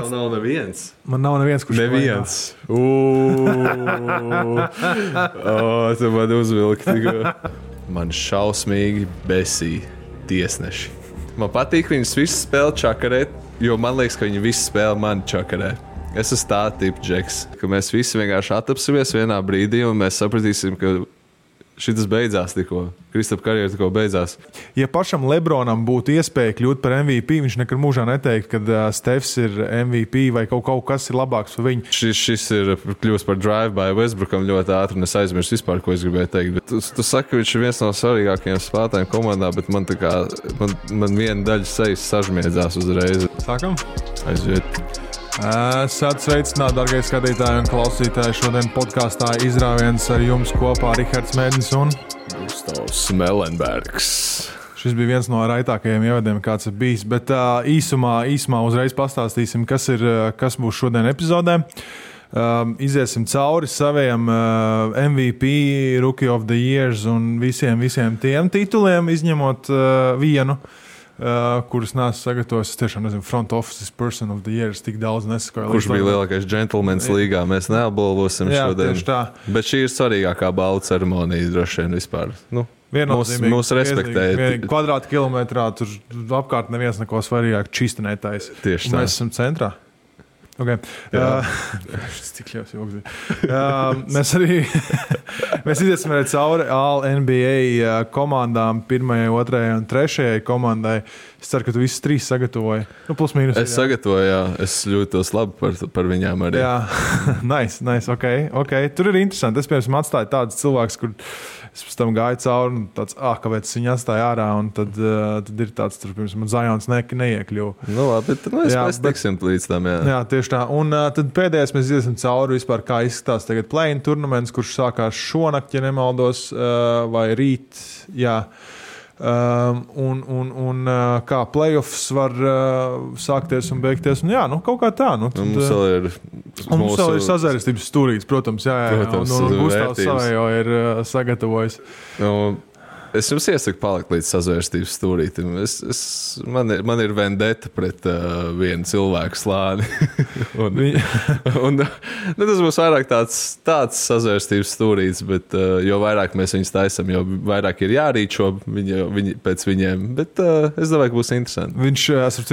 Nav neviens. Man nav neviens, kurš neviens. Tu man uzvilki. Man šausmīgi besī tiesneši. Man patīk viņus visus spēlēt čakarēt, jo man liekas, ka viņi visi spēlē mani čakarē. Es esmu tā tipa džeks, ka mēs visi vienkārši atapsimies vienā brīdī un mēs sapratīsim, ka šitas beidzās tikko. Kristapa karjera tikko beidzās. Ja pašam Lebronam būtu iespēja kļūt par MVP, viņš nekad mūžā neteikt, ka Stefs ir MVP vai kaut kas ir labāks par viņu. Šis ir kļūst par drive-by Westbrookam ļoti ātri un es aizmirsu vispār, ko es gribēju teikt. Bet tu saki, ka viņš ir viens no svarīgākajiem spēlētājiem komandā, bet man viena daļa sejas sažmiedzās uzreiz. Sākam? Aiziet. Esat sveicināti, dargie skatītāji un klausītāji. Šodien podkāstā izrāviens ar jums kopā Rihards Mēdins un Gustavs Melenbergs. Šis bija viens no raitākajiem ievadiem, kāds ir bijis, bet īsumā uzreiz pastāstīsim, kas būs šodien epizodē. Iziesim cauri saviem MVP, Rookie of the Years un visiem tiem tituliem, izņemot vienu. Kurus neesmu sagatavojis. Es tiešām nezinu, front office person of the year. Tik daudz nesakoju. Kurš bija lielākais džentlmenis līgā? Mēs neapbalvosim šodien. Tieši tā. Bet šī ir svarīgākā balvu ceremonija droši vien vispār. Mūs respektēja. Kvadrātkilometrā tur apkārt neviens neko svarīgāk čistinētājs. Tieši tā. Mēs esam centrā. Okay. Cik ļaus joks bija. Mēs iziesim arī cauri All-NBA komandām, 1., 2. un 3. komandai. Es ceru, ka tu visus 3 sagatavoji. Plus mīnus. Es sagatavoju, jā. Es jūtos labi par viņām arī. Jā, nice, okay. Tur ir interesanti. Es, piemēram, atstāju tādus cilvēkus, kur es pēc tam gāju cauri un tāds, kāpēc es viņu atstāju ārā, un tad ir tāds, tur, piemēram, Zions neiekļuva. Labi, tad mēs tiksim līdz tam, jā. Jā, tieši tā. Un tad pēdējais mēs iesim cauri vispār, kā izskatās tagad play-in turnaments, kurš sākās šonakt, ja nemaldos, vai rīt, jā. Un kā playoffs var sākties un beigties. Un jā, kaut kā tā. Mums vēl ir sazvērestības stūrītis, protams, jā. Protams, un Gustavs savējo ir sagatavojis. Es jums iesaku palikt līdz sazvērstības stūrītim. Man ir vendeta pret vienu cilvēku slāni. Tas būs vairāk tāds sazvērstības stūrītis, bet jo vairāk mēs viņus taisam, jo vairāk ir jārīčo pēc viņiem. Bet es domāju, ka būs interesanti.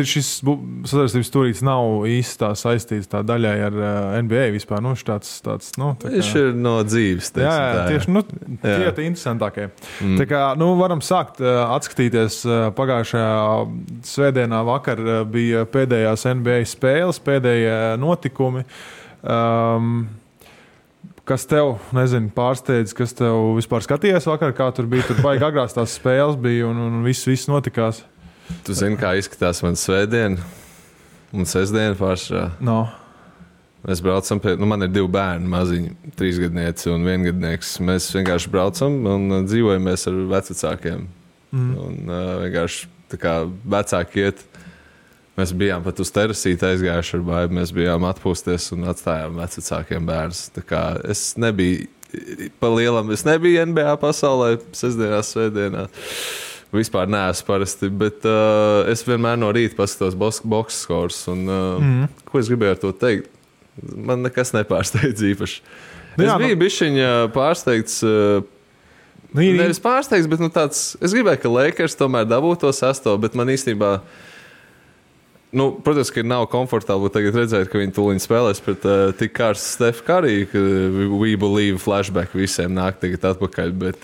Šis sazvērstības stūrītis nav īsti tā saistīts tā daļai ar NBA vispār. Viņš ir no dzīves. Tieši tie ir interesantākie. Tā kā varam sākt atskatīties. Pagājušajā svētdienā vakar bija pēdējās NBA spēles, pēdējie notikumi. Kas tev, pārsteidz, kas tev vispār skatījies vakar, kā tur bija? Tur baigi agrās tās spēles bija un viss notikās. Tu zini, kā izskatās man svētdiena un sestdiena pāršā? No. Mēs braucam man ir 2 bērni, maziņi, 3-gadnieci un 1-gadnieks. Mēs vienkārši braucam un dzīvojamies ar vecvecākiem. Un vienkārši tā kā vecāki iet. Mēs bijām pat uz terasīti aizgājuši ar baibu. Mēs bijām atpūsties un atstājām vecvecākiem bērnus. Tā kā es nebiju pa lielam, es nebiju NBA pasaulē sestdienā, svētdienā. Vispār neesmu parasti, bet es vienmēr no rīta paskatos box scores. Un ko es gribēju ar to teikt? Man nekas nepārsteidz īpaši. Es biju bišķiņa pārsteigts, nevis pārsteigts, bet tāds, es gribēju, ka Lakers tomēr dabūtu to 6, bet man īstenībā, protams, ka nav komfortabli tagad redzēt, ka viņi tūliņ spēlēs pret tik karstu Steph Curry, ka we believe flashback visiem nāk tagad atpakaļ, bet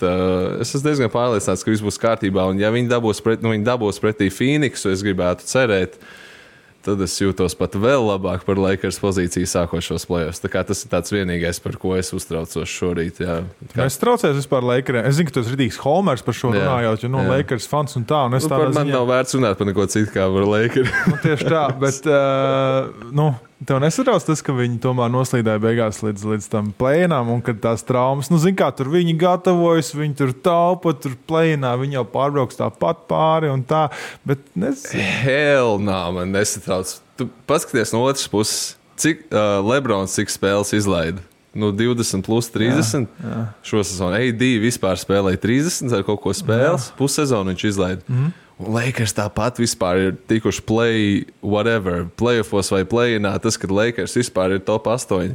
es esmu diezgan pārliecināts, ka viss būs kārtībā, un ja viņi dabūs pretī Phoenixu, es gribētu cerēt, tad es jūtos pat vēl labāk par Lakers pozīciju sākošos play-offs. Tā kā tas ir tāds vienīgais, par ko es uztraucos šorīt. Jā. Es traucējos vispār Lakeriem. Es zinu, ka tu esi ridīgs Holmers par šo runājot, jo Lakers fans un tā. Un es man nav vērts runāt par neko citu kā par Lakers. Tieši tā, bet tev nesatrauc tas, ka viņi tomēr noslīdēja beigās līdz tam play-inām un kad tās traumas, zin kā, tur viņi gatavojas, viņi tur taupa, tur play-inā, viņi jau pārbrauks tāpat pāri un tā, bet Hell nā, man nesatrauc. Tu paskaties no otras puses, cik Lebrons cik spēles izlaida? 20 plus 30 šo sezonu. AD vispār spēlēja 30 ar kaut ko spēles, pussezonu viņš izlaida. Un Lakers tāpat vispār ir tikuši playoffos vai play-inā. Tas, kad Lakers vispār ir top 8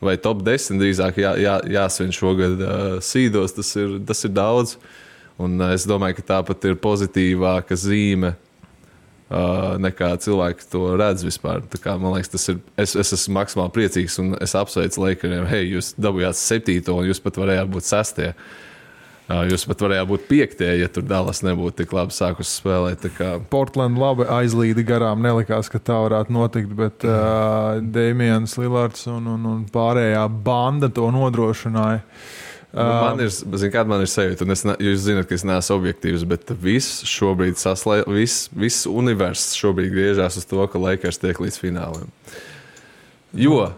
vai top 10 drīzāk jāsvin šogad sīdos, tas ir daudz. Un es domāju, ka tāpat ir pozitīvāka zīme nekā cilvēki to redz vispār. Tā kā, man liekas, tas ir. Es esmu maksimāli priecīgs un es apsveicu Lakeriem. Hei, jūs dabūjāt 7. un jūs pat varējāt būt 6. Jūs pat varējāt būt 5, ja tur Dallas nebūtu tik labi sākusi spēlēt. Portland labi aizlīdi garām, nelikās, ka tā varētu notikt, bet Damians Lillards un pārējā banda to nodrošināja. Man ir sajūta, un jūs zināt, ka es neesmu objektīvs, bet viss šobrīd viss universs šobrīd griežās uz to, ka Lakers tiek līdz fināliem. Jo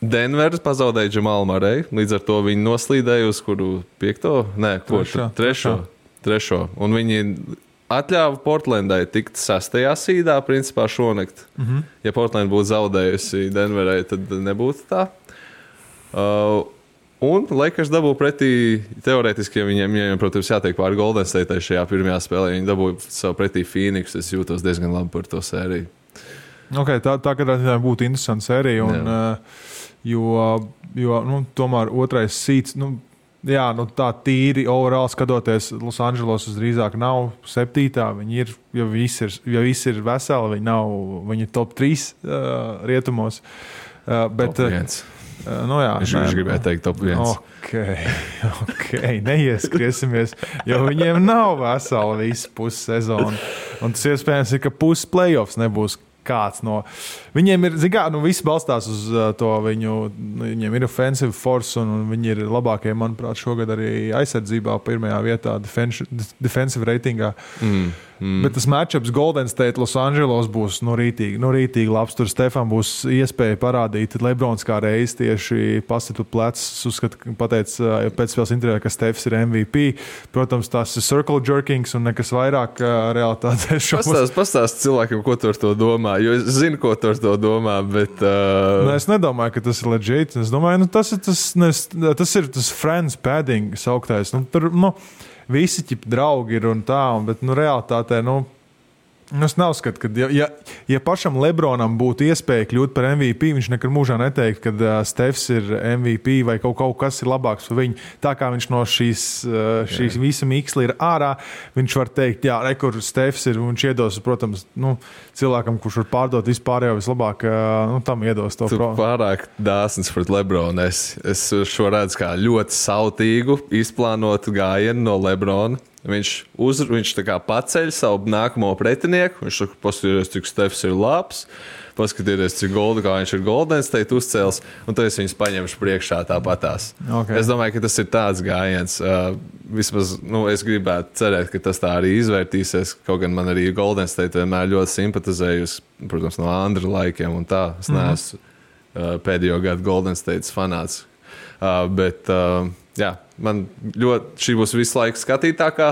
Denver pazaudēja Džamalu Murreju, līdz ar to viņi noslīdēja uz kuru 5? Nē, trešo. Un viņi atļāva Portlandai tikt 6. sīdā, principā šonakt. Ja Portland būtu zaudējusi Denverai, tad nebūtu tā. Un Lakers dabū pretī, teorētiski, ja viņiem, protams, jātiek pāri Golden State šajā pirmajā spēlē, viņi dabū savu pretī Phoenix, es jūtos diezgan labi par to sēriju. Okay, tā katrā būtu interesanta sērija, un, jo tomēr otrais sīts, tā tīri overall skatoties, Los Angeles drīzāk nav 7. Viņi ir, ja visi ir veseli, viņi ir top 3 rietumos. Bet, top 1. Viņš gribēja teikt top 1. Okay. Neieskriesimies, jo viņiem nav vesela visa pussezona. Un tas iespējams ir, ka puses playoffs nebūs kāds no. Viņiem ir, viss balstās uz to viņiem ir offensive force un viņi ir labākie, manuprāt, šogad arī aizsardzībā pirmajā vietā defensive ratingā. Bet tas matchups Golden State Los Angeles būs rītīgi labs. Tur Stefan būs iespēja parādīt Lebrons kā reiz tieši pasit plecs. Uzskatu, pateica pēcspēles intervijā, ka Stefs ir MVP. Protams, tas ir circle jerkings un nekas vairāk realitātē. Pastāst cilvēkiem, ko tu ar to domā, jo es zinu, ko tu ar to domā, bet... Es nedomāju, ka tas ir legit. Es domāju, tas ir tas friends padding sauktais. Tur, visi ķip draugi ir un tā, bet realitātē, es neuzskatu, ka ja pašam Lebronam būtu iespēja kļūt par MVP, viņš nekad mūžā neteikt, ka Stefs ir MVP vai kaut kas ir labāks par viņu. Tā kā viņš no šīs visa mīksla ir ārā, viņš var teikt, kur Stefs ir, un viņš iedos, protams, cilvēkam, kurš var pārdot vispārējo vislabāk, tam iedos to. Tu pārāk dāsns pret Lebronu. Es šo redzu kā ļoti sautīgu, izplānotu gājienu no Lebrona. Viņš tā kā paceļ savu nākamo pretinieku. Viņš saka, paskatieties, cik Stefs ir labs. Paskatieties, cik kā viņš ir Golden State uzcēls. Un tad es viņus paņemšu priekšā tāpatās. Okay. Es domāju, ka tas ir tāds gājiens. Vismaz es gribētu cerēt, ka tas tā arī izvērtīsies. Kaut gan man arī Golden State vienmēr ļoti simpatizējusi, protams, no Andra laikiem un tā. Es neesmu pēdējo gadu Golden State fanāts. Man ļoti šī būs visu laiku skatītākā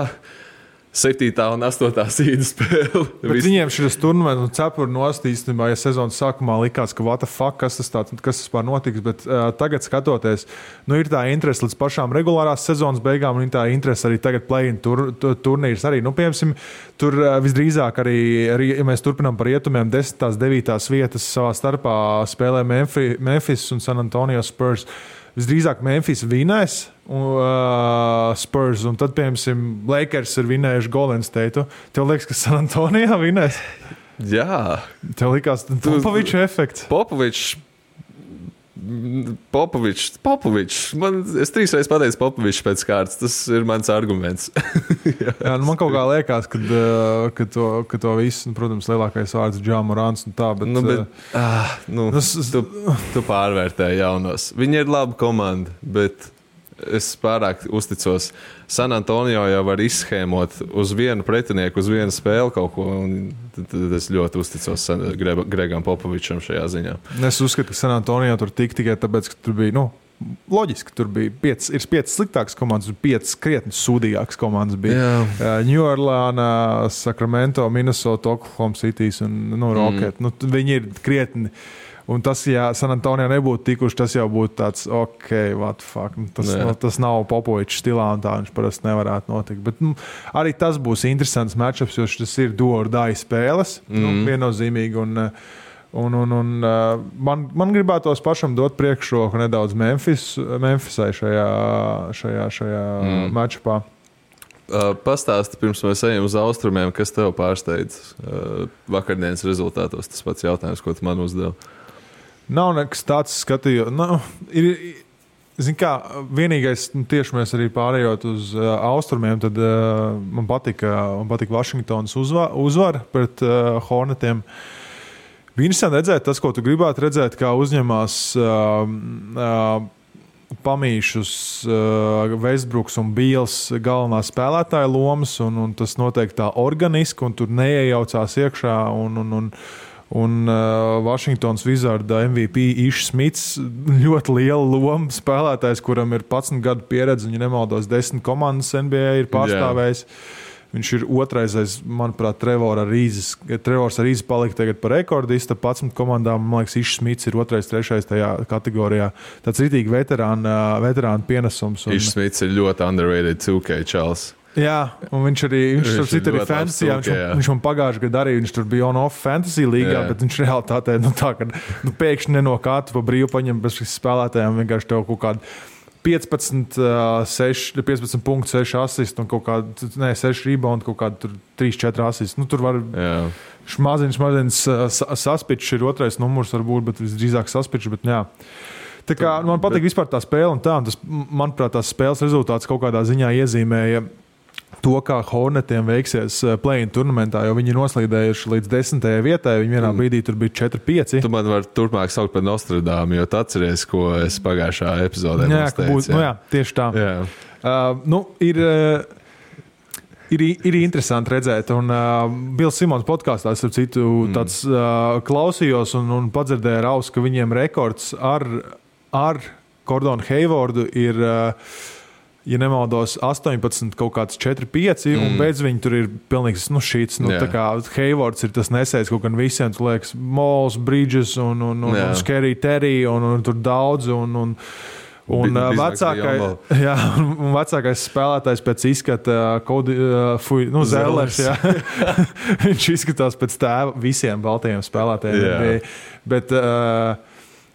7. un 8. sīda spēle. Viņiem šis turnaments un cepuri nost īstenībā, ja sezonas sākumā likās, ka what the fuck, kas vispār notiks, bet tagad skatoties, ir tā interese līdz pašām regulārās sezonas beigām, un tā interese arī tagad play-in turnīrs arī. Piemēram, tur visdrīzāk arī, ja mēs turpinām par rietumiem, 10. 9. vietas savā starpā spēlē Memphis un San Antonio Spurs. Visdrīzāk Memphis vinēs Spurs, un tad, piemēram, Lakers ir vinējuši Golden State. Tev liekas, ka San Antonio vinēs? Jā. Tev likās Popoviča efekts? Popovičs. Es 3 reizes pateicu Popovičs pēc kārtas. Tas ir mans arguments. Jā, man kaut kā liekas, ka to visu, protams, lielākais vārds Ja Morants un tā, bet... Tu pārvērtēji jaunos. Viņi ir laba komanda, bet es pārāk uzticos. San Antonio jau var izschēmot uz vienu pretinieku, uz vienu spēli kaut ko, un tad es ļoti uzticos Gregam Popovičam šajā ziņā. Es uzskatu, ka San Antonio tur tikai tāpēc, ka tur bija, loģiski, tur bija 5 sliktākas komandas, 5 krietni sūdīgākas komandas bija. New Orleans, Sacramento, Minnesota, Oklahoma City un Rocket. Viņi ir krietni. Un tas, ja San Antonio nebūtu tikuši, tas jau būtu tāds, what the fuck. Tas nav Popovičs stilā un tā viņš parasti nevarētu notikt. Bet arī tas būs interesants matchups, jo tas ir do or die spēles, viennozīmīgi. Man gribētos pašam dot priekšroku nedaudz Memphisai šajā matchupā. Pastāsti, pirms mēs ejam uz austrumiem, kas tev pārsteidz vakardienas rezultātos. Tas pats jautājums, ko tu man uzdevi. Nav nekas tāds skatījums. Zin kā, vienīgais, tieši mēs arī pārējot uz austrumiem, tad man patika Vašingtonas uzvara pret Hornetiem. Bija interesanti redzēt tas, ko tu gribētu redzēt, kā uzņemās pamīšus Westbrooks un Beals galvenā spēlētāja lomas, un tas notiek tā organiski, un tur neiejaucās iekšā, un Washingtons Wizarda MVP Ish Smits ļoti liela loma spēlētājs, kuram ir 11 gadu pieredze, un, ja nemaldos, 10 komandas NBA ir pārstāvējis. Viņš ir otrais, manuprāt, Trevors Arīzes palika tagad par rekordista 11 komandām. Man liekas, Ish Smits ir otrais, trešais tajā kategorijā. Tāds ritīgi veterāna pienesums. Ish Smits ir ļoti underrated 2K čals. Jā, un viņš arī fantasy, viņš man pagājušajā gadā arī, viņš tur bija on-off fantasy līgā, bet viņš realitātē, tā, ka pēkšņi nenokātu pa brīvu paņem bez spēlētājiem, vienkārši tev kaut kādu 15 punktu, 6 asistu un kaut kādu, 6 rebound, kaut kādu 3-4 asistu. Tur var maziņš saspičs ir otrais numurs varbūt, bet visdrīzāk saspičs, bet jā. Tā kā man patīk vispār tā spēle un tā, un tas, manuprāt, tās spēles rezultāts kaut kādā ziņā iezīmēja to, kā Hornetiem veiksies play-in turnamentā, jo viņi ir noslīdējuši līdz 10. vietai, viņi vienā brīdī tur bija 4-5. Tu man vari turpmāk saukt par Nostradāmu, jo tu atceries, ko es pagājušā epizodē teicu. Jā, tieši tā. Ir interesanti redzēt, un Bills Simons podkāstā, starp citu, tāds klausījos un padzirdēju ar ausu, ka viņiem rekords ar Gordonu Haywardu ir ja nemaldos, 18, kaut kāds 4-5, un beidz viņi tur ir pilnīgs šīts. Tā kā Haywards ir tas nesējis kaut gan visiem, tu liekas, Mols, Bridges un Scary Terry, un tur daudz, un vecākais spēlētājs pēc izskata Zellers, viņš izskatās pēc tēva visiem baltajiem spēlētājiem.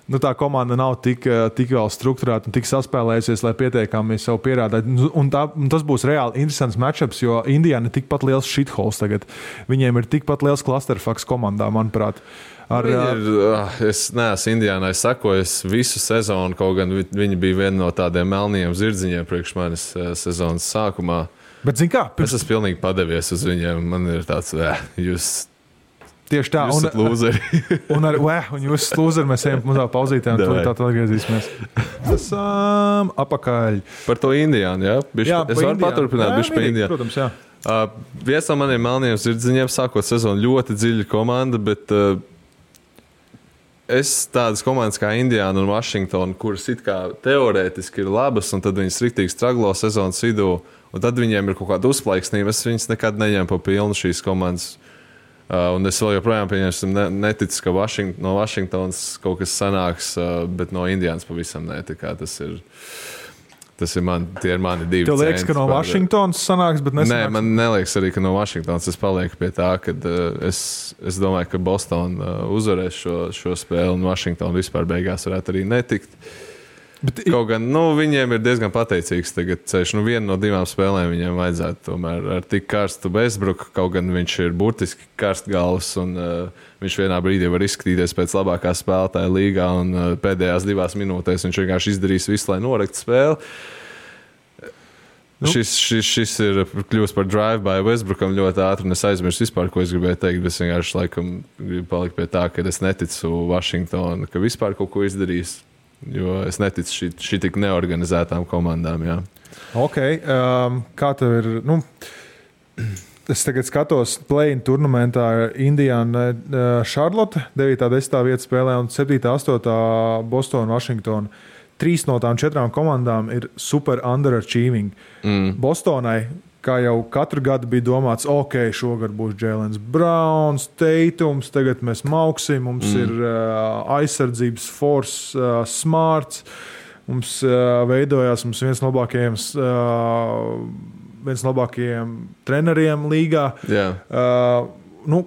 Bet tā komanda nav tik vēl strukturēta un tik saspēlējusies, lai pietiekami sev pierādītu. Un tas būs reāli interesants matchups, jo Indiana ir tikpat liels shitholes tagad. Viņiem ir tikpat liels clusterfucks komandā, manuprāt. Es neesmu Indiānai sakojis visu sezonu, kaut gan viņi bija viena no tādiem melniem zirdziņiem priekš manis sezonas sākumā. Bet zin kā? Es esmu pilnīgi padevies uz viņiem. Man ir tāds, jūs tieši tā. Jūs esat lūzeri. un jūs esat lūzeri, mēs ejam mazā pauzītē, un tad atgriezīsimies. Esam apakaļ. Par to Indiānu, jā? Es varu paturpināt bišķi par Indiānu. Protams, jā. Viens no maniem melniem zirdziņiem sākot sezonu ļoti dziļa komanda, bet es tādas komandas kā Indiāna un Washington, kuras it kā teorētiski ir labas, un tad viņas riktīgi straglo sezonas vidū, un tad viņiem ir kaut kāda uzplaiksnība. Es viņas nekad neņemu pa pilnu šīs komandas. Un es vēl joprojām neticu, ka no Vašingtonas kaut kas sanāks, bet no Indiānas pavisam ne. Tie ir mani divi. Tev liekas, ka no Vašingtonas sanāks, bet nesanāks? Nē, man neliekas arī, ka no Vašingtonas. Es palieku pie tā, ka es domāju, ka Boston uzvarēs šo spēli, un Vašingtona vispār beigās varētu arī netikt. Kaut gan viņiem ir diezgan pateicīgs tagad ceļš. Viena no 2 spēlēm viņiem vajadzētu tomēr ar tik karstu Westbrook, kaut gan viņš ir burtiski karstgalvs, un viņš vienā brīdī var izskatīties pēc labākā spēlētāja līgā, un pēdējās 2 minūtēs viņš vienkārši izdarīs visu, lai noraktu spēli. Šis ir kļūst par drive-by Westbrookam ļoti ātri, un es aizmirsu vispār, ko es gribēju teikt, bet es vienkārši laikam gribu palikt pie tā, ka es neticu Washington, ka vispār kaut ko izdarīs. Jo es neticu šī tik neorganizētām komandām. Jā. Ok, kā tev ir? Es tagad skatos play-in turnamentā Indiana, Charlotte, 9. 10. vieta spēlē un 7. 8. Boston, Washington. 3 no tām 4 komandām ir super underachieving. Bostonai, kā jau katru gadu bija domāts, ok, šogad būs Jēlens Browns, Teitums, tagad mēs mauksim, mums ir aizsardzības force, smarts, mums veidojās viens no labākajiem treneriem līgā.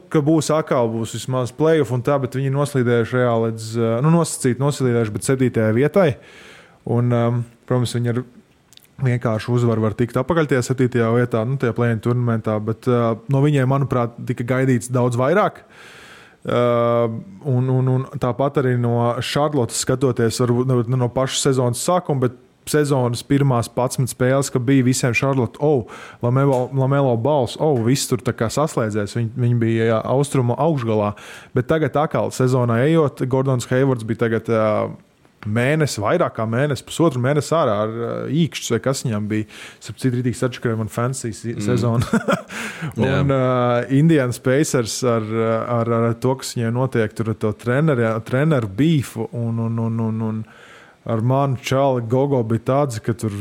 Ka būs atkal vismaz playoff un tā, bet viņi noslīdējuši reāli līdz, noslīdējuši, bet 7. vietai. Un, protams, viņi ar vienkārši uzvaru var tikt apakaļ tajā 7. vietā, tajā play-in turnamentā, bet no viņiem, manuprāt, tika gaidīts daudz vairāk. Un tāpat arī no Charlottes skatoties, varbūt no paša sezonas sākuma, bet sezonas pirmās 11 spēles, ka bija visiem Charlotte, Lamelo Balls, viss tur tā kā saslēdzēs, viņi bija austrumu augšgalā, bet tagad atkal sezonā ejot, Gordons Haywards bija tagad mēnesi, vairāk kā mēnesi, pusotru mēnesi ārā ar īkšķus, vai kas viņam bija. Sapcīt, rītīgi sačakarēja man fancy sezonu. Un Indiana Pacers ar to, kas viņai notiek, tur to treneru beefu un ar manu čāli Gogo bija tāds, ka tur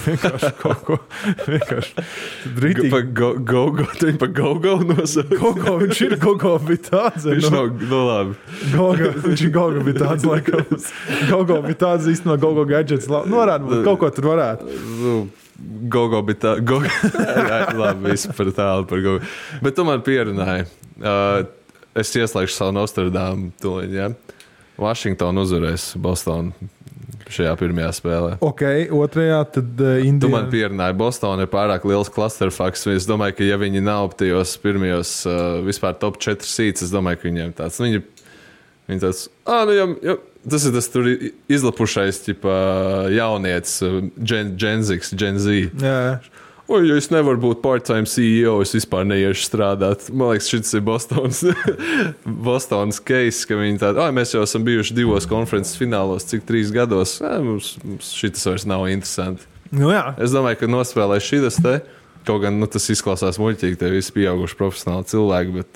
vienkārši kaut ko rītīgi. Gogo, tu viņu pa Gogo nosauc? Viņš ir Gogo bija tāds. Viņš labi. Viņš ir Gogo bija tāds, laikam. Gogo bija tāds īstenībā Gogo gadgets. Varētu būt, kaut ko tur varētu. Gogo bija tā. Labi, visu par tālu par Gogo. Bet tu man pierunāji. Es ieslēgšu savu Nostradamu tuliņ, ja? Washington uzvarēs Bostonu šajā pirmajā spēlē. Ok, otrajā tad Indiana. Tu man pierunāji, Boston ir pārāk liels clusterfucks. Es domāju, ka ja viņi nav tajos pirmajos vispār top 4 seeds, es domāju, ka viņiem tāds. Viņi tāds, tas ir tas tur izlapušais jaunietis, Gen Z. Jā. Ja es nevaru būt part-time CEO, es vispār neiešu strādāt. Man liekas, šis ir Bostonas case, ka viņi tādi, mēs jau esam bijuši 2 konferences finālos, cik 3 gados. Mums šis vairs nav interesanti. Jā. Es domāju, ka nospēlē šis te, kaut gan tas izklausās muļķīgi, te visi pieauguši profesionāli cilvēki, bet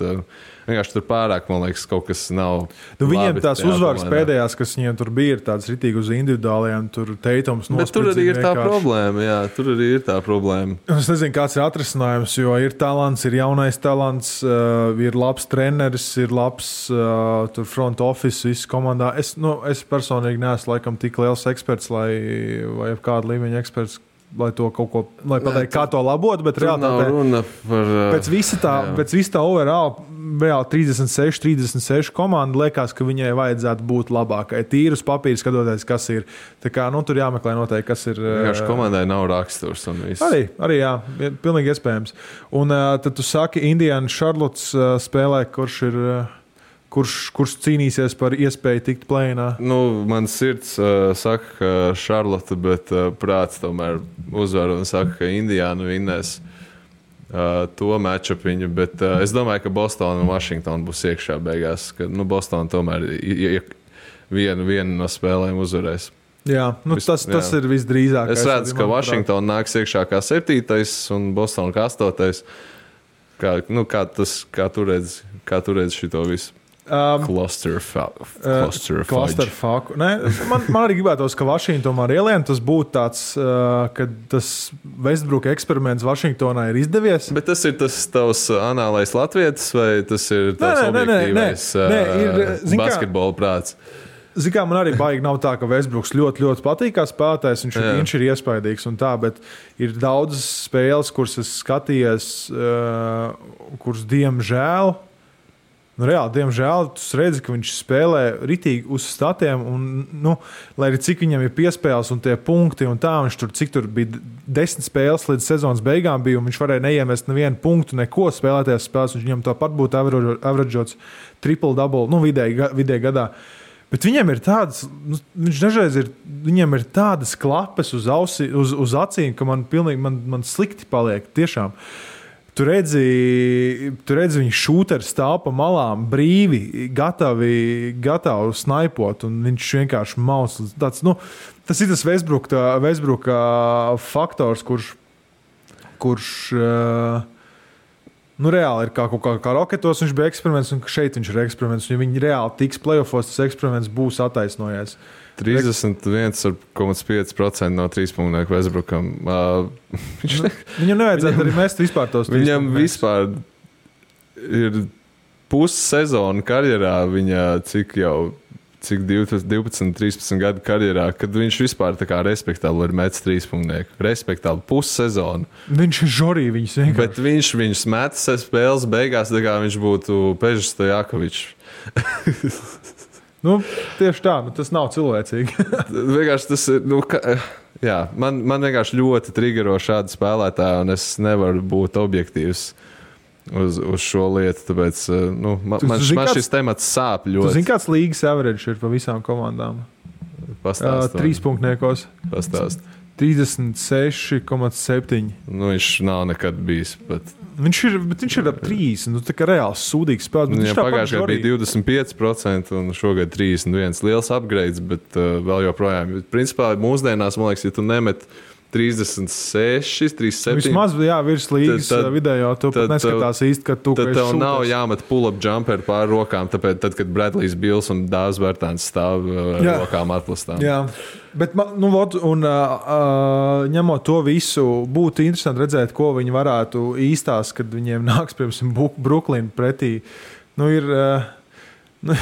vienkārši tur pārāk, man liekas, kaut kas nav. Viņiem tās uzvaras pēdējās, kas viņiem tur bija, ir tāds ritīgi uz individuālajiem, tur Teitums nospēlē. Bet tur arī ir tā problēma, jā, tur arī ir tā problēma. Es nezinu, kāds ir atrisinājums, jo ir talants, ir jaunais talants, ir labs treneris, ir labs tur front office, viss komandā. Es personīgi neesmu laikam tik liels eksperts, vai kāda līmeņa eksperts, lai to kaut ko, lai pateikt, kā to labot, bet reāli pēc visa tā overall, reāli 36 komanda liekas, ka viņai vajadzētu būt labākai. Tīri uz papīra skatoties, kas ir. Tā kā, tur jāmeklē noteikti, kas ir. Vienkārši komandai nav raksturs un viss. Arī jā, pilnīgi iespējams. Un tad tu saki, Indiana Charlottes spēlē, kurš cīnīsies par iespēju tikt play-inā? Man sirds saka, ka Charlotte, bet prāts tomēr uzvar un saka, ka Indiana vinnēs to matchupiņu, bet es domāju, ka Boston un Washington būs iekšā beigās, ka Boston tomēr vienu no spēlēm uzvarēs. Jā, tas ir visdrīzākais. Es redzu, ka Washington nāks iekšā kā 7. un Boston kā 8. Kā tu redzi šito visu? Clusterfuck. Man arī gribētos, ka Vašingtonā ar ielienu tas būtu tāds, ka tas Westbrook eksperiments Vašingtonā ir izdevies. Bet tas ir tas tavs anālais latvietis vai tas ir tavs objektīvais basketbola prāts? Zini, kā man arī baigi nav tā, ka Westbrooks ļoti, ļoti patīk kā spēlētājs, viņš ir iespaidīgs un tā, bet ir daudzas spēles, kuras es skatījos, kuras diemžēl, diemžēl, tu redzi, ka viņš spēlē ritīgi uz statiem, un, lai arī cik viņam ir piespēles un tie punkti, un tā, viņš cik tur bija 10 spēles līdz sezonas beigām bija, un viņš varēja neiemest nevienu punktu, neko spēlētajās spēles, un viņam tāpat būtu averageots triple-double, vidēji gadā. Bet viņam ir tādas, viņš dažreiz viņam ir tādas klapes uz acīm, ka man slikti paliek, tiešām. Tu redzi viņu šūteri stāv pa malām, brīvi, gatavi snaipot, un viņš vienkārši maus. Tas ir tas Westbrooka faktors, kurš reāli ir kā Roketos viņš bija eksperiments, un šeit viņš ir eksperiments. Ja viņi reāli tiks playoffos, tas eksperiments būs attaisnojies. 31,5% no 3-punktu Westbrookam. Viņam nevajadzētu arī mest vispār tos 3 Viņam vispār ir pussezona karjerā, viņa cik 12, 13 gadu karjerā, kad viņš vispār tā kā respektabli ir metis 3-punktu. Respektabli pussezonu. Viņš ir žorī, viņus vienkārši. Bet viņš metis spēles beigās, tā kā viņš būtu Pežs Stojakovičs. Tieši tā, tas nav cilvēcīgi. Vienkārši tas ir, jā, man vienkārši ļoti triggero šādi spēlētāji, un es nevaru būt objektīvs uz šo lietu, tāpēc man šis temats sāp ļoti. Tu zini, kāds līgas average ir pa visām komandām? Pastāst. 3-punkniekos. Pastāst. 36,7. Viņš nav nekad bijis pat. Viņš ir ap 30, tā kā reāls sūdīgs spēlētājs. Viņam pagājušajā gadā bija 25% un šogad 31. Liels upgrades, bet vēl joprojām. Principā mūsdienās, man liekas, ja tu nemet 36, 37. Vismaz, virs līgas vidējo, tu pat neskatās īsti, ka tu tad tev nav jāmet pull-up jumper pār rokām, tāpēc, tad, kad Bradlijs Bills un Dāvs Bertāns stāv ar rokām atplastām. Jā, bet, ņemot to visu, būtu interesanti redzēt, ko viņi varētu īstās, kad viņiem nāks, piemēram, Brooklyn pretī. Ja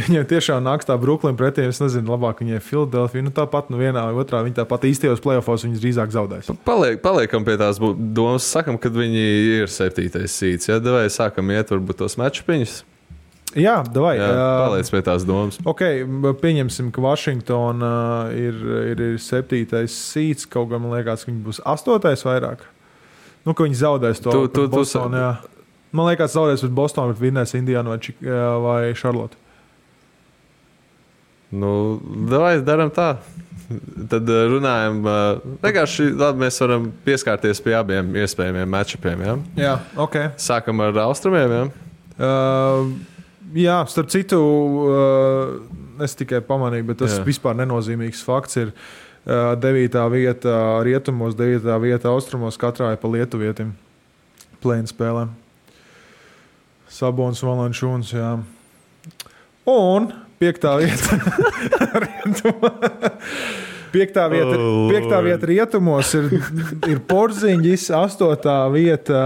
viņiem tiešām nāks tā Brooklyn pretī, es nezinu, labāk viņiem Philadelphia, tāpat vienā vai otrā, viņi tāpat īstajos playoffos viņas drīzāk zaudēs. Paliekam pie tās domas, sakam, kad viņi ir 7. seeds, ja davai sākam iet varbūt tos matčupiņus. Jā, davai. Paliec pie tās domas. Ok, pieņemsim, ka Washington ir 7. seeds, kaut gan man liekas, ka viņi būs 8. vairāk. Ka viņi zaudēs to Boston, jā. Man liekas, zaudēs pret Bostonu, bet vinnēs Indiānu vai Charlotte. Davai daram tā. Tad runājam. Vienkārši labi, mēs varam pieskārties pie abiem iespējamiem matchupiem. Ja? Jā, ok. Sākam ar austrumiem, ja? Jā, starp citu, es tikai pamanīju, bet tas vispār nenozīmīgs fakts ir 9. vieta rietumos, 9. vieta austrumos, katrā ir pa lietuvietim play-in spēlēm. Sabons, Valanciunas, jā. Un 5. vieta vieta rietumos ir Porziņģis, 8. vieta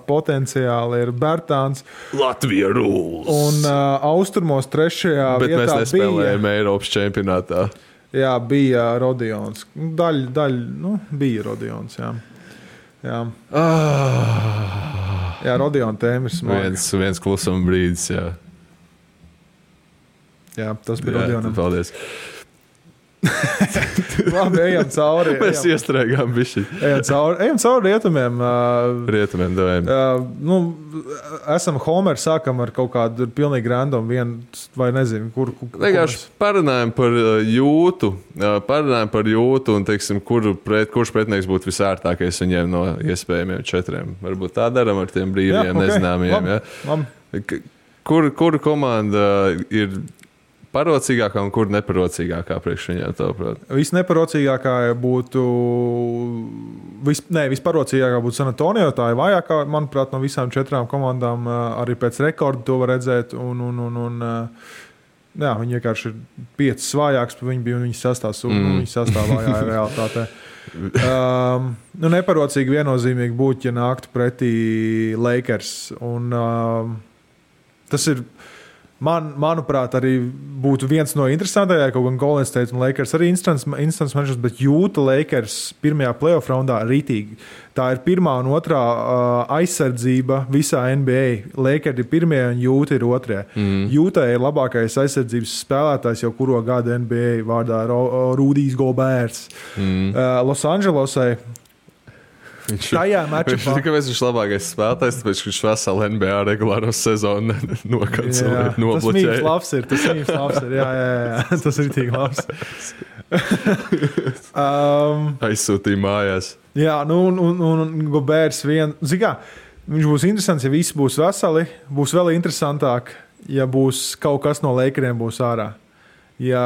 potenciāli ir Bertāns. Latvija rules. Un austrumos 3. vietā bet mēs nespēlējam Eiropas čempionātā. Jā, bija Rodions. Bija Rodions, jā. Jā, Rodiona tēma ir smaga. Viens klusuma brīdis, jā. Jā, tas bija Rodionam. Paldies. Labi, ejam cauri. Mēs iestrēgām bišķi. Ejam cauri rietumiem. Rietumiem devējam. Esam Homer, sākam ar kaut kādu pilnīgi random vai nezinu, kur. Vienkārši parunājam par jūtu. Un, teiksim, kurš pretinieks būtu visērtākais viņiem no iespējamiem 4. Varbūt tā daram ar tiem brīviem nezināmiem. Labi. Kura komanda ir parocīgākā un kur neparocīgākā priekš viņiem, tavuprāt? Visneparocīgākā būtu visparocīgākā būtu San Antonio, tā ir vājākā, manuprāt, no visām 4 komandām, arī pēc rekorda to var redzēt, jā, viņi vienkārši ir 5 svājāks, viņi bija un viņi sastāvājā ir realitātē. Neparocīgi viennozīmīgi būtu, ja nāktu pretī Lakers, un tas ir manuprāt, arī būtu viens no interesantākajiem, kaut gan Golden State un Lakers arī instants matches, bet jūta Lakers pirmajā playoff raundā rītīgi. Tā ir 1. un 2. aizsardzība visā NBA. Lakers ir 1. un jūta ir 2. Jūta ir labākais aizsardzības spēlētājs jau kuro gadu NBA vārdā Rudijs Goberts. Los Angelesai tajā matčupā. Kāpēc viņš labākais spēlētājs? Tāpēc, ka viņš veselu NBA regulāro sezonu nokancelē, nobloķēja. Tas mīms labs ir. Jā. Tas ir tik labs. Aizsūtīja mājās. Jā, un Goberts viņš būs interesants, ja visi būs veseli. Būs vēl interesantāk, ja būs kaut kas no Lakeriem būs ārā. Jā,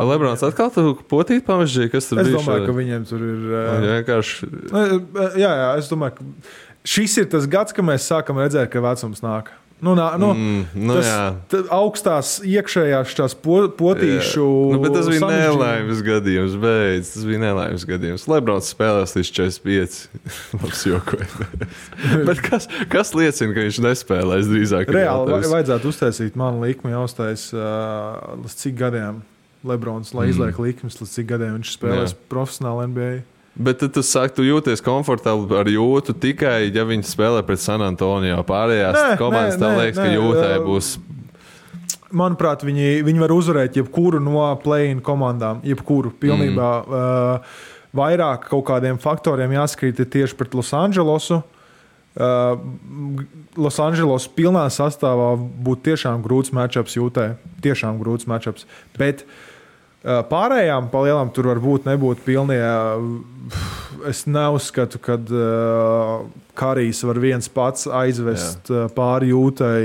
Lebrons atkal tu potīt pamežģīja, kas tur bija? Es domāju, ka viņiem tur ir... Vienkārši... Jā, es domāju, ka šis ir tas gads, kad mēs sākam redzēt, ka vecums nāk. Augstās iekšējās tās potīšu. Bet tas bija nelaimes gadījums, beidz. Tas bija nelaimes gadījums. Lebrons spēlēs līdz 45. Labs jokoja. Bet kas liecina, ka viņš nespēlēs drīzāk? Reāli vajadzētu uztaisīt manu likmi jāuztais līdz cik gadiem Lebrons, lai izliek likmes, līdz cik gadiem viņš spēlēs profesionāli NBA. Bet tu saki, tu jūties komfortabli ar Jūtu tikai, ja viņi spēlē pret San Antonio. Pārējās komandas tev liekas, ka Jūtai būs. Manuprāt, viņi var uzvarēt jebkuru no play-in komandām. Jebkuru pilnībā. Vairāk kaut kādiem faktoriem jāskrīt tieši pret Los Andželosu. Los Andželos pilnā sastāvā būtu tiešām grūts matchups Jūtai. Tiešām grūts matchups. Bet pārējām palielam tur varbūt nebūtu pilnie. Es neuzskatu, ka Karijs var viens pats aizvest pāri Jūtai,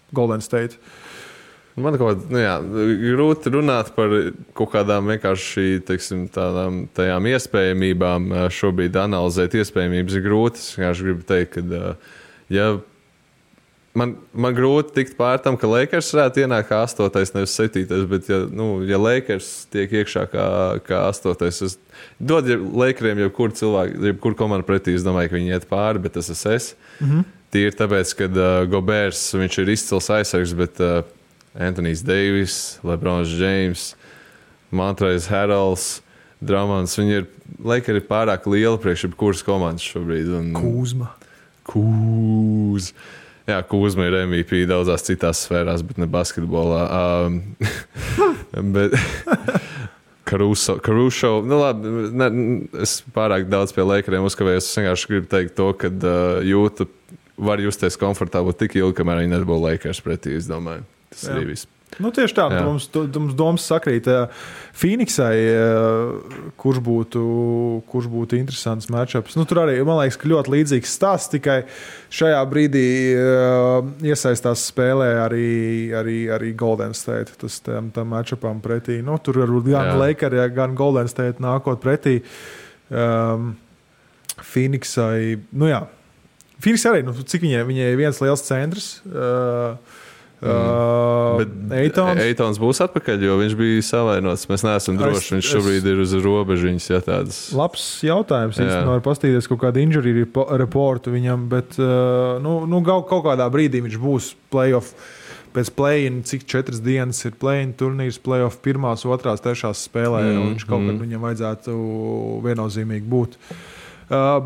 Golden State. Man grūti runāt par kaut kādām vienkārši tajām iespējamībām. Šobrīd analizēt iespējamības ir grūti. Es vienkārši gribu teikt, ka Man grūti tikt pār tam, ka Lakers varētu ienākt kā 8. nevis 7. Bet, ja Lakers tiek iekšā kā 8. es dodu Lakeriem jebkuru cilvēku, jebkuru komandu pretī, es domāju, ka viņi iet pāri, bet tas es. Tīri tāpēc, ka Gobers, viņš ir izcils aizsargs, bet Anthony's Davis, LeBrons James, Montrezl Harrells, Drummonds, Lakeri ir pārāk liela priekš jebkuras komandas šobrīd. Kūzma. Jā, Kūzma ir MVP daudzās citās sfērās, bet ne basketbolā. Bet Caruso. Es pārāk daudz pie Lakeriem uzkavējos. Es vienkārši gribu teikt to, ka Jūta var justies komfortabli tik ilgi, kamēr viņi nebūs Lakers pretī, es domāju. Tas arī viss. Tieši tā, mums domas sakrīt Phoenixai, kurš būtu interesants matchups. Tur arī, man liekas, ka ļoti līdzīgs stāsts, tikai šajā brīdī iesaistās spēlē arī Golden State. Tas tam matchupam pretī. Tur varbūt gan Lakers, gan Golden State nākot pretī. Phoenixai, Phoenix arī, cik viņai ir viens liels centrs. Eitons būs atpakaļ, jo viņš bija savainots. Mēs neesam droši. Viņš šobrīd ir uz robežiņas. Labs jautājums. Īstenībā var pastīties kaut kādu injury reportu viņam, bet kaut kādā brīdī viņš būs playoff. Pēc play-in, cik 4 dienas ir play-in turnīrs, playoff 1., 2., 3. spēlē, un viņš kaut kad viņam vajadzētu viennozīmīgi būt.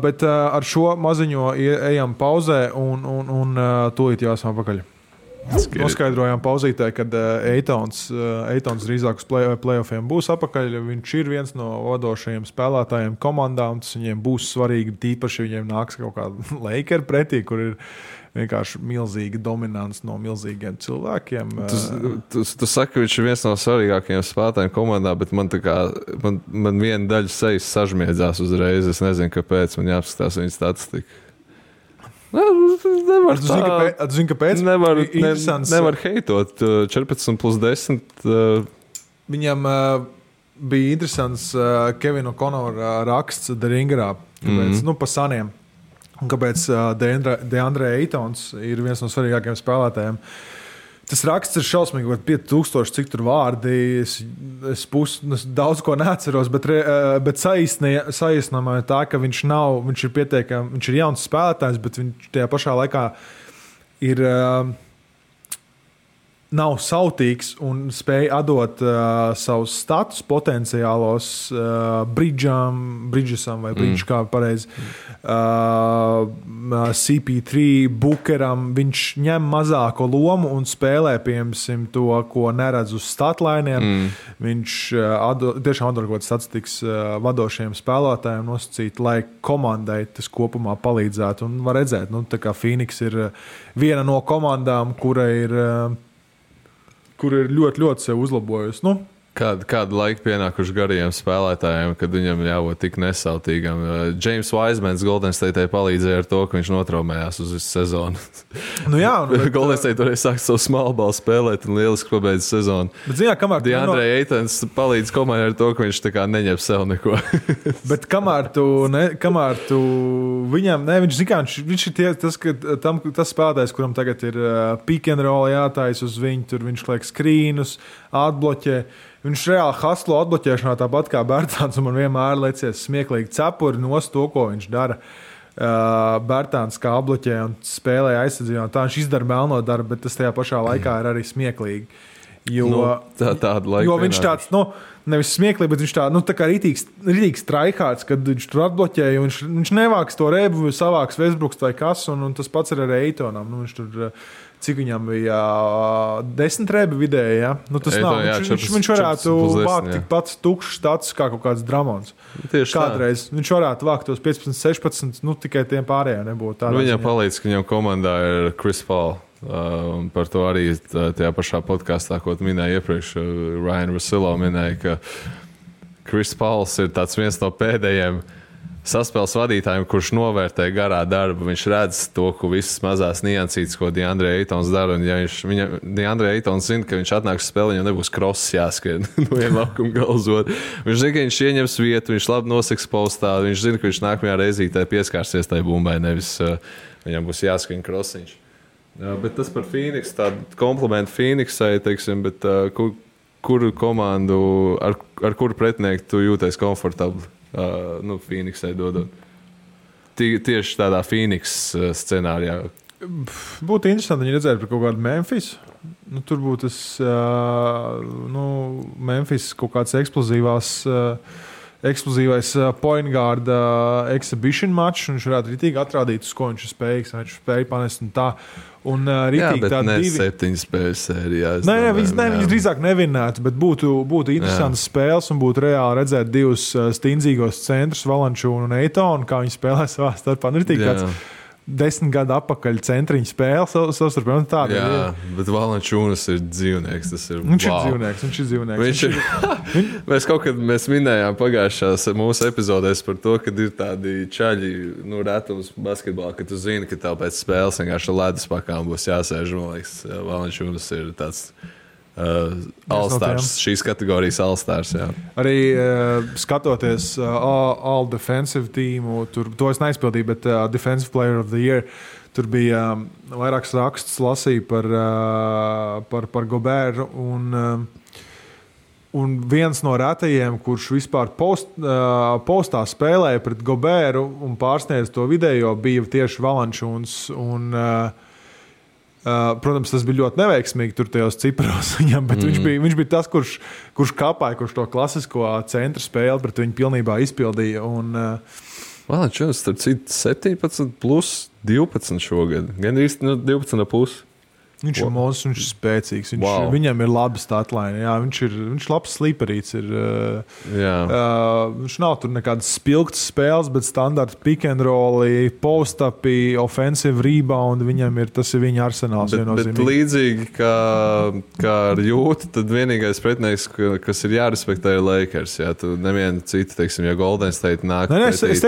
Bet ar šo maziņo ejam pauzē un tūlīt jāsam apakaļ. Noskaidrojām pauzītē, kad Eitons drīzāk uz playoffiem būs apakaļ. Viņš ir viens no vadošajiem spēlētājiem komandā, un tas viņiem būs svarīgi. Tīpaši viņiem nāks kaut kāda Lakers pretī, kur ir vienkārši milzīga dominants no milzīgiem cilvēkiem. Tu saki, ka viņš ir viens no svarīgākajiem spēlētājiem komandā, bet man viena daļa sejas sažmiedzās uzreiz. Es nezinu, kāpēc. Man jāapskatās viņa statistika. Nevar heitot 14+10. Viņam bija interesants Kevina O'Connora raksts The Ringerā, pa saniem. Kāpēc DeAndre Aytons ir viens no svarīgākajiem spēlētājiem. Tas raksts ir šausmīgi, 5000, cik tur vārdi. Es daudz ko neatceros, bet saīsinājumā ir tā, ka viņš ir jauns spēlētājs, bet viņš tajā pašā laikā ir nav sautīgs un spēj atdot savus status potenciālos Bridgesam vai Bridge, kā pareizi, CP3, Bookeram. Viņš ņem mazāko lomu un spēlē, piemēram, to, ko neredz uz statlainiem. Viņš tiešām atdod kaut kāds statistikas vadošiem spēlētājiem nosacīt, lai komandai tas kopumā palīdzētu. Un var redzēt, tā kā Phoenix ir viena no komandām, kura ir ļoti, ļoti sev uzlabojusi. Kādu laiku pienākuši garajiem spēlētājiem, kad viņam jābūt tik nesautīgam. James Wisemans Golden State palīdzēja ar to, ka viņš notraumējās uz visu sezonu. Nu jā, Golden State toreiz sāk savu smalbalu spēlēt un lieliski pabeidz sezonu. Bet, zināt, DeAndre Aytons palīdz komandai ar to, ka viņš tā kā neņem sev neko. Bet kamēr tu viņam, viņš zin kā, viņš ir tas spēlētājs, kuram tagad ir pick and roll jātais uz viņu, tur viņš liek skrīnus, atbloķē. Viņš reāli haslo atbloķēšanā tāpat kā Bertāns, un man vienmēr liecies smieklīgi cepuri nost to, ko viņš dara. Bertāns kā atbloķē un spēlē aizsardzībā. Tā viņš izdara melno darbu, bet tas tajā pašā laikā ir arī smieklīgi. Jo, jo viņš tāds, nevis smieklīgi, bet viņš tā kā rītīgs traihārds, kad viņš tur atbloķēja, un viņš nevāks to rebu, savāks Westbrooks vai kas, un tas pats ir arī Eitonam. Viņš tur, cik viņam bija 10 rebi vidēji, ja? Tas nav. Viņš varētu vākt tikpat tukšs stats kā kaut kāds Dramons. Kādreiz viņš varētu vākt tos 15, 16, tikai tiem pārējiem nebūtu. Viņam palīdz, ka viņam komandā ir Chris Paul. Un par to arī tajā pašā podkāstā, ko minēja iepriekš, Ryan Russillo minēja, ka Chris Pauls ir viens no pēdējiem saspēles vadītājiem, kurš novērtē garā darbu. Viņš redz to, ko visas mazās niansītes, ko DeAndre Aytons dara. Un ja DeAndre Aytons zina, ka viņš atnāks uz spēli, viņam nebūs crosses jāskrien no viena laukuma gala uz otru. Viņš zina, ka viņš ieņems vietu, viņš labi noseks postā, viņš zina, ka viņš nākamajā reizītē pieskārsies tai bumbai, nevis viņam būs jāskrien crossiņš. Bet tas par Phoenix, tādu komplimentu Phoenixai, teiksim, bet kuru komandu, ar kuru pretinieku tu jūties komfortabli? Phoenixai dodot. Tieši tādā Phoenix scenārijā. Būtu interesanti, ja redzētu par kaut kādu Memphis. Tur būtu tas Memphis kaut kāds eksplozīvais point guard exhibition match, un viņš varētu ritīgi atrādīt, uz ko viņš ir spējīgs, viņš spēja panest un tā. Un ritīgi tā ne 7 spēļu sērijā. Viņi drīzāk nevinētu, bet būtu interesantas spēles un būtu reāli redzēt divus stingzīgos centrus, Valančūnu un Eitonu, kā viņi spēlē savā starpā. Ritīgi tāds 10 gadu atpakaļ centriņu spēle savstarpēji. Jā, bet Valančūnas ir dzīvnieks. Viņš ir dzīvnieks. Mēs minējām pagājušās mūsu epizodēs par to, ka ir tādi čaļi, retums basketbolā, ka tu zini, ka tev pēc spēles vienkārši ledus pakām būs jāsēž. Man liekas, Valančūnas ir tāds All-Stars, šīs kategorijas All-Stars. Jā. Arī skatoties All Defensive teamu, to es neizpildīju, bet Defensive Player of the Year, tur bija vairāks raksts lasīja par Goberu, un viens no retajiem, kurš vispār postā spēlēja pret Goberu un pārsniedz to video, bija tieši Valančūns. Protams, tas bija ļoti neveiksmīgi tur tajos ciparos viņam, bet viņš bija tas, kurš kāpāja, kurš to klasisko centra spēli pret viņu pilnībā izpildīja. Valančūns, starp citu, 17 plus 12 šogad. Gan īsti 12,5. Viņš ir monstrs, viņš ir spēcīgs. Viņam ir laba statline. Jā, viņš ir labs sliperīts. Viņš nav tur nekādas spilgtas spēles, bet standarta pick and roll, post-upi, offensive rebound. Tas ir viņa arsenāls. Bet līdzīgi kā ar Jūtu, tad vienīgais pretinieks, kas ir jārespektē, ir Lakers. Jā, tu nevienu citu, teiksim, ja Golden State nāk. Es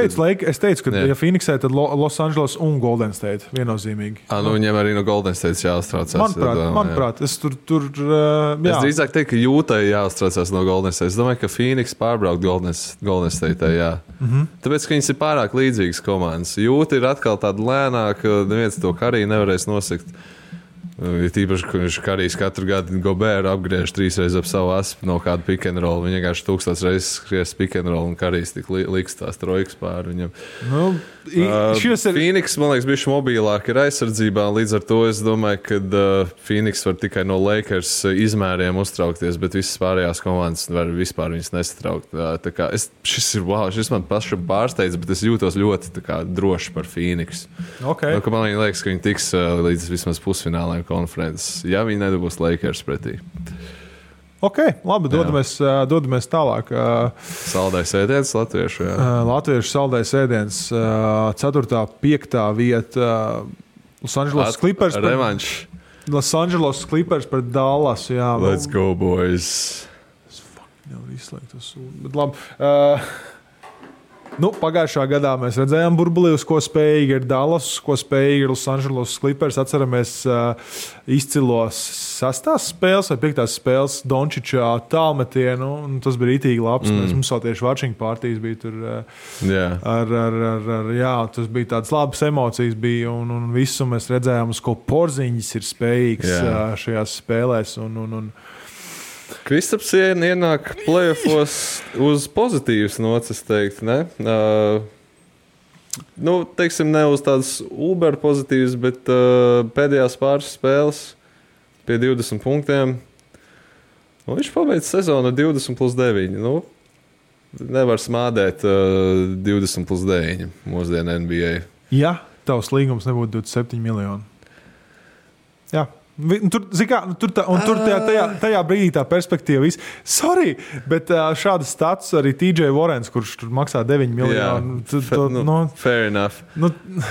teicu, ka ja Phoenixē, tad Los Angeles un Golden State viennozīmīgi. Viņam arī no Golden State jāuztrauc. Manuprāt, es tur jā. Es drīzāk teiktu, ka Jūtai jāuztraucās no Golden State. Es domāju, ka Phoenix pārbraukt Golden State, jā. Tāpēc, ka viņas ir pārāk līdzīgas komandas. Jūta ir atkal tāda lēnāka, neviens to Karī nevarēs nosekt. Tīpaši, ka viņš Karijs katru gadu Goberu apgriež 3 reizes ap savu aspu no kāda pick and roll. Viņa vienkārši 1000 reizes skries pick and roll un Karijs tik liks tās trojkas pāri viņam. Phoenix, man liekas, bišķi mobilāk ir aizsardzībā. Līdz ar to es domāju, ka Phoenix var tikai no Lakers izmēriem uztraukties, bet visas pārējās komandas var vispār viņas nesatraukt. Šis man pašam pārsteidz, bet es jūtos ļoti droši par Phoenix. Okay. Man liekas, ka viņi tiks līdz vismaz pusfinālēm konferences, ja viņi nedabūs Lakers pretī. Ok, labi, dodamies tālāk. Saldais ēdiens latviešu, jā. Latviešu saldais ēdiens, 4. 5. vieta, Los Angeles Clippers. Revanš. Los Angeles Clippers pret Dallas, jā. Let's go, boys. Jau var izslēgt to sūdu. Bet labi. Pagājušā gadā mēs redzējām burbulī, uz ko spējīgi ir Dallas, uz ko spējīgi ir Los Angeles Clippers. Atceramies izcilos 6. spēles vai 5. spēles Dončiča tālmetienu. Tas bija rītīgi labs. Mums vēl tieši watching partijas bija tur. Tas bija tādas labas emocijas bija un visu mēs redzējām, uz ko Porziņģis ir spējīgs šajās spēlēs. Kristaps ienāk playoffos uz pozitīvas nocis, teikt, ne? Teiksim, ne uz tādas uber pozitīvas, bet pēdējās pāris spēles pie 20 punktiem. Viņš pabeidz sezonu 20+9. Nevar smādēt 20+9 mūsdienu NBA. Ja tavs līgums nebūtu 27 miljoni. Jā. Tur tajā brīdī tā perspektīva viss. Sorry, bet šādas stats arī TJ Warrens, kurš tur maksā 9 miljonu. Fair enough.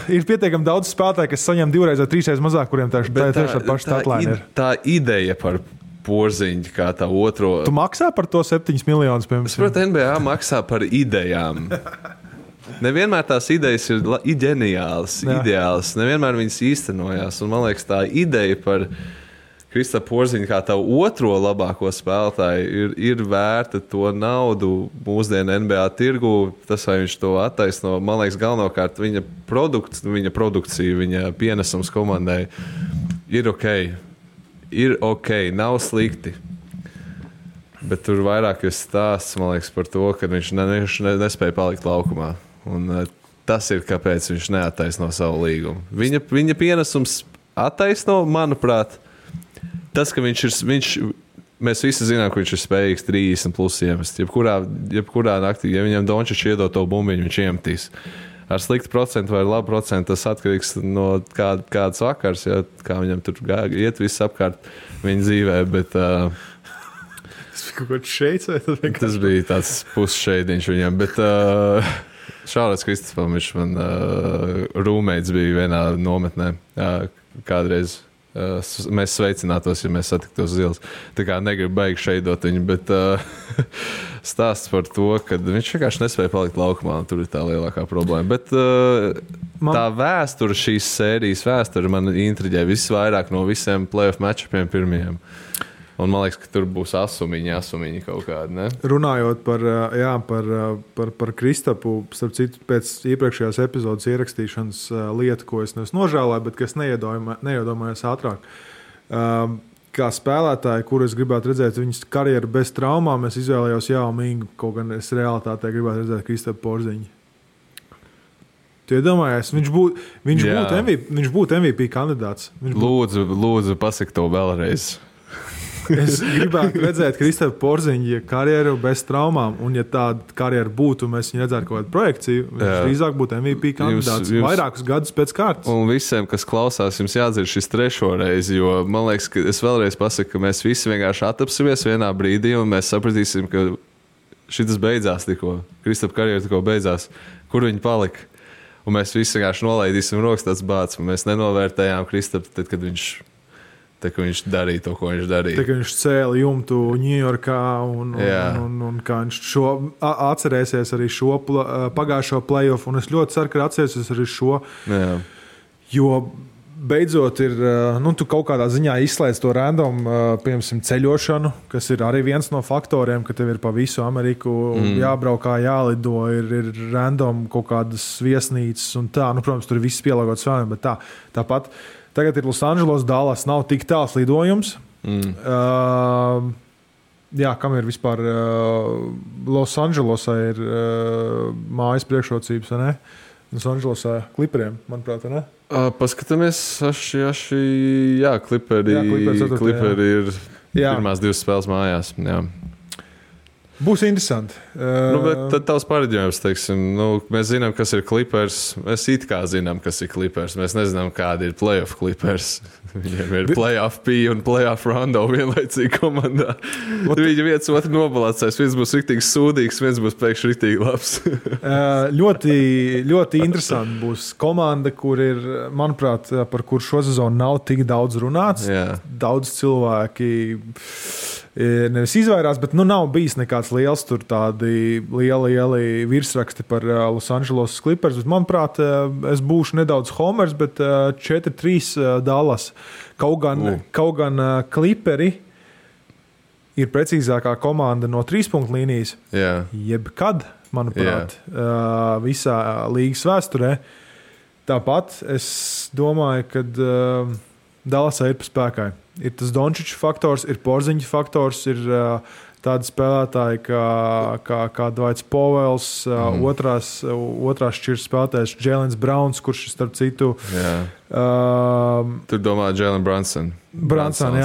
Ir pietiekami daudz spēlētāji, kas saņem 2 vai 3 reizes mazāk, kuriem tā paša statline ir. Tā ideja par Porziņģi kā tā otro. Tu maksā par to 7 miljonus, piemēram? Es saprotu, NBA maksā par idejām. Nevienmēr tās idejas ir ģeniālas, ideālas. Nevienmēr viņas īstenojās. Un man liekas, tā ideja par Kristapu Porziņģi kā tavu otro labāko spēlētāju ir vērta to naudu mūsdienu NBA tirgu. Tas, vai viņš to attaisno, man liekas, galvenokārt viņa produkcija, viņa pienesums komandai ir ok. Ir ok, nav slikti. Bet tur vairāk ir stāsts, man liekas, par to, ka viņš nespēja palikt laukumā. Un tas ir, kāpēc viņš neattaisno savu līgumu. Viņa pienesums attaisno, manuprāt, tas, ka mēs visi zinām, ka viņš ir spējīgs 30+ iemest. Jebkurā naktī, ja viņam Dončičs iedod to bumbiņu, viņš iemetīs. Ar sliktu procentu vai labu procentu tas atkarīgs no kādas vakars, kā viņam tur iet viss apkārt viņa dzīvē, bet... Tas bija tāds pusšeidiņš viņam, bet Šārlis Kristapam, viņš man rūmeits bija vienā nometnē kādreiz. Mēs sveicinātos, ja mēs satiktos uz ielas. Tā kā negribu baigi šeidot viņu, bet stāsts par to, ka viņš vienkārši nespēja palikt laukumā, un tur ir tā lielākā problēma. Bet tā vēsture, šīs sērijas vēsture man intriģē visvairāk no visiem playoff matchupiem pirmajiem. Un man liekas, ka tur būs asumiņi kaut kādi, ne? Runājot par Kristapu, starp citu, pēc iepriekšējās epizodes ierakstīšanas lietu, ko es nožēlēju, bet kas neiedomājos ātrāk. Kā spēlētāji, kur es gribētu redzēt viņas karjeru bez traumām, es izvēlējos Jau Mingu, kaut gan es realitātē gribētu redzēt Kristapu Porziņģi. Tu iedomājies, viņš būtu MVP kandidāts. Lūdzu, pasaki to vēlreiz. Es gribētu redzēt Kristapu Porziņģi karjeru bez traumām, un ja tāda karjera būtu, mēs viņu redzētu kaut kādu projekciju, viņš drīzāk būtu MVP kandidāts vairākus gadus pēc kārtas. Un visiem, kas klausās, jums jādzird šis 3. reizi, jo man liekas, ka es vēlreiz pasaku, ka mēs visi vienkārši attapsimies vienā brīdī, un mēs sapratīsim, ka šitas beidzās tikko, Kristapa karjera tikko beidzās, kur viņi palika. Un mēs visi vienkārši nolaidīsim rokas tāds bāds, un mēs nenovērtējām Kristapu, tad, kad viņš darīja to, ko viņš darīja. Tad, kad viņš cēla jumtu Ņujorkā un kā viņš atcerēsies arī šo pagājušo playoff, un es ļoti ceru, ka atcerēsies arī šo, jo beidzot ir, tu kaut kādā ziņā izslēdz to random, piemēram, ceļošanu, kas ir arī viens no faktoriem, ka tev ir pa visu Ameriku jābraukā, jālido, ir random kaut kādas viesnīcas un tā, protams, tur ir viss pielāgots vēlēm, bet tāpat tagad ir Los Angeles, Dallas, nav tik tāls lidojums. Kam ir vispār Los Angelesā ir mājas priekšrocības, vai ne? Los Angelesā Clipperiem, manuprāt, vai ne? Paskatāmies, Clipperi ir pirmās 2 spēles mājās. Jā. Būs interesanti. Bet tad tavs pareģojums, teiksim, mēs zinām, kas ir Clippers. Mēs it kā zinām, kas ir Clippers. Mēs nezinām, kādi ir playoff Clippers. Viņiem ir playoff P un playoff Rondo vienlaicīgi komandā. Viņi viens otru nobalacēs. Viens būs riktīgi sūdīgs, viens būs pēkšņi riktīgi labs. Ļoti, ļoti interesanti būs komanda, kur ir, manuprāt, par kur šo sezonu nav tik daudz runāts. Jā. Daudz cilvēki nevis izvairās, bet nav bijis nekāds liels tur tādi lieli virsraksti par Los Angeles Clippers. Bet, manuprāt, es būšu nedaudz homers, bet 4-3 Dallas. Kaut gan Clipperi ir precīzākā komanda no 3-punktu līnijas. Jebkad, manuprāt, visā līgas vēsturē. Tāpat es domāju, ka Dallasai ir pa spēkai. Ir tas Dončiča faktors, ir Porziņa faktors, ir tādi spēlētāji kā Dwights Powells, otrās šķiras spēlētājs Jēlens Browns, kurš starp citu... Tur domā Jalen Brunson. Brunsons.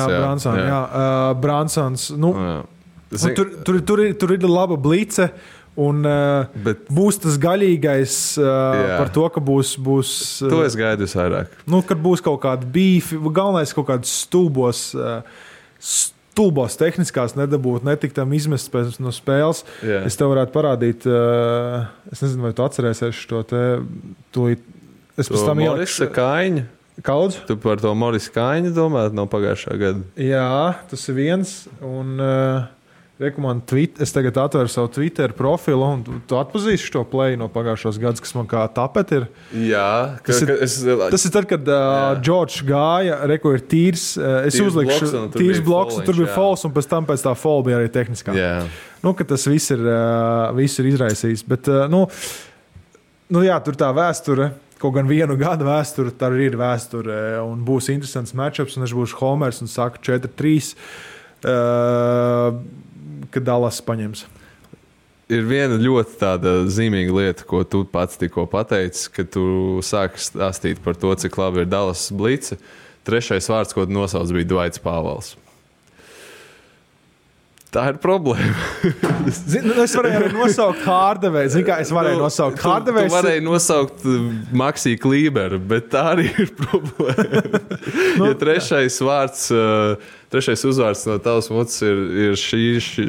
Tur ir laba blice. Un būs tas gaļīgais par to, ka būs to es gaidu vairāk. Kad būs kaut kāda bīfi, galvenais kaut kādas stulbos tehniskās nedabūt, netikt tam izmest no spēles. Es tev varētu parādīt, es nezinu, vai tu atcerēsies šo te tūlīt. Es pēc tam Morisa Kaiņa. Kaudz? Tu par to Morisa Kaiņu domāt no pagājušā gada? Jā, tas ir viens. Un... Es tagad atveru savu Twitter profilu, un tu atpazīsi šo play no pagājušos gadus, kas man kā tapet ir. Jā. Tas ir tad, kad Džordžs gāja, ir tīrs. Es uzlikšu tīrs bloks, un tur bija falls, un pēc tā fall bija arī tehniskā. Ka tas viss ir izraisījis. Bet, tur tā vēsture, kaut gan vienu gadu vēsture, tā ir vēsture, un būs interesants matchups, un es būšu homers un saku 4-3. Kad Dallas paņems. Ir viena ļoti tāda zīmīga lieta, ko tu pats tikko pateici, kad tu sāki stāstīt par to, cik labi ir Dallas blice. Trešais vārds, ko tu nosauc, bija Dwights Powells. Tā ir problēma. Es varēju arī nosaukt Hardaway. Tu varēji nosaukt Maxi Kleberu, bet tā arī ir problēma. Ja trešais uzvārds no tavas mutes ir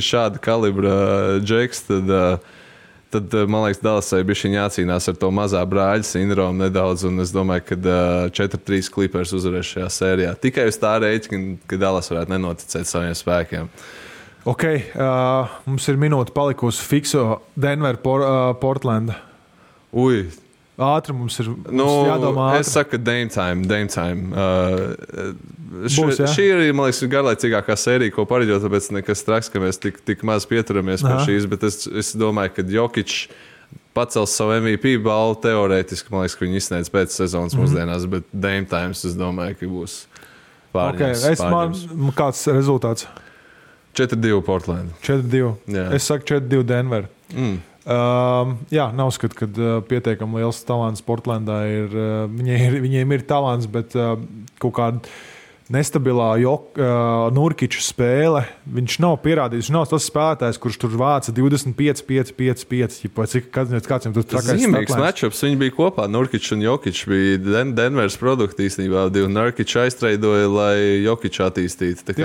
šāda kalibra džeks, tad man liekas, Dallasai bišķiņ jācīnās ar to mazā brāļa sindromu nedaudz, un es domāju, ka 4-3 Clippers uzvarēs šajā sērijā. Tikai uz tā rēķina, ka Dallas varētu nenoticēt saviem spēkiem. Ok, mums ir minūte palikusi fikso Denver, Portland. Ātri mums ir jādomā ātri. Es saku, Dame time. Šī ir, man liekas, garlaicīgākā sērija, ko pareģot, tāpēc nekas traks, ka mēs tik maz pieturamies pie šīs, bet es domāju, ka Jokic pacels savu MVP balvu teorētiski, man liekas, ka viņi izsniedz pēc sezonas mūsdienās, bet Dame times, es domāju, ka būs pārņems. Kāds rezultāts? 4-2 Portland. 4-2. Es saku 4-2 Denver. Nav skatu, ka pietiekami liels talants Portlandā ir. Viņiem ir talants, bet kaut kāda nestabilā Nurkiča spēle. Viņš nav pierādījis. Viņš nav tas spēlētājs, kurš tur vāca 25, 5, 5, 5. Kāds viņam tur trakais zīmīgs matchups. Viņi bija kopā. Nurkičs un Jokičs bija Denveras produkti īstenībā. Nurkičs aiztreidoja, lai Jokičs attīstītu.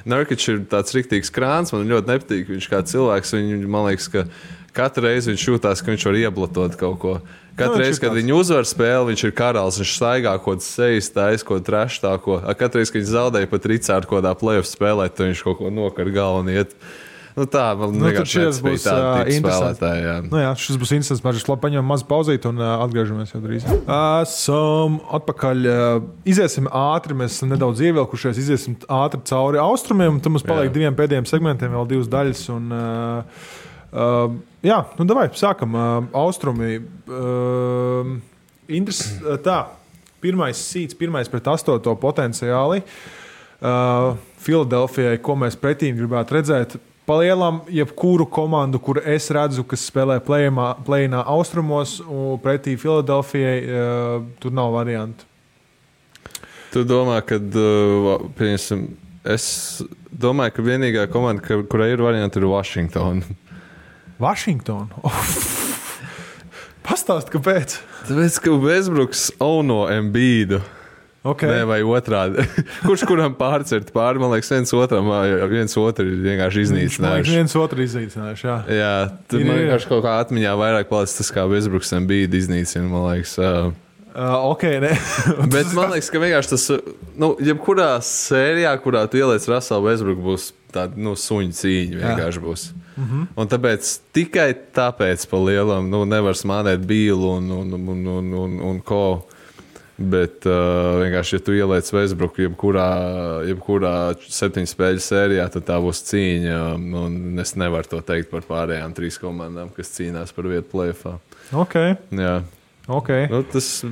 Nurkičs ir tāds riktīgs krāns. Man ļoti nepatīk. Viņš kā cilvēks, man liekas, ka katru reizi viņš jūtās, ka viņš var ieblatot kaut ko. Katru reizi, kad viņi uzvar spēli, viņš ir karalis, viņš staigā kaut ko sejas, taisa kaut ko treštāko. Katru reizi, kad viņš zaudēja pat Ricārdu kaut kādā playoff spēlē, tad viņš kaut ko nokar galvu un iet. Tā, man vienkārši nebija tāda tipa spēlētāja. Šis būs interesants. Mēs labi paņemam mazu pauzīt un atgriežamies jau drīz. Esam atpakaļ. Iziesim ātri, mēs esam nedaudz ievilkušies, iziesim ātri cauri austrumiem, un tad mums paliek diviem pēdējiem segmentiem, vēl divas daļas. Davai, sākam. Austrumi. Pirmais seeds, pirmais pret 8. potenciāli. Filadelfijai, ko mēs pretīm gribētu redzēt. Palielam, jebkuru komandu, kur es redzu, kas spēlē play-inā austrumos, un pretī Filadelfijai, tur nav variantu. Tu domā, ka, es domāju, ka vienīgā komanda, kurai ir varianti, ir Washington. Pastāst, kāpēc? Tāpēc, ka Westbrooks auno Embiidu. Okay. Nē, vai otrādi. Kurš kuram pārcert pāri, man liekas, viens otru ir vienkārši iznīcinājuši. Viens otru iznīcinājuši, jā. Jā, tur man vienkārši kaut kā atmiņā vairāk palicis tas, kā Westbrooks Embiidu iznīcina, man liekas. Okay, ne. Bet man liekas, ka vienkārši tas, jebkurā sērijā, kurā tu ieliec Russellu Westbrooku, būs tāda, suņu cīņa vienkārši būs. Un tāpēc, tikai tāpēc pa lielam, nevar smādēt Bīlu un ko. Bet vienkārši, ja tu ieliec Westbrooku jebkurā 7 spēļu sērijā, tad tā būs cīņa. Un es nevaru to teikt par pārējām 3 komandām, kas cīnās par vietu play-offā. Okay. Jā. Okay.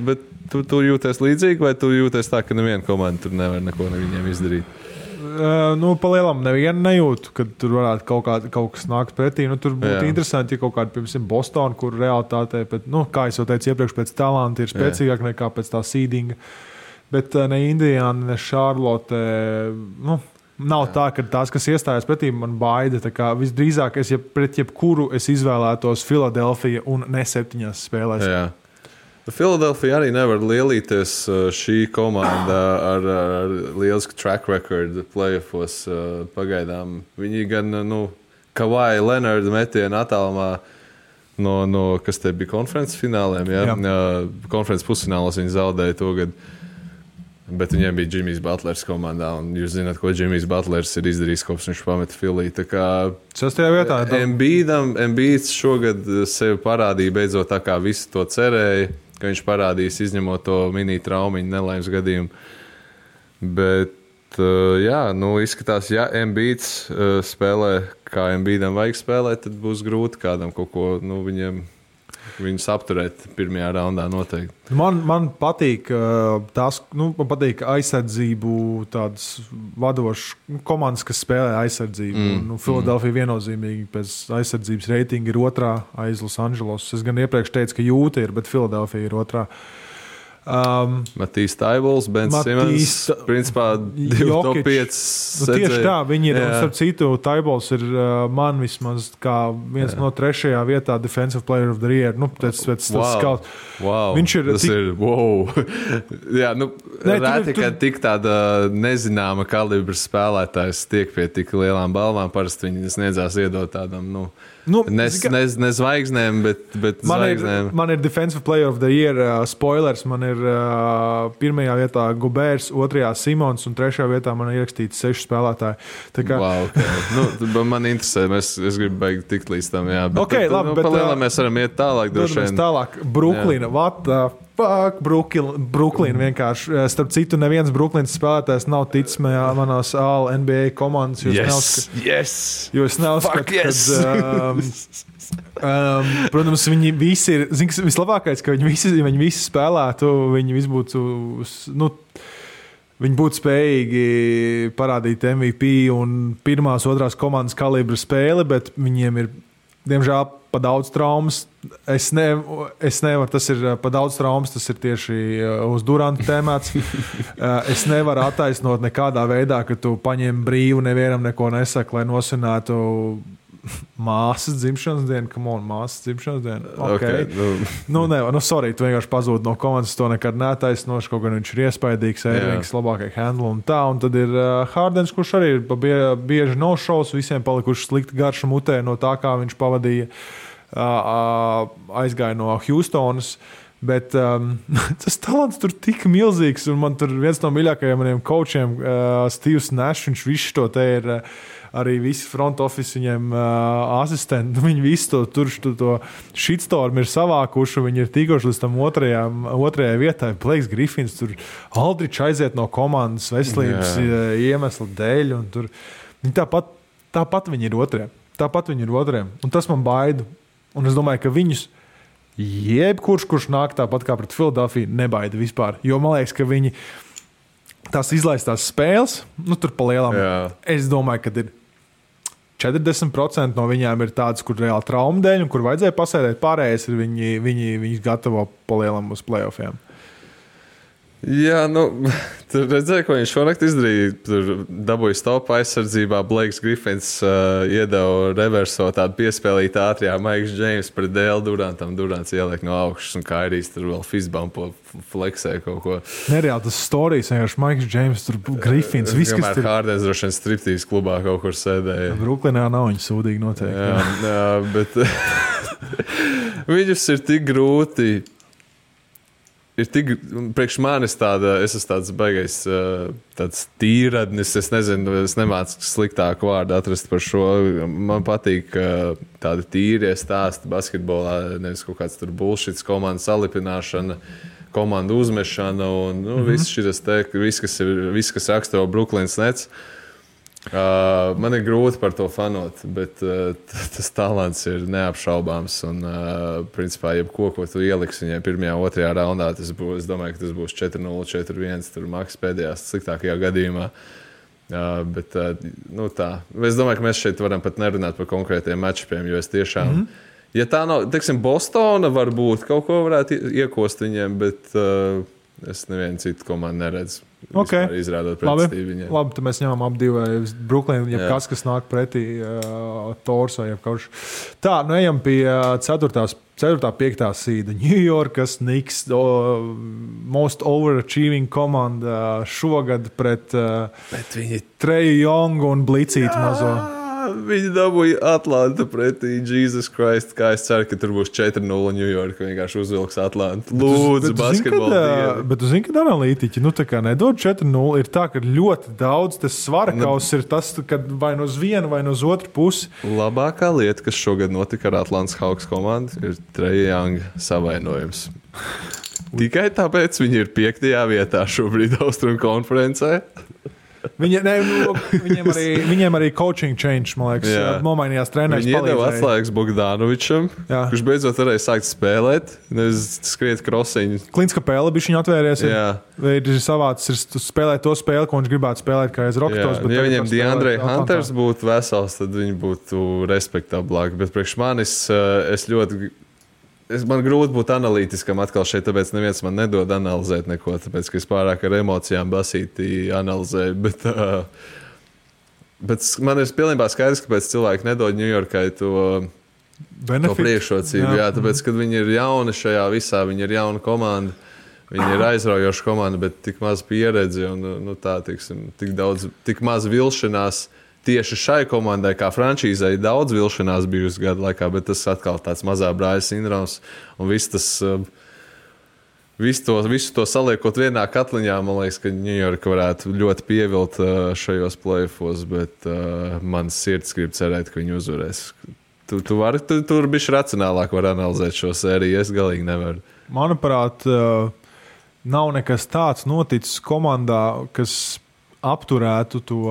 Bet tu jūties līdzīgi, vai tu jūties tā, ka neviena komanda tur nevar neko viņiem izdarīt? Palielam nevienu nejūtu, kad tur varētu kaut kas nākt pretī. Tur būtu interesanti, ja kaut kāda, piemēram, Bostona, kur realitātē, kā es jau teicu iepriekš, pēc talanta ir spēcīgāk nekā pēc tā seedinga. Bet ne Indiana, ne Charlotte, nav tā, ka tās, kas iestājās pretī, man baida. Visdrīzāk, pret jebkuru es izvēlētos Philadelphia un ne 7 spēlēs. Jā. Philadelphia arī nevar lielīties šī komanda ar lielisku track record playoffos pagaidām. Viņi gan, Kawhi Leonard metienu attālumā no kas te bija konferences fināliem, konferences pusfinālos viņi zaudēja to gadu. Bet viņiem bija Jimmy's Butlers komandā, un jūs zināt, ko Jimmy's Butlers ir izdarījis, kopš viņš pameta Philly. Tā kā 6. vietā. Embiids šogad sevi parādīja beidzot tā, kā visi to cerēja, ka viņš parādīs izņemot to mini traumiņu nelaimes gadījumu. Bet, izskatās, ja Embiids spēlē, kā Embiidam vajag spēlēt, tad būs grūti kādam kaut ko, viņus apturēt pirmajā raundā noteikti. Man patīk man patīk aizsardzību tādas vadošas komandas, kas spēlē aizsardzību. Philadelphia viennozīmīgi pēc aizsardzības reitinga ir 2. aiz Los Angeles. Es gan iepriekš teicu, ka Jūta ir, bet Philadelphia ir 2. Matīs Taibols, Ben Simmons, principā 2 top 5. Tieši tā, viņi ir, starp citu, Taibols ir man vismaz kā viens no 3. vietā Defensive Player of the Year. Pēc skaut. Wow, viņš ir tas ir, wow. Jā, rēti, ka tik tāda nezināma kalibra spēlētājs tiek pie tik lielām balvām, parasti viņi sniedzās iedot tādam, ne zvaigznēm, bet zvaigznēm. Man ir Defensive Player of the Year spoilers. Man ir 1. vietā Gobērs, 2. Simons un 3. vietā man ir ierakstīts 6 spēlētāji. Wow, okay. Man interesē, es gribu beigt tikt līdz tam. Jā, palēlām mēs varam iet tālāk. Tālāk. Bruklina. What the fuck? Bruklina vienkārši. Starp citu, neviens Bruklinas spēlētājs nav ticis manās All-NBA komandas. Jo es neuzskatu, protams, viņi visi ir, vislabākais, ka viņi visi spēlētu, viņi visi būtu, viņi būtu spējīgi parādīt MVP un 1., 2. komandas kalibra spēli, bet viņiem ir, diemžēl, pa daudz traumas. Es nevaru, tas ir pa daudz traumas, tas ir tieši uz Duranta tēmēts. Es nevaru attaisnot nekādā veidā, ka tu paņem brīvu, nevienam neko nesaka, lai nosvinētu māsas dzimšanas dienu. Come on, māsas dzimšanas dienu. Okay. Sorry, tu vienkārši pazūd no komandas, to nekad neattaisnoši, kaut gan viņš ir iespaidīgs, Eirvings labākai handle un tā. Un tad ir Hardens, kurš arī ir bieži no-shows, visiem palikuši slikti garša mutē no tā, kā viņš pavadīja, aizgāja no Houstonas. Bet tas talants tur tik milzīgs, un man tur viens no mīļākajiem maniem coachiem, Steve's Nash, viņš visu to te ir arī visi front office viņiem asistenti, viņi visu to shitstorm ir savākuši, viņi ir tikuši līdz tam otrajai vietai. Blakes Griffins tur Aldrichs aiziet no komandas veselības iemesla dēļ, un tur viņi tāpat viņi ir otrajā. Un tas man baida. Un es domāju, ka viņus jebkurš nāk tāpat kā pret Philadelphia, nebaida vispār. Jo man liekas, ka viņi tās izlaistās spēles, tur pa lielām. Es domāju, ka ir 40% no viņām ir tādas, kur reāli trauma dēļ un kur vajadzēja pasēdēt. Pārējais ir viņi gatavo pa lielam uz playoffiem. Jā, tur redzēja, ko viņš šonakt izdarīja. Tur dabūja stopa aizsardzībā. Blakes Griffins iedeva reverso tādu piespēlītu ātrijā Maiks Džeims pret Dēlu Durantam. Durants ieliek no augšas un Kairijs tur vēl fistbumpo fleksē kaut ko. Nereāli tas storijas, vienkārši Maiks Džeims, tur Griffins. Kamēr Hardens droši vien striptīs klubā kaut kur sēdēja. Bruklinā nav viņa sūdīgi noteikti. Jā, bet viņus ir tik grūti ir tik, priekš manis es esmu tāds baigais, tāds tīradnis, es nezinu, es nemācu sliktāku vārdu atrast par šo. Man patīk tādi tīrie stāsti basketbolā, nevis kaut kāds tur bullshits, komandu salipināšana, komandu uzmešana un viss šis te, viss, kas raksturo Brooklyns Nets. Man ir grūti par to fanot, bet tas talants ir neapšaubāms. Un, principā, jebko, ko tu ieliksi viņai pirmajā, otrajā raundā, es domāju, ka tas būs 4-0, 4-1, tur maks pēdējās sliktākajā gadījumā. Bet tā. Es domāju, ka mēs šeit varam pat nerunāt par konkrētiem matčiem, jo es tiešām, ja tā nav, teiksim, Bostona varbūt kaut ko varētu iekost viņiem, bet es nevienu citu komandu neredzu. Okay. Izrādot pretestību viņiem. Labi, tad mēs ņemam ap divu Brooklyn, kas nāk pretī Tors vai jebkauš. Tā, ejam pie 4. 5. sīda. New Yorkas Knicks, most overachieving komanda šogad pret Treju Youngu un Blicītu mazo. Viņi dabūja Atlantu pretī Jesus Christ, kā es ceru, ka tur būs 4-0 New York, vienkārši uzvilks Atlantu. Lūdzu, basketbolu. Bet tu zini, kad analītiķi, tā kā nedod 4-0, ir tā, ka ļoti daudz tas svarakaus ir tas, kad vai no uz vienu, vai no uz otru pusi. Labākā lieta, kas šogad notika ar Atlantas Hawks komandu, ir Treja Younga savainojums. Tikai tāpēc viņi ir 5. vietā šobrīd Austrumu konferencē. Viņiem arī coaching change, man liekas, nomainījās treneris. Viņi iedeva atslēgas Bogdanovičam, kurš beidzot varēja sākt spēlēt, nevis skriet krosiņu. Klints Kapela bija viņa atvērties. Ir savāds spēlēt to spēli, ko viņš gribētu spēlēt kā aiz Roketos. Ja viņiem DeAndre Hunters būtu vesels, tad viņi būtu respektablāki. Bet priekš manis man grūti būt analītiskam atkal šeit, tāpēc neviens man nedod analizēt neko, tāpēc, ka es pārāk ar emocijām basīti analizēju. Bet man ir pilnībā skaidrs, kāpēc cilvēki nedod Ņujorkai to priekšrocību. Jā, tāpēc, kad viņi ir jauni šajā visā, viņi ir jauna komanda, viņi ir aizraujoša komanda, bet tik maz pieredzi un tik maz vilšanās. Tieši šai komandai, kā frančīzei, daudz vilšanās bijusi gadu laikā, bet tas atkal tāds mazā brāļa sindroms. Un visu to saliekot vienā katliņā, man liekas, ka Ņujorka varētu ļoti pievilt šajos play-offos, bet man sirds grib cerēt, ka viņi uzvarēs. Tur bišķi racionālāk var analizēt šo sēriju, es galīgi nevaru. Manuprāt, nav nekas tāds noticis komandā, kas apturētu to...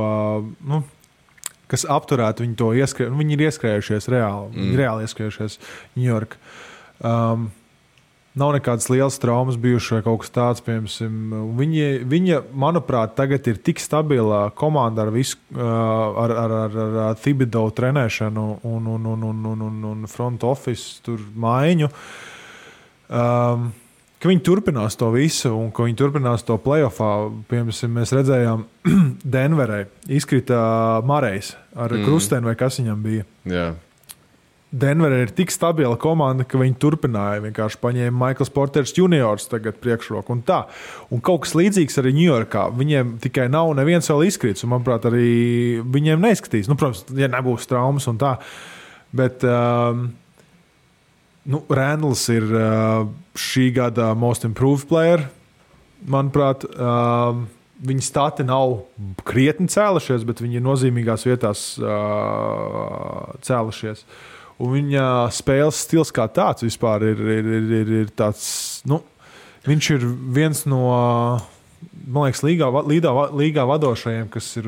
kas apturētu viņu to ieskrējumu. Viņi ir ieskrējušies reāli. Viņi ir reāli ieskrējušies New York. Nav nekādas lielas traumas bijušas vai kaut kas tāds, piemēram. Viņa, manuprāt, tagad ir tik stabila komanda ar visu, ar Thibodeau trenēšanu un front office tur maiņu. Ka viņi turpinās to visu un ka viņi turpinās to playoffā. Piemēram, mēs redzējām Denverē izkrita Marejs ar krusteni vai kas viņam bija. Jā. Denverē ir tik stabila komanda, ka viņi turpināja. Vienkārši paņēma Michaels Porters juniors tagad priekšroku un tā. Un kaut kas līdzīgs arī Ņujorkā. Viņiem tikai nav neviens vēl izkrits un, manuprāt, arī viņiem neizskatīs. Protams, ja nebūs traumas un tā. Bet... Randls ir šī gada most improved player. Manuprāt, viņa stati nav krietni cēlušies, bet viņi ir nozīmīgās vietās cēlušies. Un viņa spēles stils kā tāds vispār ir tāds, viņš ir viens no, man liekas, līgā vadošajiem, kas ir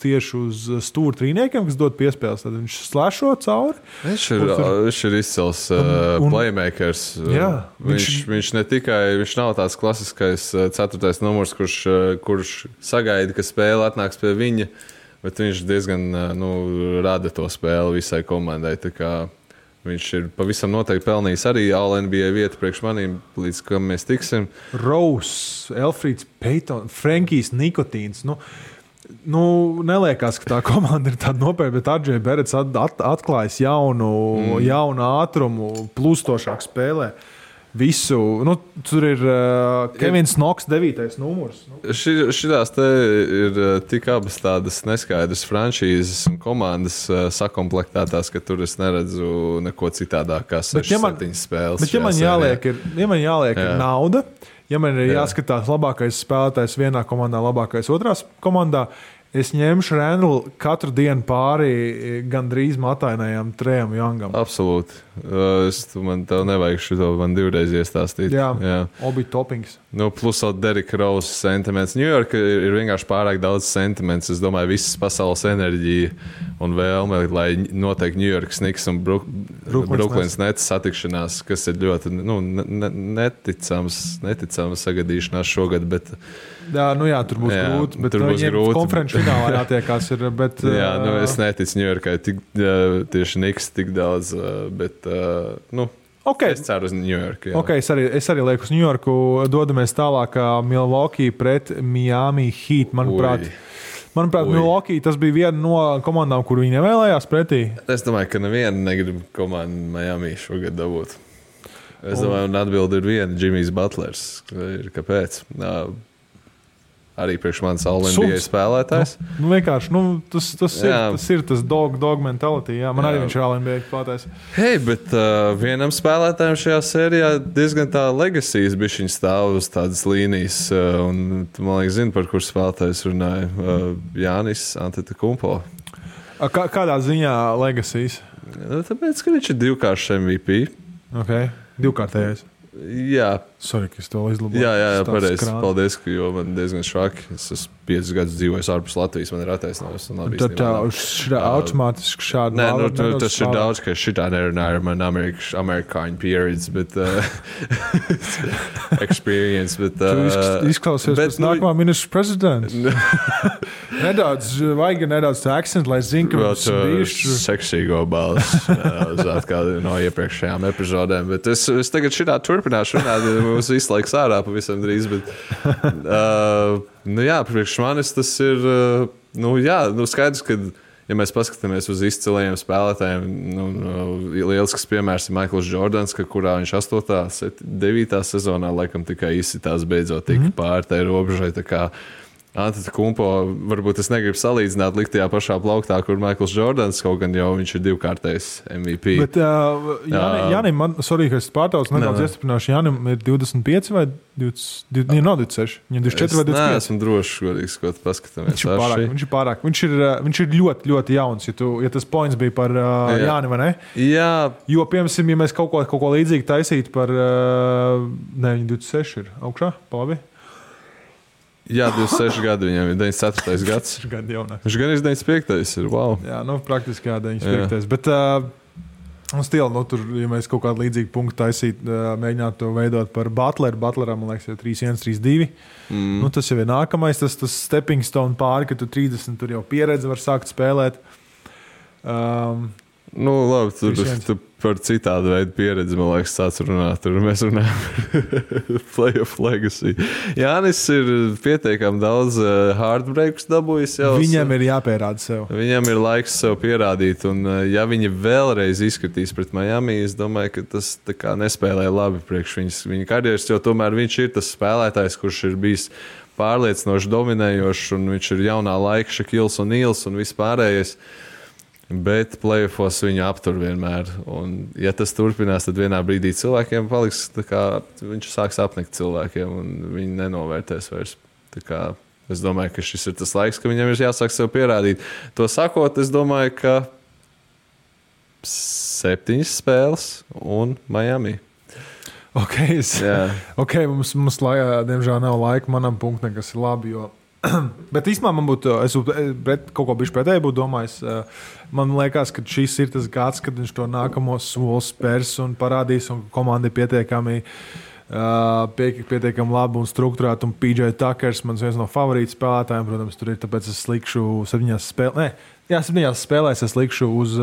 tieši uz stūra trīniekiem, kas dod piespēles. Tad viņš slēšo cauri. Viņš ir izcils playmakers. Jā, viņš ne tikai, viņš nav tāds klasiskais 4. numurs, kurš sagaida, ka spēle atnāks pie viņa, bet viņš diezgan rada to spēli visai komandai. Tā kā viņš ir pavisam noteikti pelnījis arī All-NBA vietu priekš manīm, līdz kam mēs tiksim. Rose, Elfrīds Payton, Frankijs Nikotīns. Neliekās, ka tā komanda ir tāda nopietna, bet RJ Barretts atklājis jaunu ātrumu, plūstošāk spēlē. Visu, tur ir Kevins Knox 9. numurs. Šitās te ir tik abas tādas neskaidras franšīzes un komandas sakomplektētās, ka tur es neredzu neko citādāk kā 6-7 spēles. Bet ja man jāliek ir nauda, ja man ir jāskatās labākais spēlētājs vienā komandā, labākais otrās komandā, es ņemšu Randlu katru dienu pāri gandrīz matainajam Trejam Youngam. Absolūti. Man tev nevajag šo, man divreiz iestāstīt. Jā. Obi topings. Plus vēl Derika Rose sentiments. Ņujorka ir vienkārši pārāk daudz sentiments. Es domāju, visas pasaules enerģija un vēlme, lai noteikti Ņujorkas Knicks un Brooklyns Nets satikšanās, kas ir ļoti neticams sagadīšanās šogad, bet jā, tur būs grūti, bet viņiem konferenču finālā jātiekās ir, bet... es neticu Ņujorkai tieši Knicks tik daudz, bet, okay. Es ceru uz Ņujorku. Okay, es arī lieku uz Ņujorku, dodamies tālāk Milwaukee pret Miami Heat, manuprāt, Milwaukee tas bija viena no komandām, kur viņi nevēlējās pretī. Es domāju, ka neviena negrib komandu Miami šogad dabūt. Es domāju, un atbildi ir viena, Jimmys Butlers. Kāpēc? Arī priekš manis All-NBA spēlētājs. Vienkārši, tas ir tas dog mentality. Jā, man arī viņš ir All-NBA spēlētājs. Hei, bet vienam spēlētājam šajā sērijā diezgan tā legacies bišķiņ stāv uz tādas līnijas. Un man liekas, zinu, par kur spēlētājs runāja. Jānis Antetokounmpo. Kādā ziņā legacies? Tāpēc, ka viņš ir divkāršs MVP. Okay. Divkārtējais. Jā. Sorry, ka es to izlaboju. Jā, pareizi. Paldies, jo man diezgan švaki. Es esmu 5 gadus dzīvojis ārpus Latvijas, man ir attaisnojums. Tad automātiski šādi... Nē, tas ir daudz, ka šitā nerunāju ar man Amerikāņu pieredzi, bet experience, bet... Tu izklausies pēc nākamā ministra prezidents. Vajag nedaudz tā akcentu, lai zinu, ka mums bijuši... Seksīgo balss, kā no iepriekšējām epizodēm, bet es tagad šitā turpināšu runāt, mums visu laiku sārā pavisam drīz, bet priekš manis tas ir skaidrs, ka ja mēs paskatāmies uz izcilajiem spēlētājiem, lielisks piemērs ir Maikls Jordans, kurā viņš 8. 9. sezonā laikam tikai izsitās beidzot tika pāri tai robežai, tā kā Antetokounmpo, varbūt es negribu salīdzināt likt tajā pašā plauktā, kur Maikls Jordans, kaut gan jau viņš ir divkārtais MVP. Bet Jānim, sorry, ka es pārtaucu, nedaudz iestiprināšu, Jānim ir 25 vai 20, nav 26, viņam 24 vai 25. Es neesmu drošs, godīgi skot, paskatāmies. Viņš ir pārāk. Viņš ir ļoti, ļoti jauns, ja tas points bija par Jāni, vai ne? Jā. Jo, piemēram, ja mēs kaut ko līdzīgi taisītu par, viņa 26 ir augšā, labi? Jā, 26 gadi viņam ir 94. gads. Viņš gan ir 95. ir, wow. Jā, praktiski 95. Bet tur, ja mēs kaut kādu līdzīgu punktu taisītu, mēģinātu to veidot par Butleram, man liekas, 3-1, 3-2. Tas jau ir nākamais, tas stepping stone pāri, ka tu 30 tur jau pieredzi var sākt spēlēt. Labi, tu par citādu veidu pieredzi, man liekas, sāc runāt. Tur mēs runājam par playoff legacy. Jānis ir pietiekami daudz heartbreaks dabūjis jau. Viņam ir jāpierāda sev. Viņam ir laiks sev pierādīt, un ja viņi vēlreiz izskatīs pret Miami, es domāju, ka tas tā kā nespēlē labi priekš viņa karjeras, jo tomēr viņš ir tas spēlētājs, kurš ir bijis pārliecinoši dominējošs, un viņš ir jaunā laika Šakils un Nīls un vispārējais. Bet playoffos viņu aptur vienmēr. Un, ja tas turpinās, tad vienā brīdī cilvēkiem paliks, viņš sāks apnikt cilvēkiem, un viņi nenovērtēs vairs. Es domāju, ka šis ir tas laiks, ka viņam ir jāsāk sev pierādīt. To sakot, es domāju, ka 7 spēles un Miami. Mums diemžēl nav laika manam punktam, kas ir labi, jo bet īstenībā man būtu, es kaut ko bišķi pretēji būtu domājis. Man liekas, ka šis ir tas gads, kad viņš to nākamo soli spērs un parādīs, un komanda ir pietiekami labi un strukturēta. Un PJ Tuckers, mans viens no favorītu spēlētājiem, protams, tur ir, tāpēc es likšu 7 spēlēs es likšu uz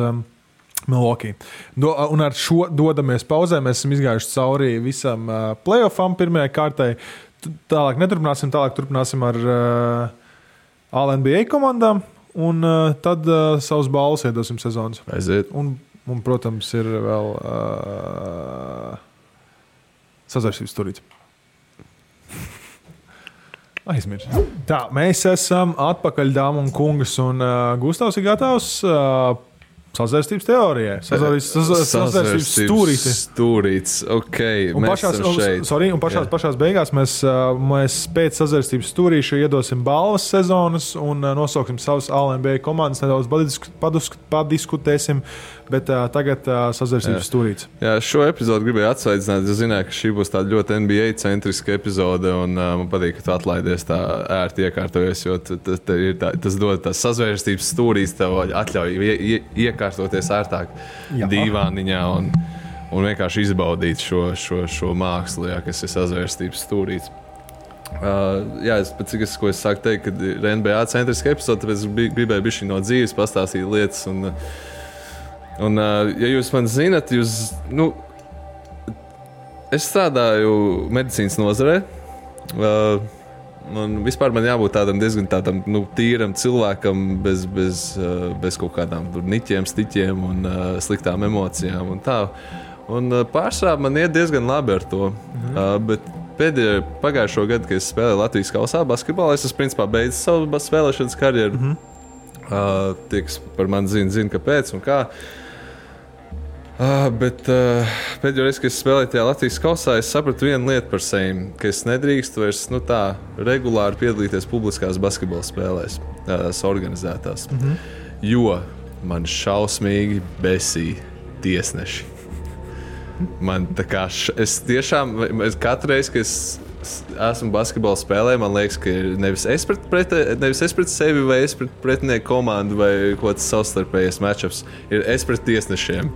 Milwaukee. Un ar šo dodamies pauzē, mēs esam izgājuši cauri visam playoffam pirmajai kārtai. Tālāk turpināsim ar All-NBA komandām, un tad savus balvas iedosim sezonas. Aiziet. Un, protams, ir vēl sazārstības turīts. Aizmirst. Tā, mēs esam atpakaļ, dāmas un kungas, un Gustavs ir gatavs Sazvērstības teorijai. Sazvērstības stūrītis. Ok, pašās beigās mēs pēc sazvērstības stūrīša iedosim balvas sezonas un nosauksim savas All-NBA komandas, nedaudz padiskutēsim, bet tagad sazvērstības stūrītis. Jā, šo epizodu gribēju atsveicināt, es zināju, ka šī būs tāda ļoti NBA-centriska epizode, un man patīk, ka tu atlaidies tā ērti iekārtojies, jo tas dod tās sazvērstības stūrītis, tev atļauj iekārtoties ērtāk dīvāniņā un vienkārši izbaudīt šo mākslu, kas ir sazvērstības stūrītis. Ko es sāku teikt, kad ir NBA centriska epizode, tāpēc es gribēju bišķi no dzīves pastāstīt lietas. Un ja jūs man zinat, es strādāju medicīnas nozarē. Man jābūt tādam diezgan tīram cilvēkam, bez kaut kādām niķiem, stiķiem un sliktām emocijām. Un pārsvarā man iet diezgan labi ar to. Bet pagājušo gadu, kad es spēlēju Latvijas kausā basketbolā, es principā beidzu savu spēlēšanas karjeru. Tie, kas par mani zina, kāpēc un kā. Bet pēdējo reizi, kad es spēlēju tajā Latvijas kausā, es sapratu vienu lietu par sevi, ka es nedrīkstu vairs regulāri piedalīties publiskās basketbola spēlēs, tās organizētās. Jo man šausmīgi besīja tiesneši. Man es katru reizi, kad es esmu basketbola spēlē, man liekas, ka nevis es pret sevi vai es pret pretinieku komandu vai kaut kāds savstarpējais matchups, ir es pret tiesnešiem.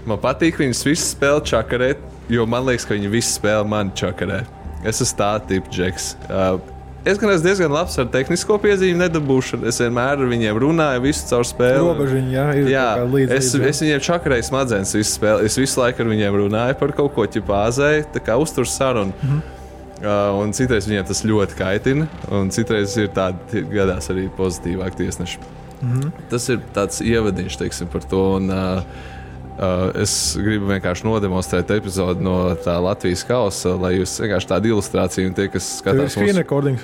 Man patīk viņus visus spēlēt čakarēt, jo man liekas, ka viņi visi spēlē mani čakarē. Es esmu tā tipa džeks. Es gan esmu diezgan labs ar tehnisko piezīmi nedabūšanu. Es vienmēr ar viņiem runāju visu caur spēli. Robežiņi, es viņiem čakarēju smadzenes visu spēli. Es visu laiku ar viņiem runāju par kaut ko ķipāzēju, tā kā uztur sarunu. Un citreiz viņiem tas ļoti kaitina, un citreiz ir tādi gadās arī pozitīvāk tiesneši. Tas ir tāds ievadiņš, teiksim, par to. Un, es gribu vienkārši nodemonstrēt epizodi no tā Latvijas kausa, lai jūs vienkārši tādu ilustrāciju un tie, kas skatās mūsu...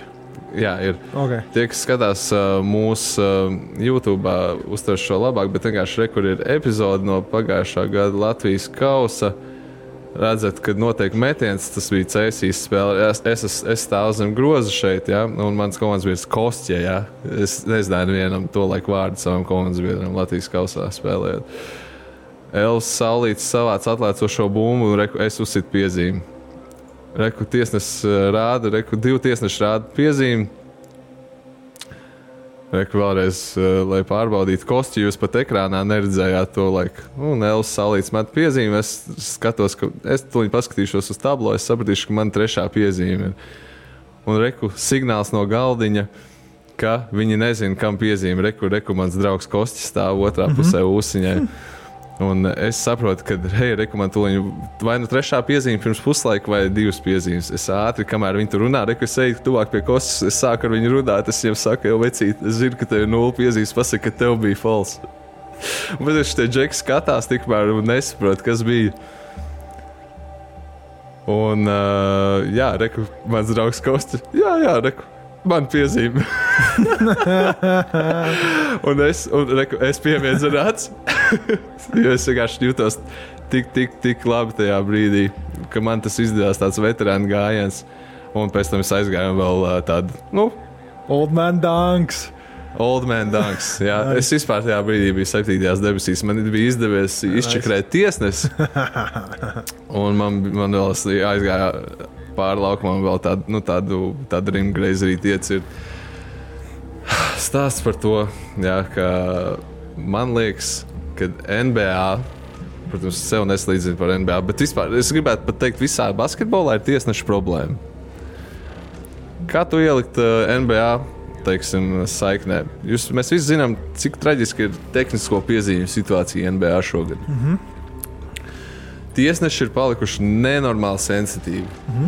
Jā, ir. Okay. Tie, kas skatās mūsu YouTube, uztver šo labāk, bet vienkārši kur ir epizode no pagājušā gada Latvijas kausa. Redzat, kad notiek metiens, tas bija Cēsīs spēle. Es stāvu zem groza šeit, ja? Un mans komandas biedrs Kostja. Ja? Es nezināju vienam to laiku vārdu savam komandas biedram Latvijas kausā spēlējot. Elvis Saulītis savāc atlēcošo bumbu un es uzsitu piezīmi. Tiesnesis rāda, divi tiesneši rāda piezīmi. Vēlreiz, lai pārbaudītu Kostju, jūs pat ekrānā neredzējāt to laiku. Un Elvis Saulītis met piezīmi, es skatos, ka es tuliņ paskatīšos uz tablo, es sapratīšu, ka man trešā piezīme ir. Un signāls no galdiņa, ka viņi nezina, kam piezīme. Mans draugs Kostja stāv otrā pusē ūsiņai. Un es saprotu, ka man tuliņu vai nu trešā piezīme pirms puslaika vai divas piezīmes. Es ātri, kamēr viņi tur runā, es eju tuvāk pie Kostas, es sāku ar viņu runāt, es viņiem saku, jau vecīt, es zinu, ka tev ir 0 piezīmes, pasaka, ka tev bija false. Bet es tie džeki skatās tikmēr un nesaprotu, kas bija. Un mans draugs Kostas, man piezīme. un es pievienu rāds, jo es vienkārši jūtos tik labi tajā brīdī, ka man tas izdevās tāds veterānu gājiens. Un pēc tam es aizgāju vēl tādu, Old man dunks. Jā. Es vispār tajā brīdī biju 7. debesīs. Man bija izdevies izčakrēt tiesnesi. Un man vēl aizgāja pāri laukumam vēl tādu rimgreizerīt iecir. Stāsts par to, ka man liekas, ka NBA, protams, sev neslīdzinu par NBA, bet vispār es gribētu pat teikt, visā basketbolā ir tiesneša problēma. Kā tu ielikt NBA, teiksim, saiknē? Mēs visi zinām, cik traģiski ir tehnisko piezīmju situācija NBA šogad. Tiesneši ir palikuši nenormāli sensitīvi.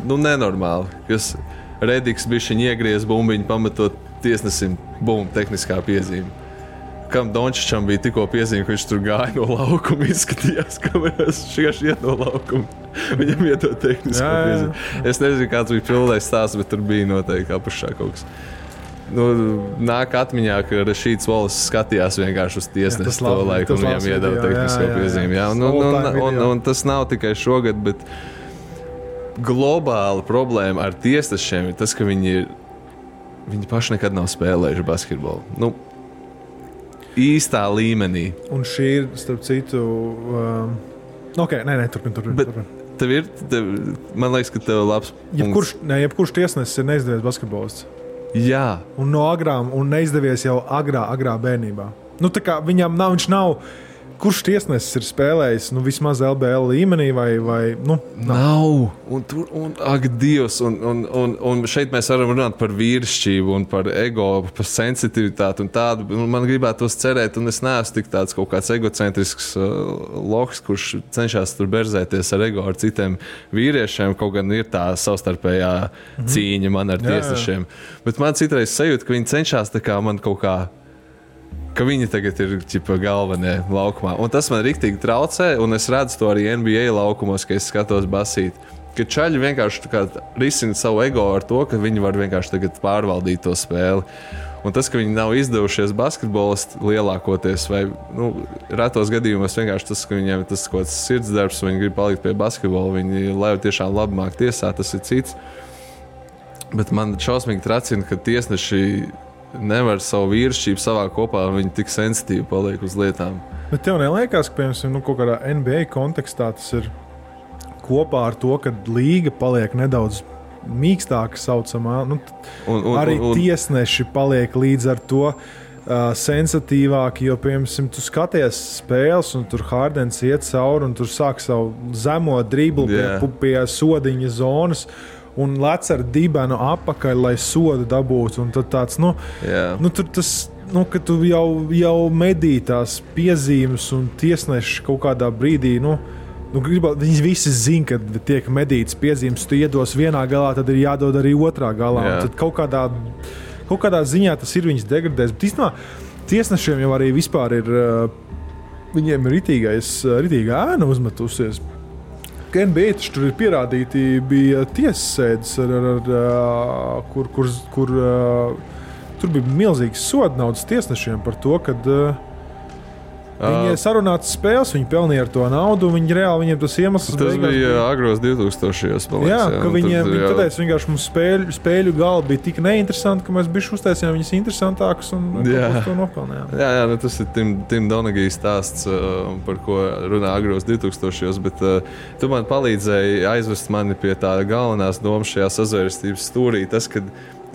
Nenormāli. Kas Rediks bišķiņ iegriez bumbiņu, pametot tiesnesim, tehniskā piezīme. Kam Dončičam bija tikko piezīme, ka viņš tur gāja no laukuma, izskatījās kamerās, vienkārši iet no laukuma. Viņam iedod tehnisko piezīmi. Es nezinu, kāds bija pildējis stāsts, bet tur bija noteikti apašā kaut kas. nāk atmiņā, ka Rašīds Volis skatījās vienkārši uz tiesnesi to laiku un viņam iedeva tehnisko piezīmi. Un tas nav tikai šogad, bet globāla problēma ar tiesnešiem ir tas, ka viņi paši nekad nav spēlējuši basketbolu. Īstā līmenī. Un šī ir, starp citu, turpin. Man liekas, ka tev labs punkts. Jebkurš tiesnesis ir neizdevies basketbolists. Jā. Un no agrām, un neizdevies jau agrā bērnībā. Tā kā viņš nav, kurš tiesnesis ir spēlējis, vismaz LBL līmenī vai nav. Ak, Dievs, un šeit mēs varam runāt par vīrišķību un par ego, par sensitivitāti un tādu. Man gribētos cerēt, un es neesmu tik tāds kaut kāds egocentrisks loks, kurš cenšas tur berzēties ar ego ar citiem vīriešiem, kaut gan ir tā savstarpējā cīņa man ar tiesnešiem. Bet man citreiz sajūta, ka viņi cenšas tā kā man kaut kā ka viņi tagad ir galvenie laukumā. Un tas man riktīgi traucē, un es redzu to arī NBA laukumos, ka es skatos basīt. Ka čaļi vienkārši risina savu ego ar to, ka viņi var vienkārši tagad pārvaldīt to spēli. Un tas, ka viņi nav izdevušies basketbolisti lielākoties, vai retos gadījumos vienkārši tas, ka viņiem tas kaut kāds sirdsdarbs, viņi grib palikt pie basketbola, viņi lai tiešām labi māk tiesāt, tas ir cits. Bet man šausmīgi tracina, ka tiesneši nevar savu vīrišķību savā kopā, un viņi tik sensitīvi paliek uz lietām. Bet tev neliekas, ka, piemēram, kaut kādā NBA kontekstā tas ir kopā ar to, ka līga paliek nedaudz mīkstāka saucamā, arī tiesneši paliek līdz ar to sensitīvāki, jo, piemēram, tu skaties spēles, un tur Hardens iet cauri, un tur sāk savu zemo driblu pie sodiņa zonas, un lec ar dibenu apakaļ, lai sodu dabūtu. Un tad tāds, tur tas, ka tu jau medī tās piezīmes un tiesneši kaut kādā brīdī, viņi visi zina, ka tiek medītas piezīmes, tu iedos vienā galā, tad ir jādod arī otrā galā. Un tad kaut kādā ziņā tas ir viņas degradēs. Bet īstenībā tiesnešiem jau arī vispār ir, viņiem ir ritīga ēna uzmetusies. NBA taču tur ir pierādīti, bija tiesas sēdes, kur tur bija milzīgs soda naudas tiesnešiem par to, ka viņi sarunātas spēles, viņi pelnīja ar to naudu, un viņiem tas iemesls tas bija agros 2000-os. Ka viņiem teica, vienkārši mums spēļu gala bija tik neinteresanti, ka mēs bišķi uztaisījām viņas interesantākas un to nopelnījām. Jā, tas ir Tim Donaghy stāsts, par ko runā agros 2000-os, bet tu man palīdzēji aizvest mani pie tā galvenās domas šajā sazvērstības stūrī. Tas, kad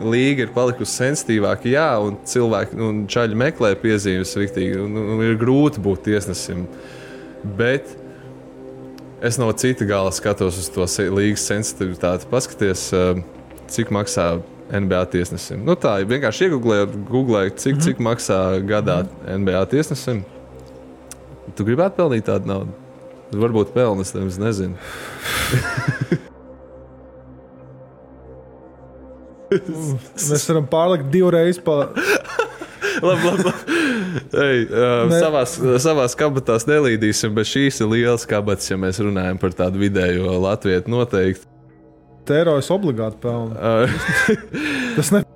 līga ir palikusi sensitīvāka, un cilvēki un čaļi meklē piezīmes riktīgi, un ir grūti būt tiesnesim. Bet es no cita gala skatos uz to līgas sensitivitāti. Paskaties, cik maksā NBA tiesnesim. Tā, vienkārši googlēju, cik maksā gadā NBA tiesnesim. Tu gribētu pelnīt tādu naudu? Varbūt pelnas, es nezinu. Mēs varam pārlikt divreiz labi. Savās kabatās nelīdīsim, bet šīs ir lielas kabatas, ja mēs runājam par tādu vidējo latvietu noteikti. Tērojas obligāti pelna. Tas ne...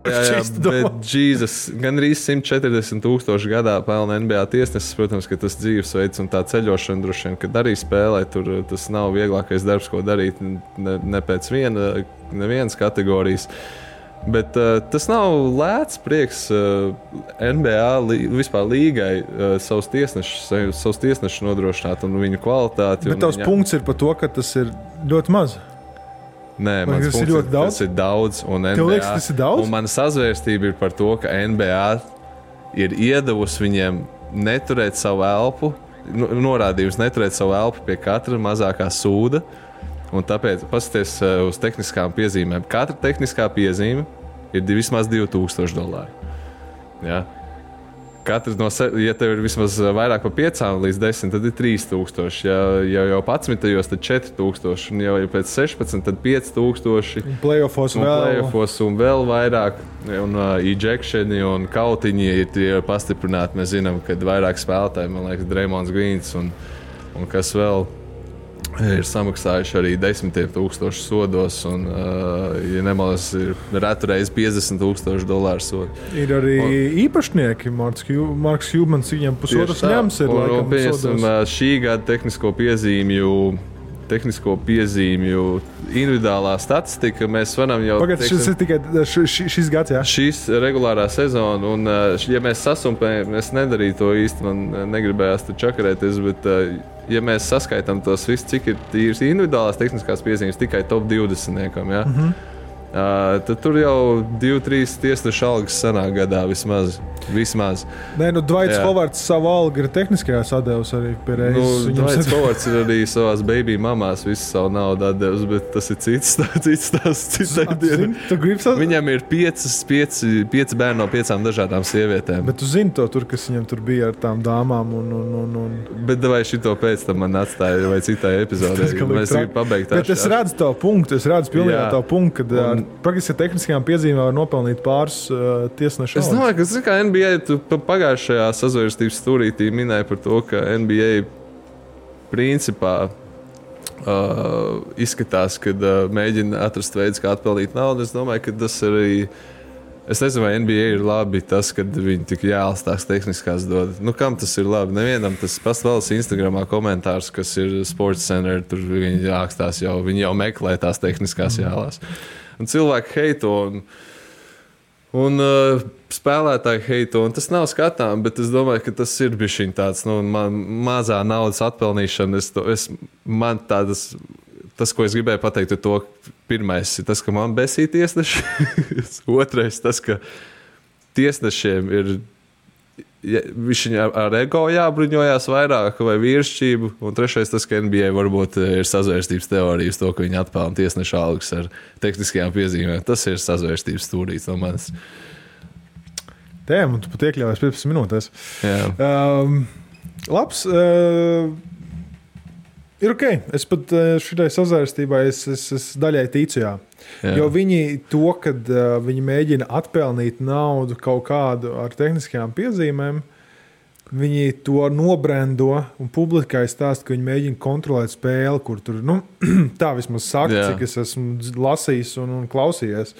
Jā, bet Jēzus, gan arī 140,000 gadā pelna NBA tiesnesis. Protams, ka tas dzīvesveids un tā ceļošana droši vien, kad arī spēlē, tur tas nav vieglākais darbs, ko darīt ne pēc nevienas kategorijas. Bet tas nav lēts prieks NBA vispār līgai savus tiesnešus nodrošināt un viņu kvalitāti. Bet tavs punkts ir par to, ka tas ir ļoti maz. Nē, mans punkts ir, tas ir daudz. Un NBA, tev liekas, tas ir daudz? Un mana sazvērstība ir par to, ka NBA ir iedavusi viņiem neturēt savu elpu, norādījums neturēt savu elpu pie katra mazākā sūda. Un tāpēc paskaties uz tehniskām piezīmēm. Katra tehniskā piezīme ir vismaz $2,000. Ja? Katrs ja tev ir vismaz vairāk par 5 līdz 10, tad ir 3,000. Ja jau 11, tad 4,000. Un jau pēc 16, tad 5,000. Playoffos un vēl vairāk. Un ejectioni un kautiņi ir pastiprināti. Mēs zinām, ka vairāk spēlētāji, man liekas, Draymonds Greens un kas vēl. ir samaksājuši arī 10,000 sodos, un, ja nemaldos, ir retu reizi $50,000 sodu. Ir arī īpašnieki, Marks Hjūmans, viņam pusotras ņems ir laikam sodos. Šī gada tehnisko piezīmju individuālā statistika, mēs varam jau... Pagad, šis ir tikai šis gads, jā? Šis regulārā sezona, un ja mēs sasumpējam, es nedarīju to īsti, man negribējās tur čakarēties, bet ja mēs saskaitām tos visus, cik ir tīras individuālās tehniskās piezīmes tikai top 20-niekam, jā? Tad tur jau 2-3 tiesnešu algas sanāk gadā vismaz. Nē, Dvaits Hovards savu algu ir tehniskajā sadevus arī pie reizes. Dvaits Hovards ir arī savās baby mamās visu savu naudu atdevis, bet tas ir cits Viņam ir 5 bērni no 5 dažādām sievietēm. Bet tu zini to tur, kas viņam tur bija ar tām dāmām un... Bet vai šito pēc tam man atstāja vai citai epizodē? Mēs gribam pabeigt. Bet es redzu tavu punktu, pilnībā tavu punktu, kad ar praktiski tehniskajām piezīmēm var nopelnīt pāris tiesnešu algas. Es domāju, ka NBA, tu pagājušajā sazvērstības stūrītī minēji par to, ka NBA principā izskatās, kad mēģina atrast veids, kā atpelnīt naudu. Es domāju, ka tas arī... Es nezinu, vai NBA ir labi tas, kad viņi tik jāls tās tehniskās dod. Kam tas ir labi? Nevienam tas pastāvs Instagramā komentārs, kas ir Sports Center, tur viņi jākstās jau, viņi jau meklē tās tehniskās jālās. Un cilvēki heito un spēlētāji heito, un tas nav skatām, bet es domāju, ka tas ir bišķiņ tāds, mazā naudas atpelnīšana. Tas, ko es gribēju pateikt, ir to, pirmais ir tas, ka man besīja tiesneši. Otrais, tas, ka tiesnešiem ir ar ego jābruņojās vairāk vai vīrišķību. Un trešais, tas, ka NBA varbūt ir sazvērstības teorijas to, ka viņi atpelna tiesnešu algas ar tehniskajām piezīmēm. Tas ir sazvērstības stūrīts no manis. Tēm, un tu pat iekļāvies 15 minūtēs. Labs. Ir ok. Es pat šitai sazvērstībai es daļai ticu, jā. Jo viņi to, kad viņi mēģina atpelnīt naudu kaut kādu ar tehniskajām piezīmēm, viņi to nobrendo un publikai stāsta, ka viņi mēģina kontrolēt spēli, kur tur, tā vismaz saka, cik es esmu lasījis un klausījies.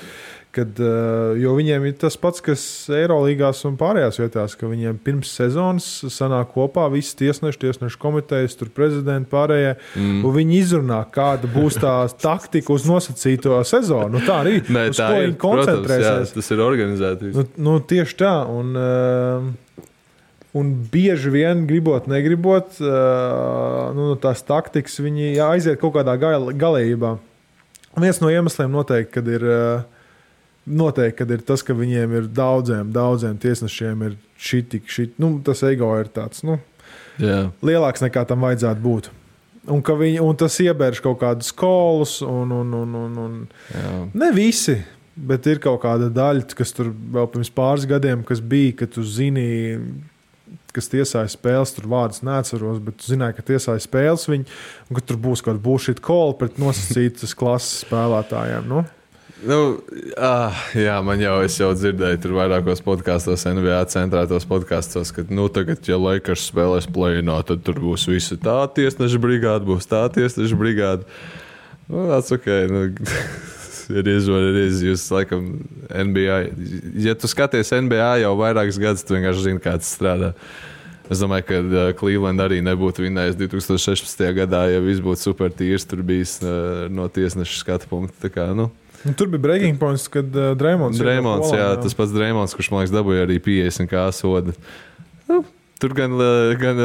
Jo viņiem ir tas pats, kas Eirolīgās un pārējās vietās, ka viņiem pirms sezonas sanāk kopā visi tiesnešu komitejas, tur prezidenti pārējie, un viņi izrunā, kāda būs tā taktika uz nosacīto sezonu. Tā arī, uz ko viņi koncentrēsies. Protams, tas ir organizēti. Tieši tā, un bieži vien, negribot, tās taktikas viņi aiziet kaut kādā galējībā. Viens no iemesliem noteikti, kad ir tas, ka viņiem ir daudziem tiesnešiem ir tas ego ir tāds, lielāks nekā tam vajadzētu būt. Un tas iebērš kaut kādus kolus un ne visi, bet ir kaut kāda daļa, kas tur vēl pirms pāris gadiem, kas bija, ka tu zini, kas tiesāja spēles, tur vārdus neatceros, bet tu zināji, ka tiesāja spēles viņi, un ka tur būs kaut kāda bullshit call pret nosacītas klases spēlētājiem, es jau dzirdēju tur vairākos podkastos, NBA centrētos podkastos, ka tagad, ja Lakers spēlēs play-inā, tad tur būs visi tā tiesneša brigāde, būs tā tiesneša brigāde. Tas ok, ir jūs laikam NBA. Ja tu skaties NBA jau vairākas gadus, tu vienkārši zini, kā tas strādā. Es domāju, ka Cleveland arī nebūtu vinnējis 2016. gadā, ja viss būtu super tīrs, tur bijis no tiesneša skatu punkta. Tā kā, tur bija breaking points, kad Draymonds, tas pats Draymonds, kurš, man liekas, dabūja arī 50 kā soda. Tur gan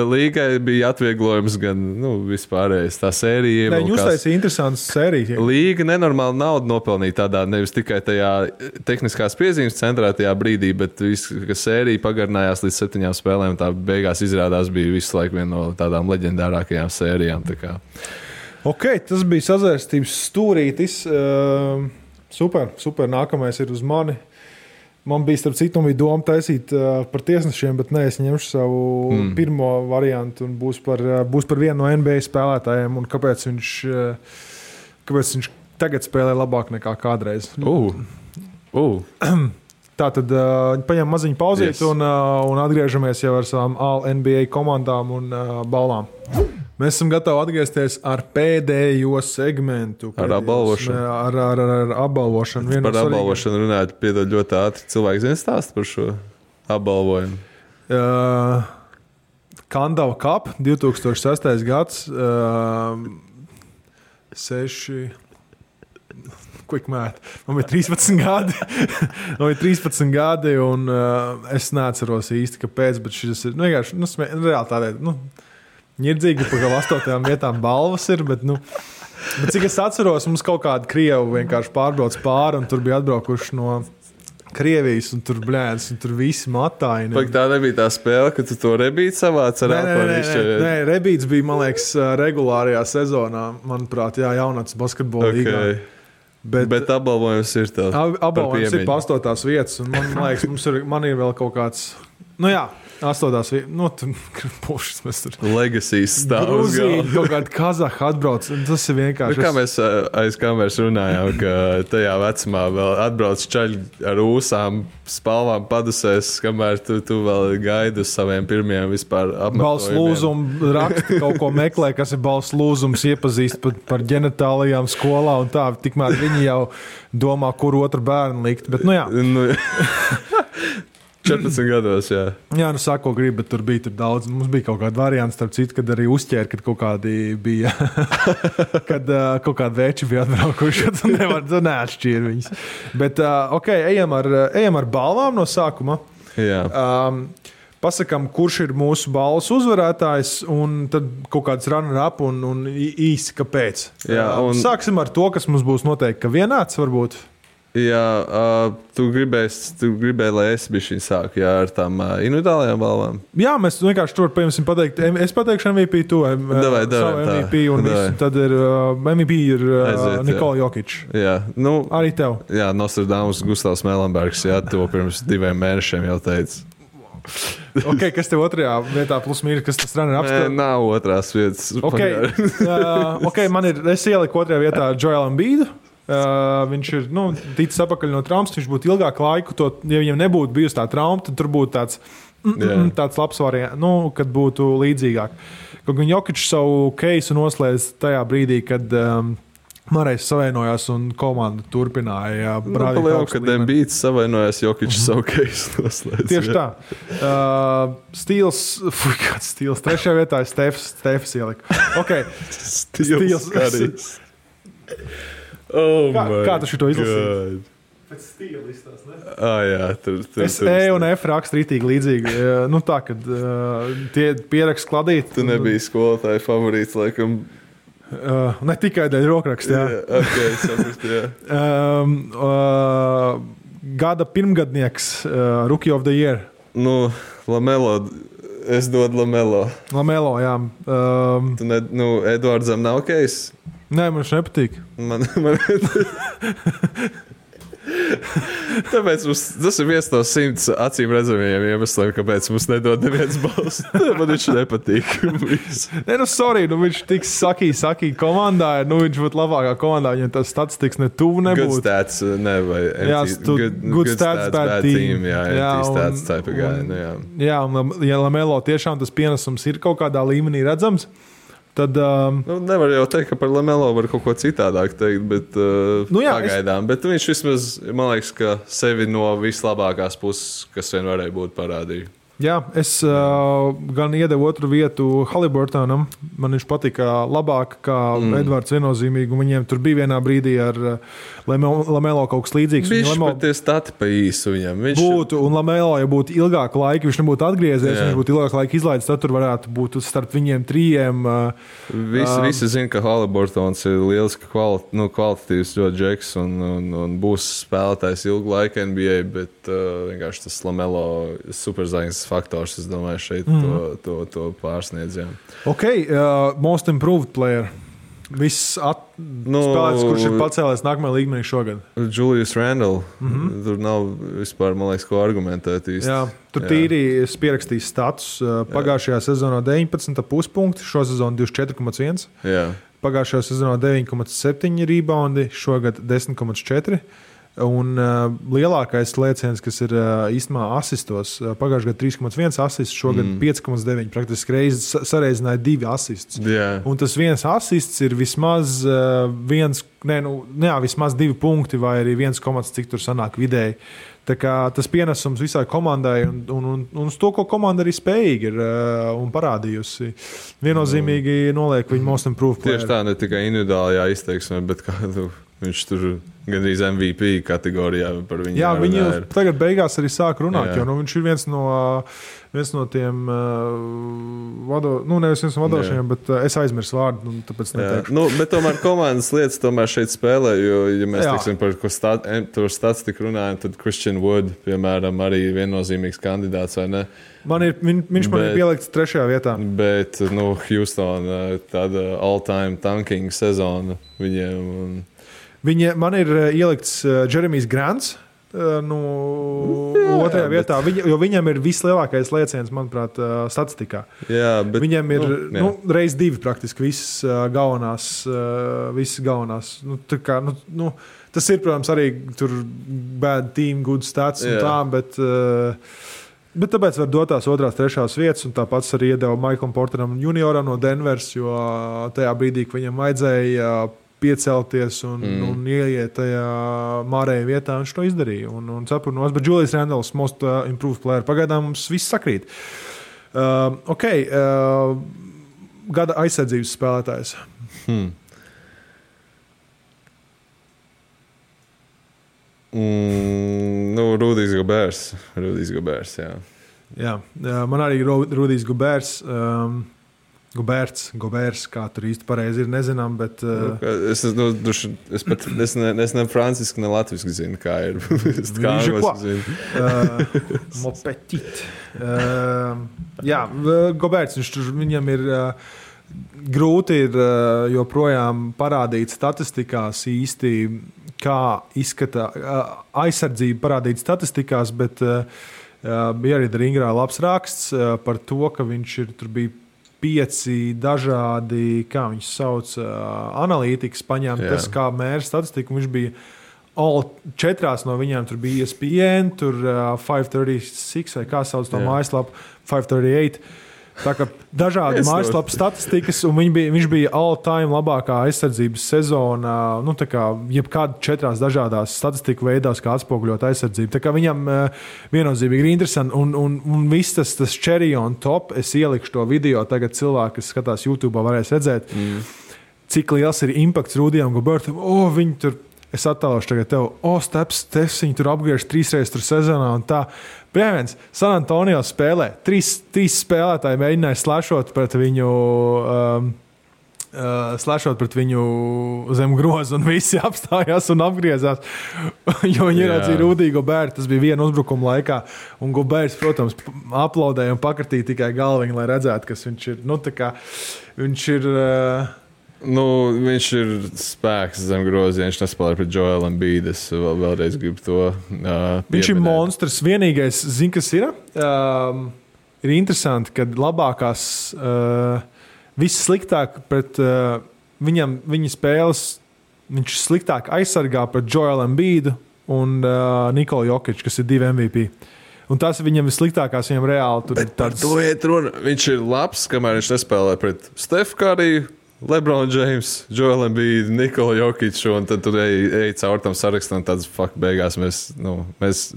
līgai bija atvieglojums, gan vispārējais. Tā sērija. Viņi uztaisīja interesantas sērijas. Līga nenormāli naudu nopelnīja tādā, nevis tikai tajā tehniskās piezīmes centrētajā brīdī, bet kas sērija pagarinājās līdz 7 spēlēm. Tā beigās izrādās bija visu laiku viena no tādām leģendārākajām sērijām. Ok, tas bija sazvērstības stūrītis. Super. Nākamais ir uz mani. Man bija, starp citu, doma taisīt par tiesnešiem, bet es ņemšu savu pirmo variantu un būs par vienu no NBA spēlētājiem un kāpēc viņš tagad spēlē labāk nekā kādreiz. Tātad paņem maziņu pauzīt un atgriežamies jau ar savām All-NBA komandām un balvām. Mēs esam gatavi atgriezties ar pēdējo segmentu. Ar apbalvošanu. Ar apbalvošanu. Par apbalvošanu runājot, piedod ļoti ātri. Cilvēki zina stāstu par šo apbalvojumu. Kandava Cup, 2006. gads. 6... Quick math. Man bija 13 gadi. Man bija 13 gadi, un es neatceros īsti, kāpēc, bet šis ir vienkārši, reāli tādēļ, ņirdzīgi, pa kā 8. vietām balvas ir, bet cik es atceros, mums kaut kāda Krievu vienkārši pārbrauc pāri, un tur bija atbraukuši no Krievijas, un tur blēdz, un tur visi matāji. Pak tā nebija tā spēle, ka tu to rebīti savāc ar apārīšķi? Nē, rebīts bija, man liekas, regulārajā sezonā, manuprāt, jaunāts basketbola līgā. Bet apbalvojums ir tāds. Apbalvojums ir pa 8. vietas, un man liekas, man ir vēl kaut kāds, 8. vietas, pušas mēs tur. Legacies stāvs. Gruzija, kaut kāda Kazaha atbrauc, tas ir vienkārši. Kā mēs aiz kameras runājām, ka tajā vecumā vēl atbrauc čaļi ar ūsām, spalvām padusēs, kamēr tu vēl gaidi uz saviem pirmiem vispār apmetojumiem. Balss lūzumu raksta, kaut ko meklē, kas ir balss lūzums, iepazīst par ģenitālijām skolā un tā, tikmēr viņi jau domā, kur otru bērnu likt, bet jā. 14 gados, jā. Jā, saka, ko gribi, bet tur bija daudz. Mums bija kaut kāda variants, starp citu, kad arī uzķēra, kad kaut kādi bija, kad kaut kādi veči bija atbraukuši, tu neatšķīri viņus. Bet, ejam ar balvām no sākuma. Jā. Pasakām, kurš ir mūsu balvas uzvarētājs, un tad kaut kāds runner-up un īsi kāpēc. Jā, Sāksim ar to, kas mums būs noteikti, ka vienāds varbūt. Jā, tu gribēji, lai es bišķiņ sāku ar tām individuālajām balvām? Jā, mēs vienkārši tur, piemēram, pateikt, es pateikšu MVP, tu savu MVP, un tad ir MVP ir Nikola Jokic. Jā, arī tev. Jā, Nostradamus Gustavs Melenbergs, jā, to pirms 2 mēnešiem jau teica. Kas tev otrajā vietā plus mīri, kas tas runner-up? Nav otrās vietas. Es ieliku otrajā vietā Joel Embiidu. Viņš ir ticis apakaļ no traumas, viņš būtu ilgāku laiku, ja viņam nebūtu bijusi tā trauma, tad tur būtu tāds labs variants, kad būtu līdzīgāk. Kaut gan Jokičs savu keisu noslēdz tajā brīdī, kad Marais savienojās un komanda turpināja brādīt augstu līmeni. Kad Embiids savienojās, Jokičs savu keisu noslēdz. Tieši tā. Kāds Stils? Trešajā vietā ir Stefs ielika. Stils karīs. Kā tu šito izlasīji? Pēc stila listās, ne? Jā, tur. Es un F rakstu rītīgi līdzīgi. Tā, kad tie pierakst kladīt. Tu nebija skolotāja favorīts, laikam. Ne tikai dēļ rokraksta, jā. Saprast, jā. Gada pirmgadnieks, Rookie of the Year. Lamelo. Es dodu Lamelo. Lamelo, jā. Eduardzam nav case? Nē, man viņš nepatīk. Tāpēc tas ir viens no 100 acīm redzamajiem iemesliem, kāpēc mums nedod neviens balss. Man viņš nepatīk. Viņš tik sakī komandā, viņš būtu labākā komandā, viņam tas statistikas ne tuvu nebūtu. Good stats, ne, vai good stats, bad team. Jā, stats type of guy. Jā, un ja Lamelo tiešām tas pienesums ir kaut kādā līmenī redzams, tad, nevar jau teikt, ka par Lamelo var kaut ko citādāk teikt, bet pagaidām. Bet viņš vismaz, man liekas, ka sevi no vislabākās puses, kas vien varēja būt, parādīja. Jā, es gan iedevu otru vietu Haliburtonam. Man viņš patika labāk kā Edvards viennozīmīgi. Viņiem tur bija vienā brīdī ar Lamelo kaut kas līdzīgs. Viņš pat tie stati pa īsu viņam. Būtu, un Lamelo, ja būtu ilgāku laiku, viņš nebūtu atgriezies, viņš būtu ilgāku laiku izlaidis, tad tur varētu būt starp viņiem trijiem. Visi zina, ka Haliburtons ir lieliski kvalitatīvs ļoti džeks un būs spēlētājs ilgu laiku NBA, bet vienkārši tas Lamelo superzvaigznes faktors, es domāju, šeit to pārsniedz. Most improved player. Viss spēlētājs, kurš ir pacēlies nākamajā līmenī šogad. Julius Randle. Tur nav vispār, man liekas, ko argumentēt īsti. Jā, tur tīri es pierakstīju status. Pagājušajā sezonā 19,5 punkti, šo sezonu 24,1. Jā. Pagājušajā sezonā 9,7 reboundi, šogad 10,4. Un lielākais lēciens, kas ir īstenībā asistos, pagājušajā gadā 3,1 asists, šogad 5,9. Praktiski reizes sareizināja 2 asists. Yeah. Un tas viens asists ir vismaz vismaz 2 punkti vai arī 1, cik tur sanāk vidēji. Tā kā tas pienesums visai komandai un uz to, ko komanda arī spējīga ir un parādījusi. Viennozīmīgi noliek viņu most improved player. Tieši tā, ne tikai individuālajā izteiksmē, bet kādu viņš tur gandrīz MVP kategorijā par viņu. Jā, viņi tagad beigās arī sāk runāt, jo viņš ir viens no tiem nevis viens no vadošajiem, bet es aizmirsu vārdu, tāpēc neteikšu. Bet tomēr komandas lietas tomēr šeit spēlē, jo, ja mēs teiksim par ko statistiku runājam, tad Christian Wood, piemēram, arī viennozīmīgs kandidāts, vai ne? Viņš man ir pielikts 3. vietā. Bet, Houston tāda all-time tanking sezona viņiem. Man ir ielikts Jeremijs Grants. 2. vietā, jo viņam ir vislielākais lēciens, manuprāt, statistikā. Jā, bet, viņam ir reiz 2 praktiski visas galvenās. Tas ir, protams, arī tur bad team, good stats un tā, bet tāpēc var dot tās 2., 3. vietas, un tāpats arī iedeva Michaelam Porteram junioram no Denvers, jo tajā brīdī, ka viņam vajadzēja piecelties un ieiet tajā mārējā vietā, viņš to izdarīja. Un cepurnos, bet Julius Randles, most improved player. Pagaidām mums viss sakrīt. Gada aizsardzības spēlētājs. Rudijs Gobērs, jā. Jā, man arī Rudijs Gobērs. Gobērs, kā tur īsti pareizi ir, nezinām, bet... Es ne franciski, ne latviski zinu, kā ir. Kā angliski zinu. Mopetit. Jā, Gobērs, viņam ir grūti ir joprojām parādīt statistikās īsti, kā izskata aizsardzība parādīt statistikās, bet bija arī Ringrā labs raksts par to, ka viņš ir tur bija 5 dažādi, kā viņš sauc, analītikas paņemtas, kā mēra statistiku. Viņš bija 4 no viņiem, tur bija ESPN, tur 536, vai kā sauc to mājaslapu, 538. Tā kā dažādi mājaslapu statistikas, un viņš bija all-time labākā aizsardzības sezona, tā kā jebkāda 4 dažādās statistiku veidās, kā atspoguļot aizsardzību. Tā kā viņam viennozīmīgi ir interesanti, un viss tas cherry on top, es ielikšu to video, tagad cilvēki, kas skatās YouTube, varēs redzēt, cik liels ir impakts Rudijam Gobertam. Viņi tur, es attēlošu tagad tev, Steps, viņi tur apgriež 3 reizes tur sezonā un tā. Piemēram, San Antonio spēlē. 3 spēlētāji mēģināja slēšot pret viņu zem groza, un visi apstājās un apgriezās, jo viņi ieraudzīja Rudiju Gobertu. Tas bija viena uzbrukuma laikā, un Goberts, protams, aplaudēja un pakartīja tikai galviņu, lai redzētu, kas viņš ir. Viņš ir... viņš ir spēks zem groziem, viņš nespēlē pret Joel Embiid. Es vēlreiz gribu to pieminēt. Viņš ir monstrs. Vienīgais, kas ir? Ir interesanti, ka labākās, viss sliktāk pret viņa spēles, viņš sliktāk aizsargā pret Joel Embiid un Nikolu Jokic, kas ir 2 MVP. Un tas viņam vissliktākās, viņam reāli tur ir tāds... To iet runa. Viņš ir labs, kamēr viņš nespēlē pret Steph Curry, LeBron James, Joel Embiid, Nikola Jokic, un tad tur ej caur tam sarakstam, tāds beigās mēs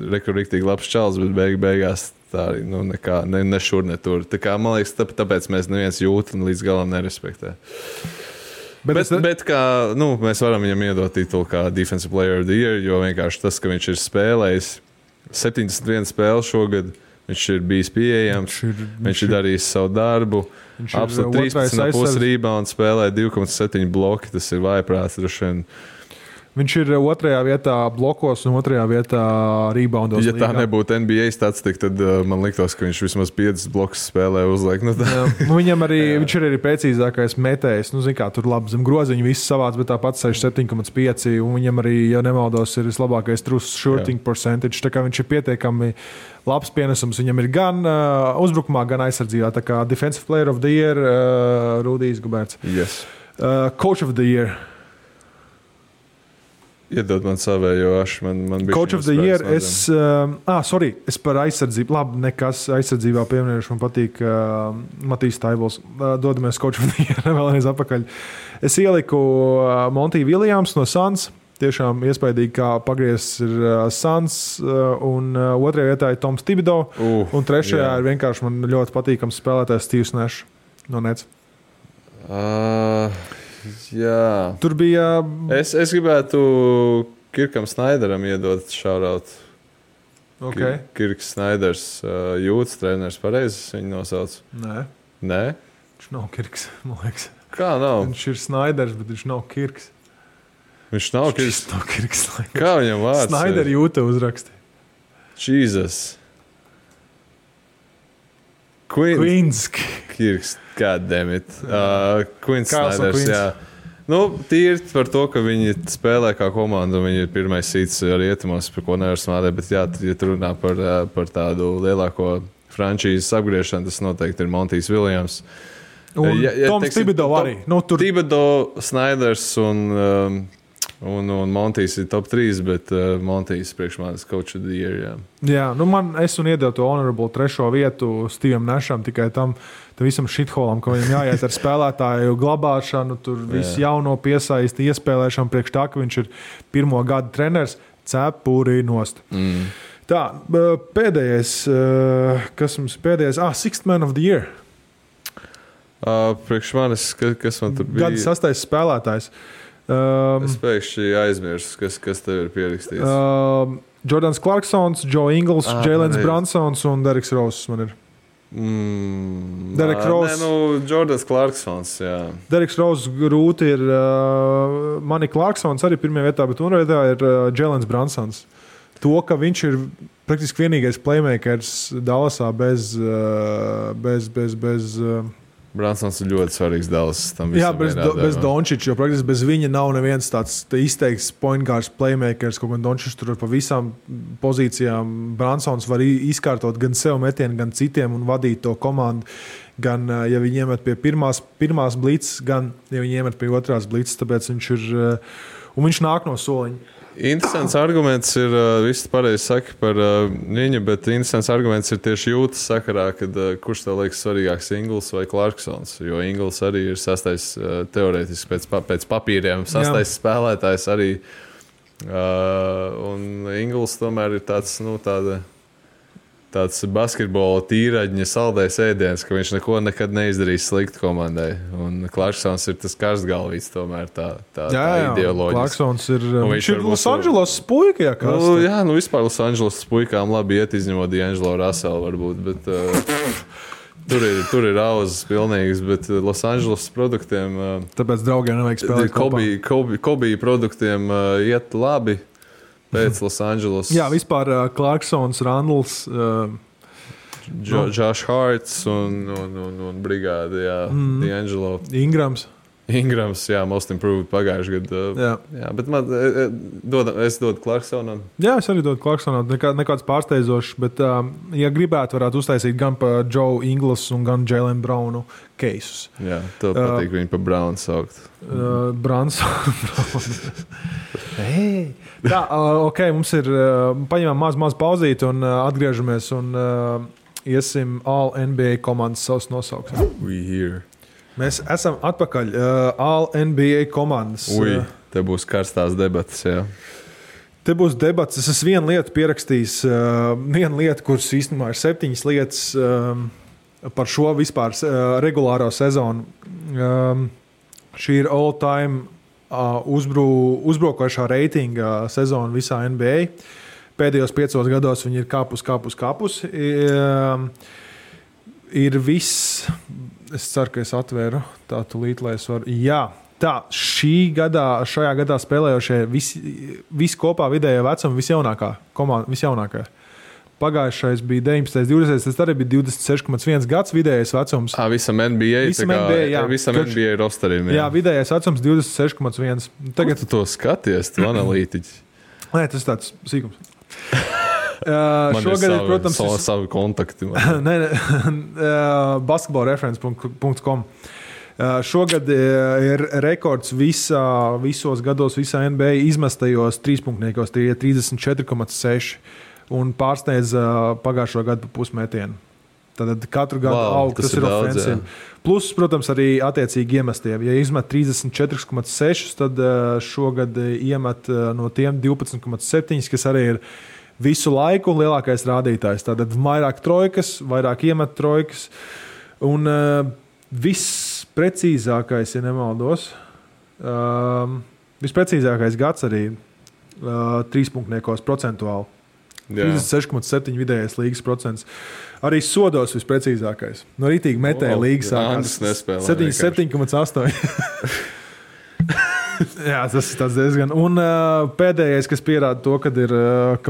riktīgi labs čals, bet beigās tā arī nekā, ne šur, ne tur. Tā kā, man liekas, tāpēc mēs neviens jūt un līdz galam nerespektē. Bet kā, mēs varam viņam iedot titulu kā Defensive Player of the Year, jo vienkārši tas, ka viņš ir spēlējis 71 spēli šogad, viņš ir bijis pieejams, viņš ir darījis savu darbu. Absolūti 13,5 rebounds, spēlē 2,7 bloki, tas ir vājprāts droši vien. Viņš ir 2. vietā blokos un 2. vietā reboundos. Ja tā nebūtu NBA statistika, tad man liktos, ka viņš vismaz 5 blokus spēlē uzliek. Viņam arī, viņš ir arī precīzākais metējs. Tur labi zem groziņu viss savāds, bet tāpat 67,5. Un viņam arī, ja nemaldos, ir vislabākais true shooting percentage. Tā kā viņš ir pietiekami labs pienesums. Viņam ir gan uzbrukumā, gan aizsardzībā. Tā kā Defensive Player of the Year, Rudijs Goberts. Yes. Coach of the Year. Iedod man savējo ašu. Man Coach of the Year. Es par aizsardzību. Labi, nekas aizsardzībā pieminējuši. Man patīk Matīs Taibols. Dodamies Coach of the Year vēlreiz apakaļ. Es ieliku Monty Williams no Suns. Tiešām iespaidīgi, kā pagriezts ir Suns. Un otrajā vietā ir Toms Thibodeau. Un trešajā ir vienkārši man ļoti patīkams spēlētājs Steves Nash no Nets. Jā. Tur bija. Es gribētu Kirkam Snaideram iedot šauraut. Okay. Kirks Snaiders, jūtas treneris, pareizi viņu nosauc? Nē? Viņš nav Kirks, man liekas. Kā nav? Viņš ir Snaiders, bet viņš nav Kirks. Viņš nav Kirks? Nav Kirks. Kā viņam vārds? Snaider jūta uzraksti. Jesus. Queens. Kirks, goddammit. Queens Snaiders, jā. Nu, tīri par to, ka viņi spēlē kā komanda, un viņi ir pirmais sīts arī ietumos, par ko nevar smādēt, bet jā, ja tu runā par tādu lielāko frančīzes apgriešanu, tas noteikti ir Montijs Williams. Un Toms Thibodeau arī. Thibodeau, Snaiders un Montijs ir top 3, bet Montijs priekš manis Coach of the Year, jā. Jā, es un iedevu to honorable 3. vietu Stevam Nasham tikai tam visam shitholam, ka viņam jāiet ar spēlētāju glabāšanu, tur visu jauno piesaisti, iespēlēšanu priekš tā, ka viņš ir 1. gada treneris, cepurī nost. Tā, pēdējais, kas mums pēdējais? Sixth Man of the Year. Priekš manis, kas man tur bija? Gada 6. spēlētājs. Es pēkšņi aizmirsu, kas tev ir pierakstīts. Jordans Clarksons, Joe Ingles, Jēlens Brunsons un Dereks Roses man ir. Jordans Clarksons, jā. Dereks Roses grūti ir Manny Clarksons arī 1. vietā, bet 2. vietā ir Jēlens Brunsons. To, ka viņš ir praktiski vienīgais playmakers Dallasā bez Brunsons ir ļoti svarīgs Dallas. Jā, bez Dončiča, jo praktiski bez viņa nav neviens tāds izteikts point guards playmakers, kaut gan Dončičs tur pa visām pozīcijām. Brunsons var izkārtot gan sev metienu, gan citiem un vadīt to komandu. Gan, ja viņi iemet pie pirmās blitzes, gan, ja viņi iemet pie otrās blitzes, tāpēc viņš ir, un viņš nāk no soliņa. Interesants arguments ir, viss pareizi saka par viņu, bet interesants arguments ir tieši jūtas sakarā, kad kurš tev liekas svarīgāks, Ingles vai Clarksons, jo Ingles arī ir 6. teorētiski pēc papīriem 6. spēlētājs arī, un Ingles tomēr ir tāds basketbola tīraģņa saldējs ēdiens, ka viņš nekad neizdarīs sliktu komandai. Un Clarksons ir tas karstgalvīts tomēr, tā ideoloģija. Clarksons ir, viņš ir Los Angeles puika, jā, kas? Vispār Los Angeles puikām labi iet, izņemot D'Angelo Russell varbūt, bet tur ir auzas pilnīgas, bet Los Angeles produktiem... Tāpēc draugiem nevajag spēlēt kopā. Kobe produktiem iet labi. Pēc Los Angeles. Jā, vispār Clarksons, Randls, Josh Harts un brigāde, jā, D'Angelo. Ingrams, jā, most improved pagājuši gadu. Jā, bet es dodu Clarksonam. Jā, es arī dodu Clarksonam. Nekāds pārsteidzošs, bet, ja gribētu, varētu uztaisīt gan pa Joe Ingles un gan Jaylen Brownu keisus. Jā, tev patīk viņu pa Brownu saukt. Browns. Tā, ok, mums ir, paņemam maz pauzīt un atgriežamies un iesim All NBA komandas savus nosaukt. We here. Mēs esam atpakaļ. All NBA komandas. Te būs karstās debatas, jā. Te būs debatas. Es esmu vienu lietu pierakstījis. Vienu lietu, kuras īstenībā ir 7 lietas par šo vispār regulāro sezonu. Šī ir all-time uzbrukošā reitinga sezona visā NBA. Pēdējos 5 gados viņi ir kāpus. Ir viss... Es ceru, ka es atvēru tā tulīt, lai es varu. Jā, tā, šajā gadā spēlējošie visi kopā vidējā vecuma visjaunākā komanda, visjaunākā. Pagājušais bija 19, 20, tas arī bija 26,1 gads vidējais vecums. Visam NBA, visam NBA rosterim. Jā, vidējais vecums 26,1. Tagad tu to skaties, tu analītiķi. Nē, tas tāds sīkums. Man šogad ir, protams, savi kontakti. basketballreference.com. Šogad ir rekords visos gados, visā NBA izmestajos trīspunktniekos, tie ir 34,6 un pārsniedz pagājušo gadu pa pusmetienu. Tad katru gadu aug, tas ir ofensīvi. Plus, protams, arī attiecīgi iemestiem. Ja izmet 34,6, tad šogad iemet no tiem 12,7, kas arī ir visu laiku lielākais rādītājs. Tātad vairāk trojkas, vairāk iemet trojkas. Un viss precīzākais, ja nemaldos, visprecīzākais gads arī trīspunktniekos procentuāli. 36,7 vidējais līgas procents. Arī sodos visprecīzākais. No rītīgi metēja līgas sākās 77,8. Jā, tas ir diezgan. Un pēdējais, kas pierāda to, ka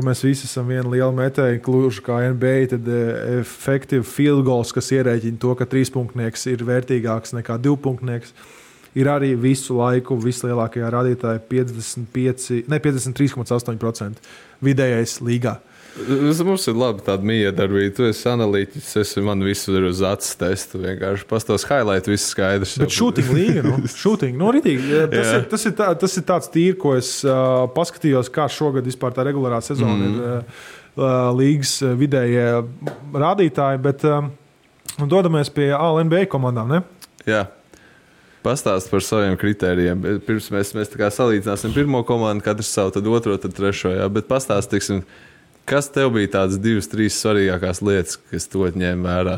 mēs visi esam viena liela metēja, kluži kā NBA, tad effective field goals, kas ierēķina to, ka trīspunktnieks ir vērtīgāks nekā divpunktnieks, ir arī visu laiku vislielākajā rādītāja 53,8% vidējais līgā. Mums ir labi tāda miedarbība. Tu esi analītiķis, man visu ir uz acis testu. Vienkārši pastos highlight, viss skaidrs. Bet shooting līga, shooting, ritīgi. Tas ir tāds tīri, ko es paskatījos, kā šogad vispār tā regulārā sezona ir līgas vidējie rādītāji, bet dodamies pie All-NBA komandām, ne? Jā. Pastāst par saviem kritērijiem. Pirms mēs tā kā salīdzināsim pirmo komandu, katrs savu, tad otro, tad trešo. Jā. Bet pastāst, tiksim, kas tev bija tādas 2-3 svarīgākās lietas, kas tu ņēmi vērā,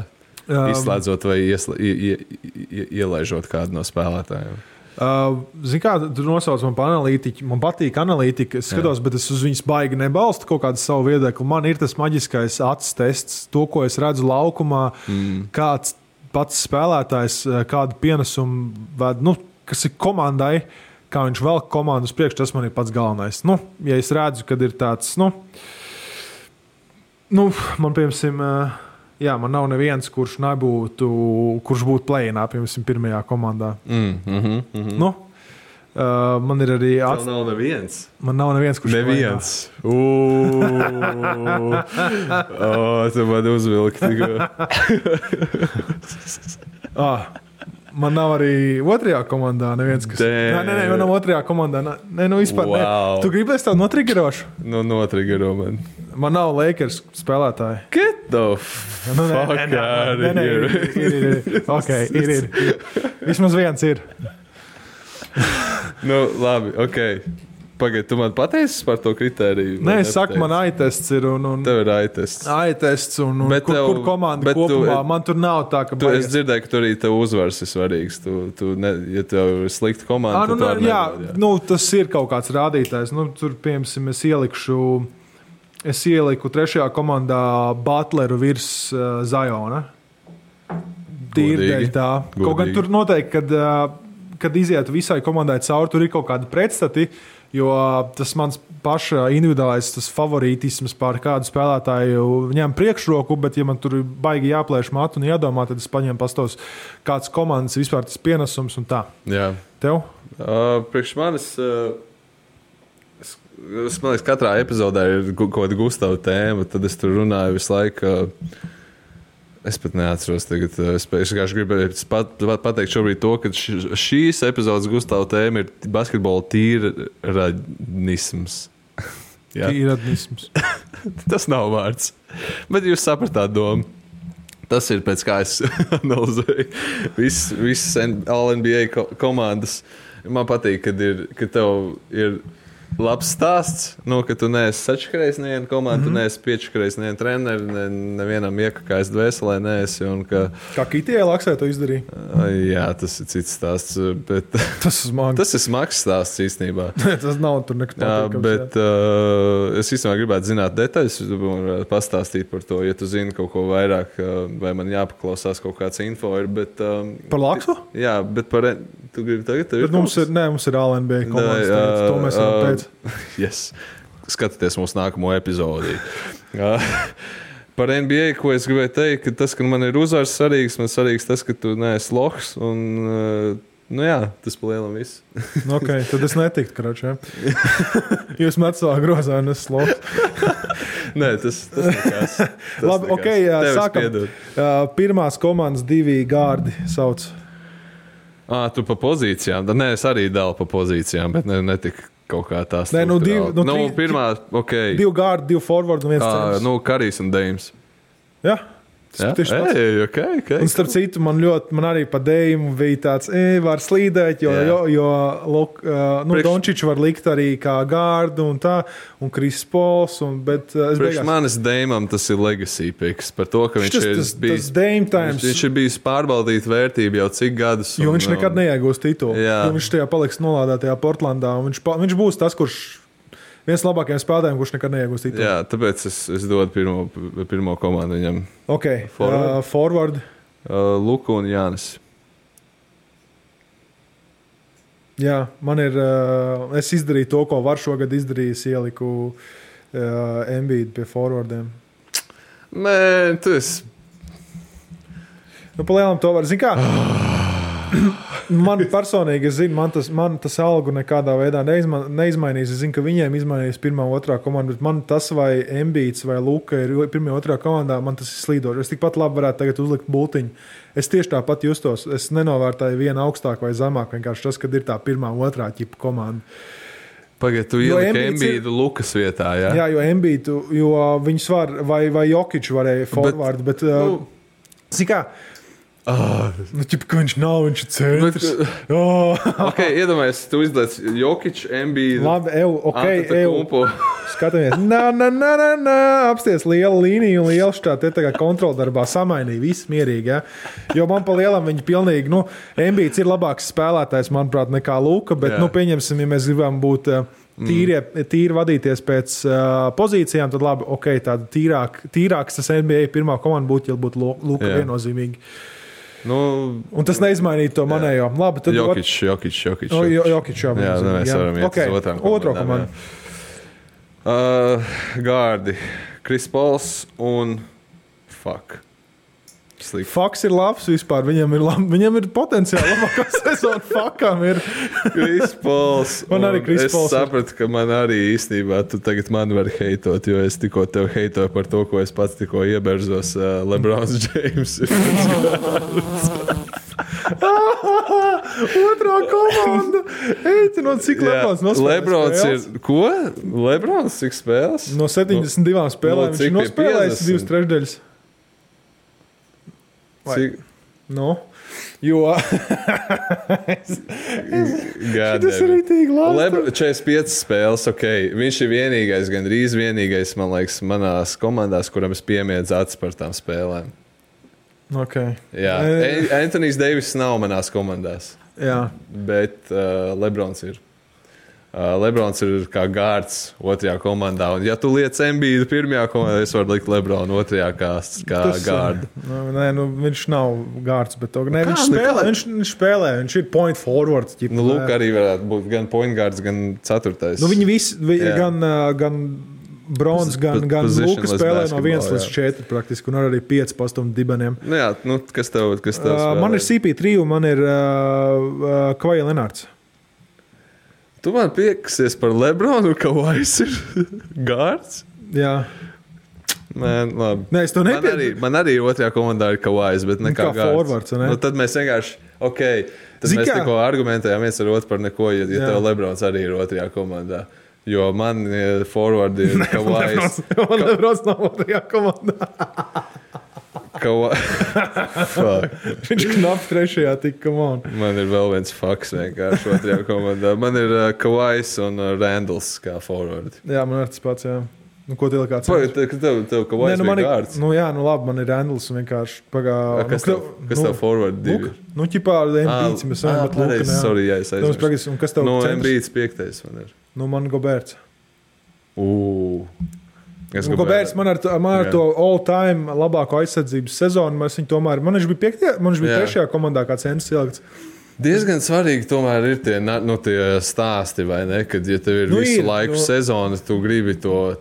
izslēdzot vai ielaižot kādu no spēlētājiem? Zini kā, tu nosauc man par analītiķu. Man patīk analītika, es skatos, bet es uz viņas baigi nebalstu kaut kādu savu viedokli. Man ir tas maģiskais acis tests, to, ko es redzu laukumā, kāds pats spēlētājs, kādu pienesumu ved, kas ir komandai, kā viņš velk komandu uz priekšu, tas man ir pats galvenais. Ja es redzu, kad ir tāds, man, piemēram, man nav neviens, kurš būtu play-inā, piemēram, pirmajā komandā. Man ir arī... Tev nav neviens? Man nav neviens, kurš neviens. Tu man uzvilki tikko. Man nav arī otrajā komandā neviens, kas... Nē, man nav otrajā komandā. Vispār wow. Tu gribēsi tādu notrigerošu? Notrigero man. Man nav Lakers spēlētāji. Get the fuck out of here. Ir. Ok, ir. Vismaz viens ir. Labi, ok. Pagaid, tu man pateici par to kritēriju? Nē, es saku, man AI-tests ir. Tev ir AI-tests. AI-tests un kur komanda kopumā. Man tur nav tā, ka... Es dzirdēju, ka tur arī tev uzvars ir svarīgs. Ja tev ir slikta komanda, tad tu arī nevar. Tas ir kaut kāds rādītājs. Tur, piemēram, es ieliku trešajā komandā Butleru virs Zajona. Tīri dēļ tā. Kaut gan tur noteikti, kad izietu visai komandai cauri, tur ir kaut kādi pretstati, jo tas mans paša individuālais favorītisms pār kādu spēlētāju ņem priekšroku, bet ja man tur baigi jāplēš matu un jādomā, tad es paņemu pastos kāds komandas vispār tas pienesums un tā. Jā. Tev? Priekš manis, es man liekas, katrā epizodē ir kaut kāda Gustava tēma, tad es tur runāju visu laiku. Es pat neatceros tagad. Es vienkārši gribēju pateikt šobrīd to, ka šīs epizodes Gustava tēma ir basketbola tīradnisms. Tīradnisms. Tas nav vārds. Bet jūs sapratāt domu. Tas ir pēc kā es analizēju visas All-NBA komandas. Man patīk, ka tev ir labs stāsts, ka tu neesi sačakarējis nevienu komandu, tu neesi piečakarējis nevienu treneri, nevienam iekakājis dvēselē neesi. Kā Kitijai Laksai to izdarīja? Jā, tas ir cits stāsts. Bet tas ir smags stāsts īstenībā. Tas nav tur nekas patīkams. Bet es īstenībā gribētu zināt detaļas, pastāstīt par to, ja tu zini kaut ko vairāk, vai man jāpaklausās kaut kāds info. Par Laksu? Jā, bet par... Tu gribi tagad? Mums ir All-NBA komandas. To mēs varam pēc. Yes. Skatieties mūsu nākamo epizodi. Par NBA, ko es gribēju teikt, ka tas, ka man ir uzvars svarīgs, man svarīgs tas, ka tu neesi lohs. Tas pa lielam viss. Ok, tad es netiktu, kračē. Jūs met savā grozā un es lohs. Nē, tas nekās. Labi, ok, sākam. Pirmās komandas 2 gārdi sauc. Tu pa pozīcijām? Nē, es arī dalu pa pozīcijām, bet netika kaut kā tā struktūrāli. Nē, pirmā, ok. 2 guard, 2 forward un 1 centrs. Karijs un Deims. Jā. Okay. Un starp citu, man arī pa Deimu bija tāds, var slīdēt, jo Dončiču var likt arī kā gārdu un tā, un Kris Pols, bet priekš manis Deimam tas ir legacy picks, par to, ka viņš ir bijis pārbaudīt vērtību jau cik gadus. Jo viņš nekad neiegūs titulu, jo viņš tajā paliks nolādētajā Portlandā, un viņš būs tas, kurš viens labākajiem spēlētājiem, kurš nekad neiegūst titulu. Jā, tāpēc es dodu pirmo komandu viņam. Ok, forward. Luka un Jānis. Jā, man ir, es izdarīju to, ko var šogad izdarījis, ieliku Embiid pie forwardiem. Tu esi... Pa lielam to var, zin kā? Man personīgi, es zinu, man tas algu nekādā veidā neizmainīs. Es zinu, ka viņiem izmainīs pirmā, otrā komanda, bet man tas vai Embiids vai Luka ir pirmā, otrā komandā, man tas ir slīdoši. Es tikpat labi varētu tagad uzlikt bultiņu. Es tieši tāpat justos. Es nenovērtēju vienu augstāk vai zemāk, vienkārši tas, kad ir tā pirmā, otrā ķipa komanda. Pagad, tu ieliki Embiidu Lukas vietā, jā? Jā, jo Embiidu, jo viņus var, vai Jokiču varēja forward, bet zin kā, ka viņš nav, viņš ir centrs. Ok, iedomājies, tu izlaic Jokiču, Embiidu. Labi, Skatāmies. Apsties liela līnija un liela šķā te tagad kontroldarbā samainīja. Viss mierīgi, ja? Jo man pa lielam viņi pilnīgi, Embiids ir labāks spēlētājs, manuprāt, nekā Luka, bet, pieņemsim, ja mēs gribam būt tīri vadīties pēc pozīcijām, tad labi, ok, tāda tīrāks tas NBA pirmā komanda būtu, ja būtu Luka viennozīmīgi. Un tas neizmainīja to manējo. Labi, tad Jokič. Jokič, jā. Mēs varam iet uz otro komandu. Gārdi, Kris Pols un Faks ir labs vispār. Viņam ir potenciāli labākā sezona. Fakam ir. Kris Pols. Man arī Kris Pols. Es sapratu, ka man arī īstenībā tu tagad mani vari heitot, jo es tikko tev heitoju par to, ko es pats tikko ieberzos LeBrons James. Otrā komanda. Eiti, no cik Lebrons nospēlēs? Lebrons ir, ko? Lebrons cik spēles? No 72 spēlēm viņš nospēlējis 2/3. Cik? Jo tas ir rītīgi labi. 45 spēles, ok. Viņš ir vienīgais, gandrīz vienīgais, man liekas, manās komandās, kuram es piemiedzu acis par tām spēlēm. Ok. Jā, Anthony's Davis nav manās komandās. Jā. Bet Lebrons ir. Lebrons ir kā gārds otrajā komandā. Un, ja tu liec Embiidu pirmajā komandā, es varu likt Lebronu otrajā kā gārdu. Viņš nav gārds, bet viņš spēlē. Viņš ir point forward. Lūk, arī varētu būt gan point gārds, gan ceturtais. Viņi visi, gan Brons, gan Luka spēlē no 1 līdz 4 praktiski, un arī 5 pastumu dibeniem. Jā, kas tev spēlē? Man ir CP3 un man ir Kawhi Leonards. Tu man piekasies par Lebronu, ka Kawhis ir gārds? Jā. Labi. Nē, es to nepiedu. Man arī otrajā komandā ir Kawhis, bet nekā gārds. Forwards, ne? Tad mēs vienkārši, ok, tad mēs tikko argumentējām viens ar otru par neko, ja tev Lebrons arī ir otrajā komandā. Jo man forward ir Kawhis. Lebrons nav otrajā komandā. Viņš knap trešajā tik, come on. Man ir vēl viens faks vienkārši otrajā komandā. Man ir Kawhis un Randalls kā forward. Jā, man ir tas pats, jā. Ko tev kāds? Tev Kawhis bija gārds? Labi, man ir Randalls un vienkārši Kas tev forward divi? Ķipā Embiids, mēs varam, bet Luka, jā. Sorry, jā, es aizmirstu. Un kas tev centrs? Embiids 5. man ir. Man Goberts. Goberts man ar to all-time labāko aizsardzības sezonu. Man viņš bija 3. komandā kā centrs ilgts. Diezgan svarīgi tomēr ir tie stāsti, vai ne? Kad, ja tev ir visu laiku sezona, tu gribi to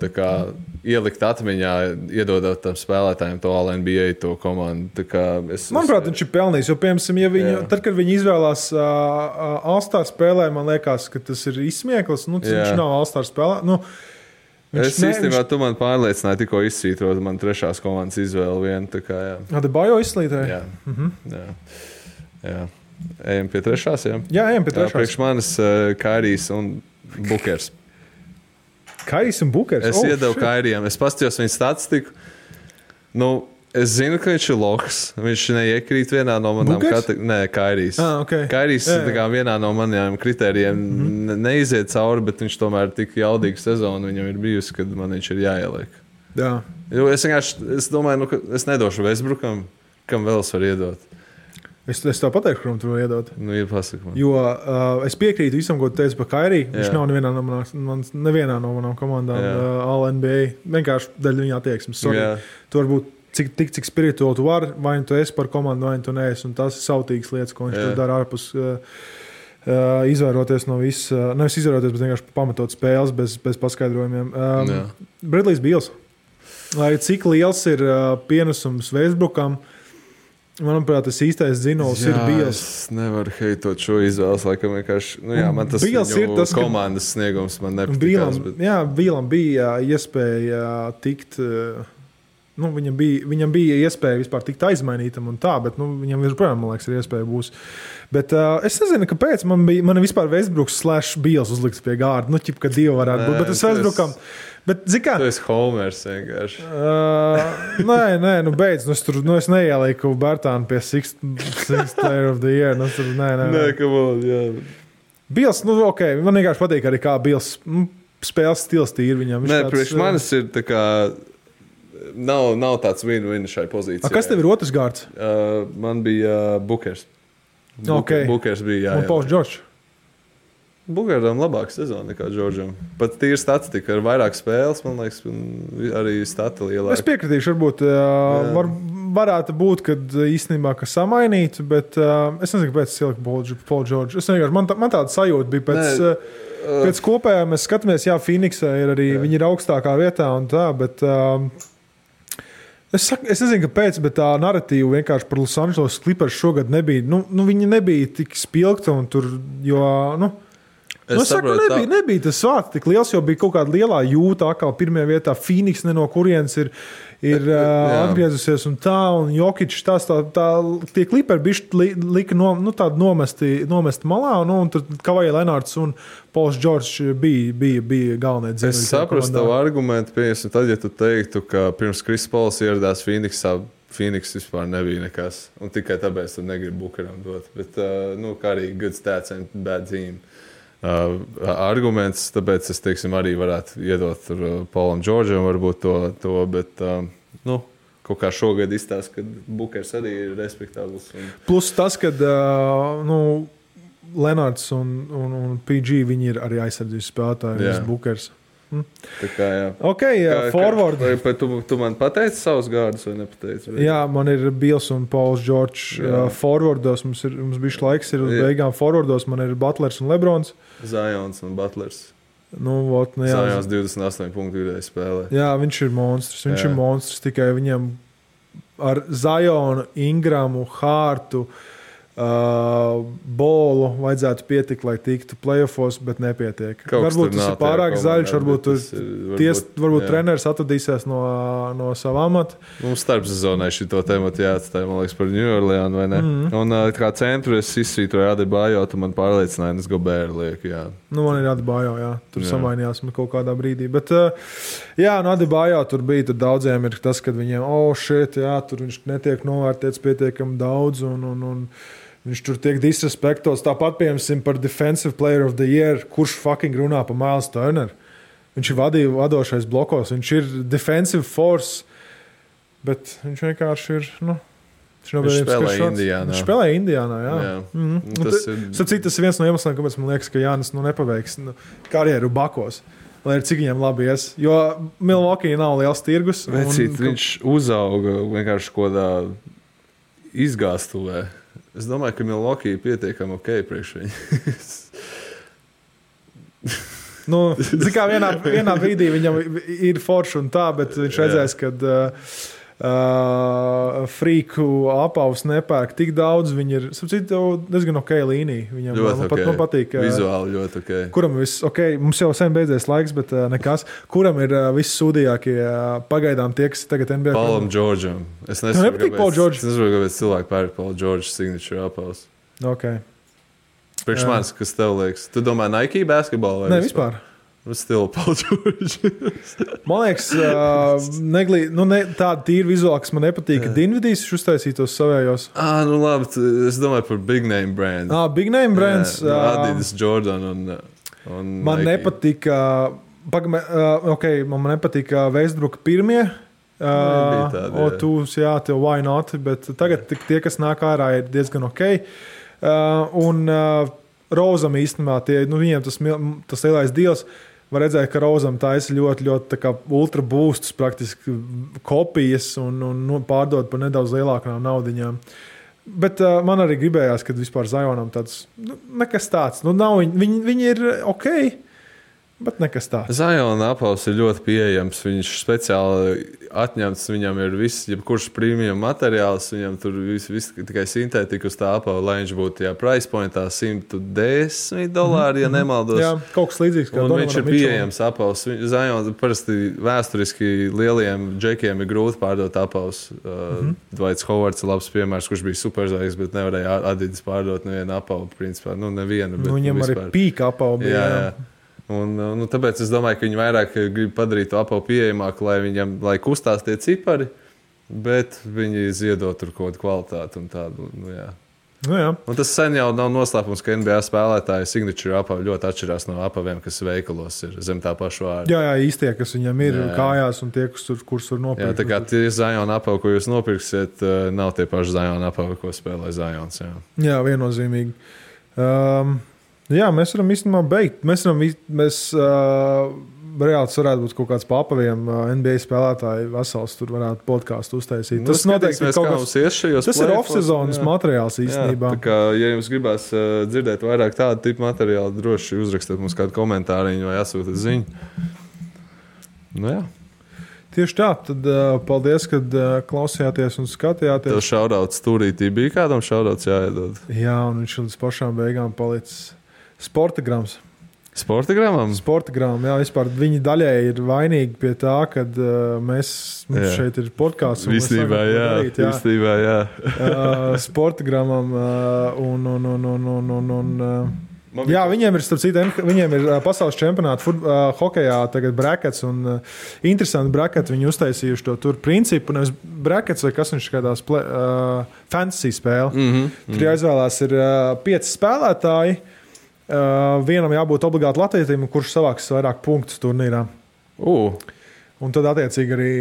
ielikt atmiņā, iedodot tam spēlētājiem to All-NBA, to komandu. Manuprāt, viņš ir pelnījis, jo, piemēram, tad, kad viņi izvēlās All-Star spēlē, man liekas, ka tas ir izsmieklis. Viņš nav All-Star spēlē. Īstenībā tu man pārliecināji tikko izsvītrot man 3. komandas izvēli vienu. Adebayo izslītēja? Jā. Jā. Ejam pie trešās, jā? Jā, ejam pie trešās. Priekš manis Kairijs un Bukers. Kairijs un Bukers? Es iedevu Kairijam. Es paskatījos viņa statistiku. Nu, es zinu, ka viņš ir lohs. Viņš neiekrīt vienā no manām kategorijām. Nē, Kairijs. Okay. Kairijs vienā no maniem kritērijiem neiziet cauri, bet viņš tomēr tik jaudīgu sezonu viņam ir bijusi, kad man viņš ir jāieliek. Jā. Jo es domāju, ka es nedošu Westbrookam, kam vēl es varu iedot. Es tev pateikšu, kuram tu vēl iedot. Nu, pasaka man. Jo es piekrītu visam, ko tu teici par Kairiju. Viņš nav nevienā no manām komandām All-NBA. Vienkārši daļa viņa attieksmes. Tu varbūt cik spirituāli tu vari, vai tu esi par komandu, vai tu neesi. Un tas ir sautīgas lietas, ko viņš tur dara ārpus izvairoties no viss. Nevis izvairoties, bet vienkārši pamatot spēles bez paskaidrojumiem. Bradley's Beals. Lai cik liels ir pienesums Westbrookam, manuprāt, tas īstais dzinols ir Beals. Es nevaru heitot šo izvēles, laikam vienkārši. Nu, jā, man tas ir tas komandas sniegums, man nepatikās. Jā, Bielam bija iespēja tikt. Viņam bija iespēja vispār tikt aizmainītam un tā, bet viņam joprojām, man liekas, ir iespēja būs. Bet es nezinu, kāpēc man vispār Westbrooks / Beals uzlikts pie gārda. Nu, ķip, ka divi varētu būt, bet es Westbrookam. Bet, zikā, tu esi Homers vienkārši. Nē, beidz. Es neielieku Bertānu pie Sixth Player of the Year. Nē, come on, jā. Beals, ok, man vienkārši patīk arī kā Beals spēles stils tīri viņam. Nē, priekš manis ir tā kā, nav tāds win-win šai pozīcijai. Kas tev ir otrs gārds? Man bija Bukers. Bukers bija, jā. Un Pauls Džordžs. Bukeram labāka sezona nekā Džordžam. Pat tīri statistika ar vairāk spēles, man liekas, arī stati lielāka. Es piekritīšu, varbūt varētu būt, kad īstenībā ka samainītu, bet es nezinu, kāpēc es ieliku Paul Džordžu. Es vienkārši, man tāda sajūta bija pēc kopējā mēs skatāmies, jā, Phoenixā ir arī, viņi ir augstākā vietā un tā, bet es nezinu, kāpēc, bet tā narratīva vienkārši par Los Angeles Clippers šogad nebija, viņi nebija tik spilgta un tur, jo, es saku, nebija tas vārds tik liels, jo bija kaut kāda lielā jūta, atkal pirmajā vietā Phoenix no kurienes ir atgriezusies un tā, un Jokic tie Clipperi bišķi lika tādu nomesti malā, un tur Kawhi Leonards un Pauls Džordžs bija galvenie dzēļi. Es saprastu tavu argumentu, piemēram, tad, ja tu teiktu, ka pirms Chris Pauls ieradās Phoenixā, Phoenix vispār nebija nekas, un tikai tāpēc tu negribi Bukeram dot, bet, kā arī good stats and bad team. Arguments, tāpēc es, teiksim, arī varētu iedot Paulam Džordžam varbūt to, bet, kaut kā šogad izstāst, ka Bukers arī ir respektabls. Plus tas, kad, Lenards un PG, viņi ir arī aizsardzības spēlētāji, Bukers. Tā kā, jā. Ok, forward. Tu man pateici savus gārdus vai nepateici? Jā, man ir Beals un Pauls Džordžs forwardos. Mums bišķi laiks ir uz beigām forwardos. Man ir Butlers un Lebrons. Zions un Butlers. Zions 28 punktu vidēji spēlē. Jā, viņš ir monstrs. Tikai viņam ar Zionu, Ingramu, Hārtu, Bolu vajadzētu pietikt, lai tiktu playoffos, bet nepietiek. Varbūt tas ir pārāk zaļš, varbūt treneris atradīsies no sava amata. Mums starpsezonai šito tematu jāatstāj, man liekas, par New Orleans, vai ne? Un kā centru es izsvītroju Adebayo, tu man pārliecināji, es Gobert lieku, jā. Man ir Adebayo, jā. Tur samainījās kaut kādā brīdī. Bet, Adebayo tur bija, tur daudziem ir tas, kad viņiem, tur viņš netiek novērtēts pietiekami daudz un viņš tur tiek disrespektos. Tāpat, piemēram, par Defensive Player of the Year, kurš fucking runā par Miles Turner. Viņš ir vadošais blokos, viņš ir defensive force, bet viņš vienkārši ir, Viņš spēlē Indiānā, jā. Tas ir viens no iemesliem, kāpēc man liekas, ka Jānis nepaveiks karjeru bakos. Lai ir cik viņam labi ies. Jo Milwaukee nav liels tirgus. Viņš uzauga vienkārši kodā izgāstuvē. Es domāju, ka Milwaukee ir pietiekami ok priekš viņu. Kā vienā brīdī viņam ir forši un tā, bet viņš redzēs, kad frīku apavus nepērk tik daudz. Viņi ir, diezgan ok līnija. Viņam man patīk. Vizuāli ļoti ok. Kuram mums jau sen beidzies laiks, bet nekas. Kuram ir vissūdīgākie pagaidām tie, kas tagad NBA? Paulam Džordžam. Es nesaprotu, kāpēc cilvēki pērk Paul George signature apavus. Okay. Priekš manis, kas tev liekas? Tu domā Nike basketbolu? Nē, vispār. Still Paul George. Man liekas, tāda tīra vizuāla, kas man nepatīk, ka Dinvidijs uztaisīja tos savējos. Nu labi, es domāju par big name brands. Big name brands. Adidas, Jordan un man Nike. nepatika, man nepatika Westbrooka pirmie. Tūs, jā, tev why not, bet tagad tie, kas nāk ārā, ir diezgan ok. Un Rozam īstenībā, viņiem tas lielais deals, var redzēt, ka Rozam taisa ļoti, ļoti tā kā ultra boostus, praktiski kopijas un pārdod par nedaudz lielākām naudiņām. Bet man arī gribējās, kad vispār Zionam tāds, nekas tāds, nav, viņi ir ok, bet nekas tāds. Ziona apavs ir ļoti pieejams. Viņš speciāli atņemts, viņam ir viss, jebkurš premium materiāls, viņam tur viss tikai sintētika uz tā apava, lai viņš būtu price pointā $110, ja nemaldos. Jā, kaut kas līdzīgs. Un viņš ir pieejams apavs. Ziona parasti vēsturiski lieliem džekiem ir grūti pārdot apavs. Dwights Howards ir labs piemērs, kurš bija superzvaigznes, bet nevarēja Adidas pārdot nevienu apavu, principā. Nevienu, bet viņam vispār. Arī pīka apavu bija. Jā. Un, tāpēc es domāju, ka viņi vairāk grib padarīt to apavu pieejamāku, lai kustās tie cipari, bet viņi ziedot tur kaut kādu kvalitāti un tādu. Jā. Un tas sen jau nav noslēpums, ka NBA spēlētāji signature apavi ļoti atšķirās no apaviem, kas veikalos ir zem tā paša vārda. Jā, īstie, kas viņam ir kājās un tie, kurus var nopirkt. Jā, tā kā tie Zion apavi, ko jūs nopirksiet, nav tie paši Zion apavi, ko spēlē Zions. Jā, viennozīmīgi. Jā, mēs varam īstenībā beigt. Mēs reāli varētu būt kaut kāds pa apaviem NBA spēlētāji vesels, tur varētu podcastu uztaisīt. Tas noteikti ir kaut kas. Tas ir off-sezonas materiāls īstenībā. Tā kā, ja jums gribās dzirdēt vairāk tādu tipu materiālu, droši uzrakstiet mums kādu komentāriņu vai atsūtiet ziņu. Jā. Tieši tā, tad paldies, kad klausījāties un skatījāties. Tev šaudauts stūrītī bija kādam šaudauts jāiedod. Jā, un viņš līdz pašām beigām palicis Sportagrams. Sportagramam? Sportagram, jā, vispār viņi daļēji ir vainīgi pie tā, kad mums šeit ir podkāsts. Visnībā, jā. Sportagramam jā, viņiem ir, starp citu, viņiem ir pasaules čempionāta hokejā tagad brackets un interesanti bracketi viņi uztaisījuši to tur principu, nevis brackets vai kas viņš kādās fantasy spēle. Tur jāizvēlās ir 5 spēlētāji. Vienam jābūt obligāti latvietim, kurš savāks vairāk punktus turnīrā. Un tad, attiecīgi, arī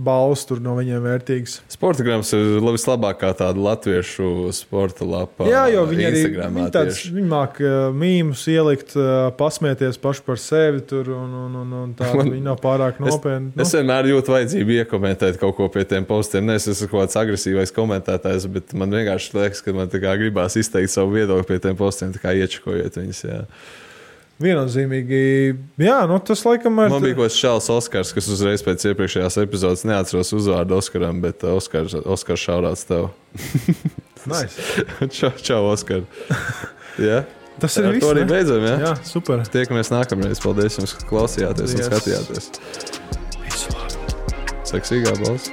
balvas tur no viņiem vērtīgas. Sportagrams ir vislabākā tāda latviešu sporta lapa. Jā, jo viņi māk mīmus ielikt, pasmieties paši par sevi tur, un tā viņi nav pārāk nopietni. Es vienmēr jūtu vajadzību iekomentēt kaut ko pie tiem postiem. Es esmu kaut kāds agresīvais komentētājs, bet man vienkārši liekas, ka man tā kā gribās izteikt savu viedokli pie tiem postiem, tā kā iečakojiet viņus, jā. Viennozīmīgi, jā, tas laikam ir. Man bija kaut kāds Šāls Oskars, kas uzreiz pēc iepriekšējās epizodes neatceros uzvārdu Oskaram, bet Oskars šaurāts tev. Nice. Čau, Oskar. Jā. Tas ir viss. To arī beidzam, jā? Jā, super. Tiekamies nākamreiz. Paldies jums, ka klausījāties un skatījāties. Visu labi. Seksīgā balss.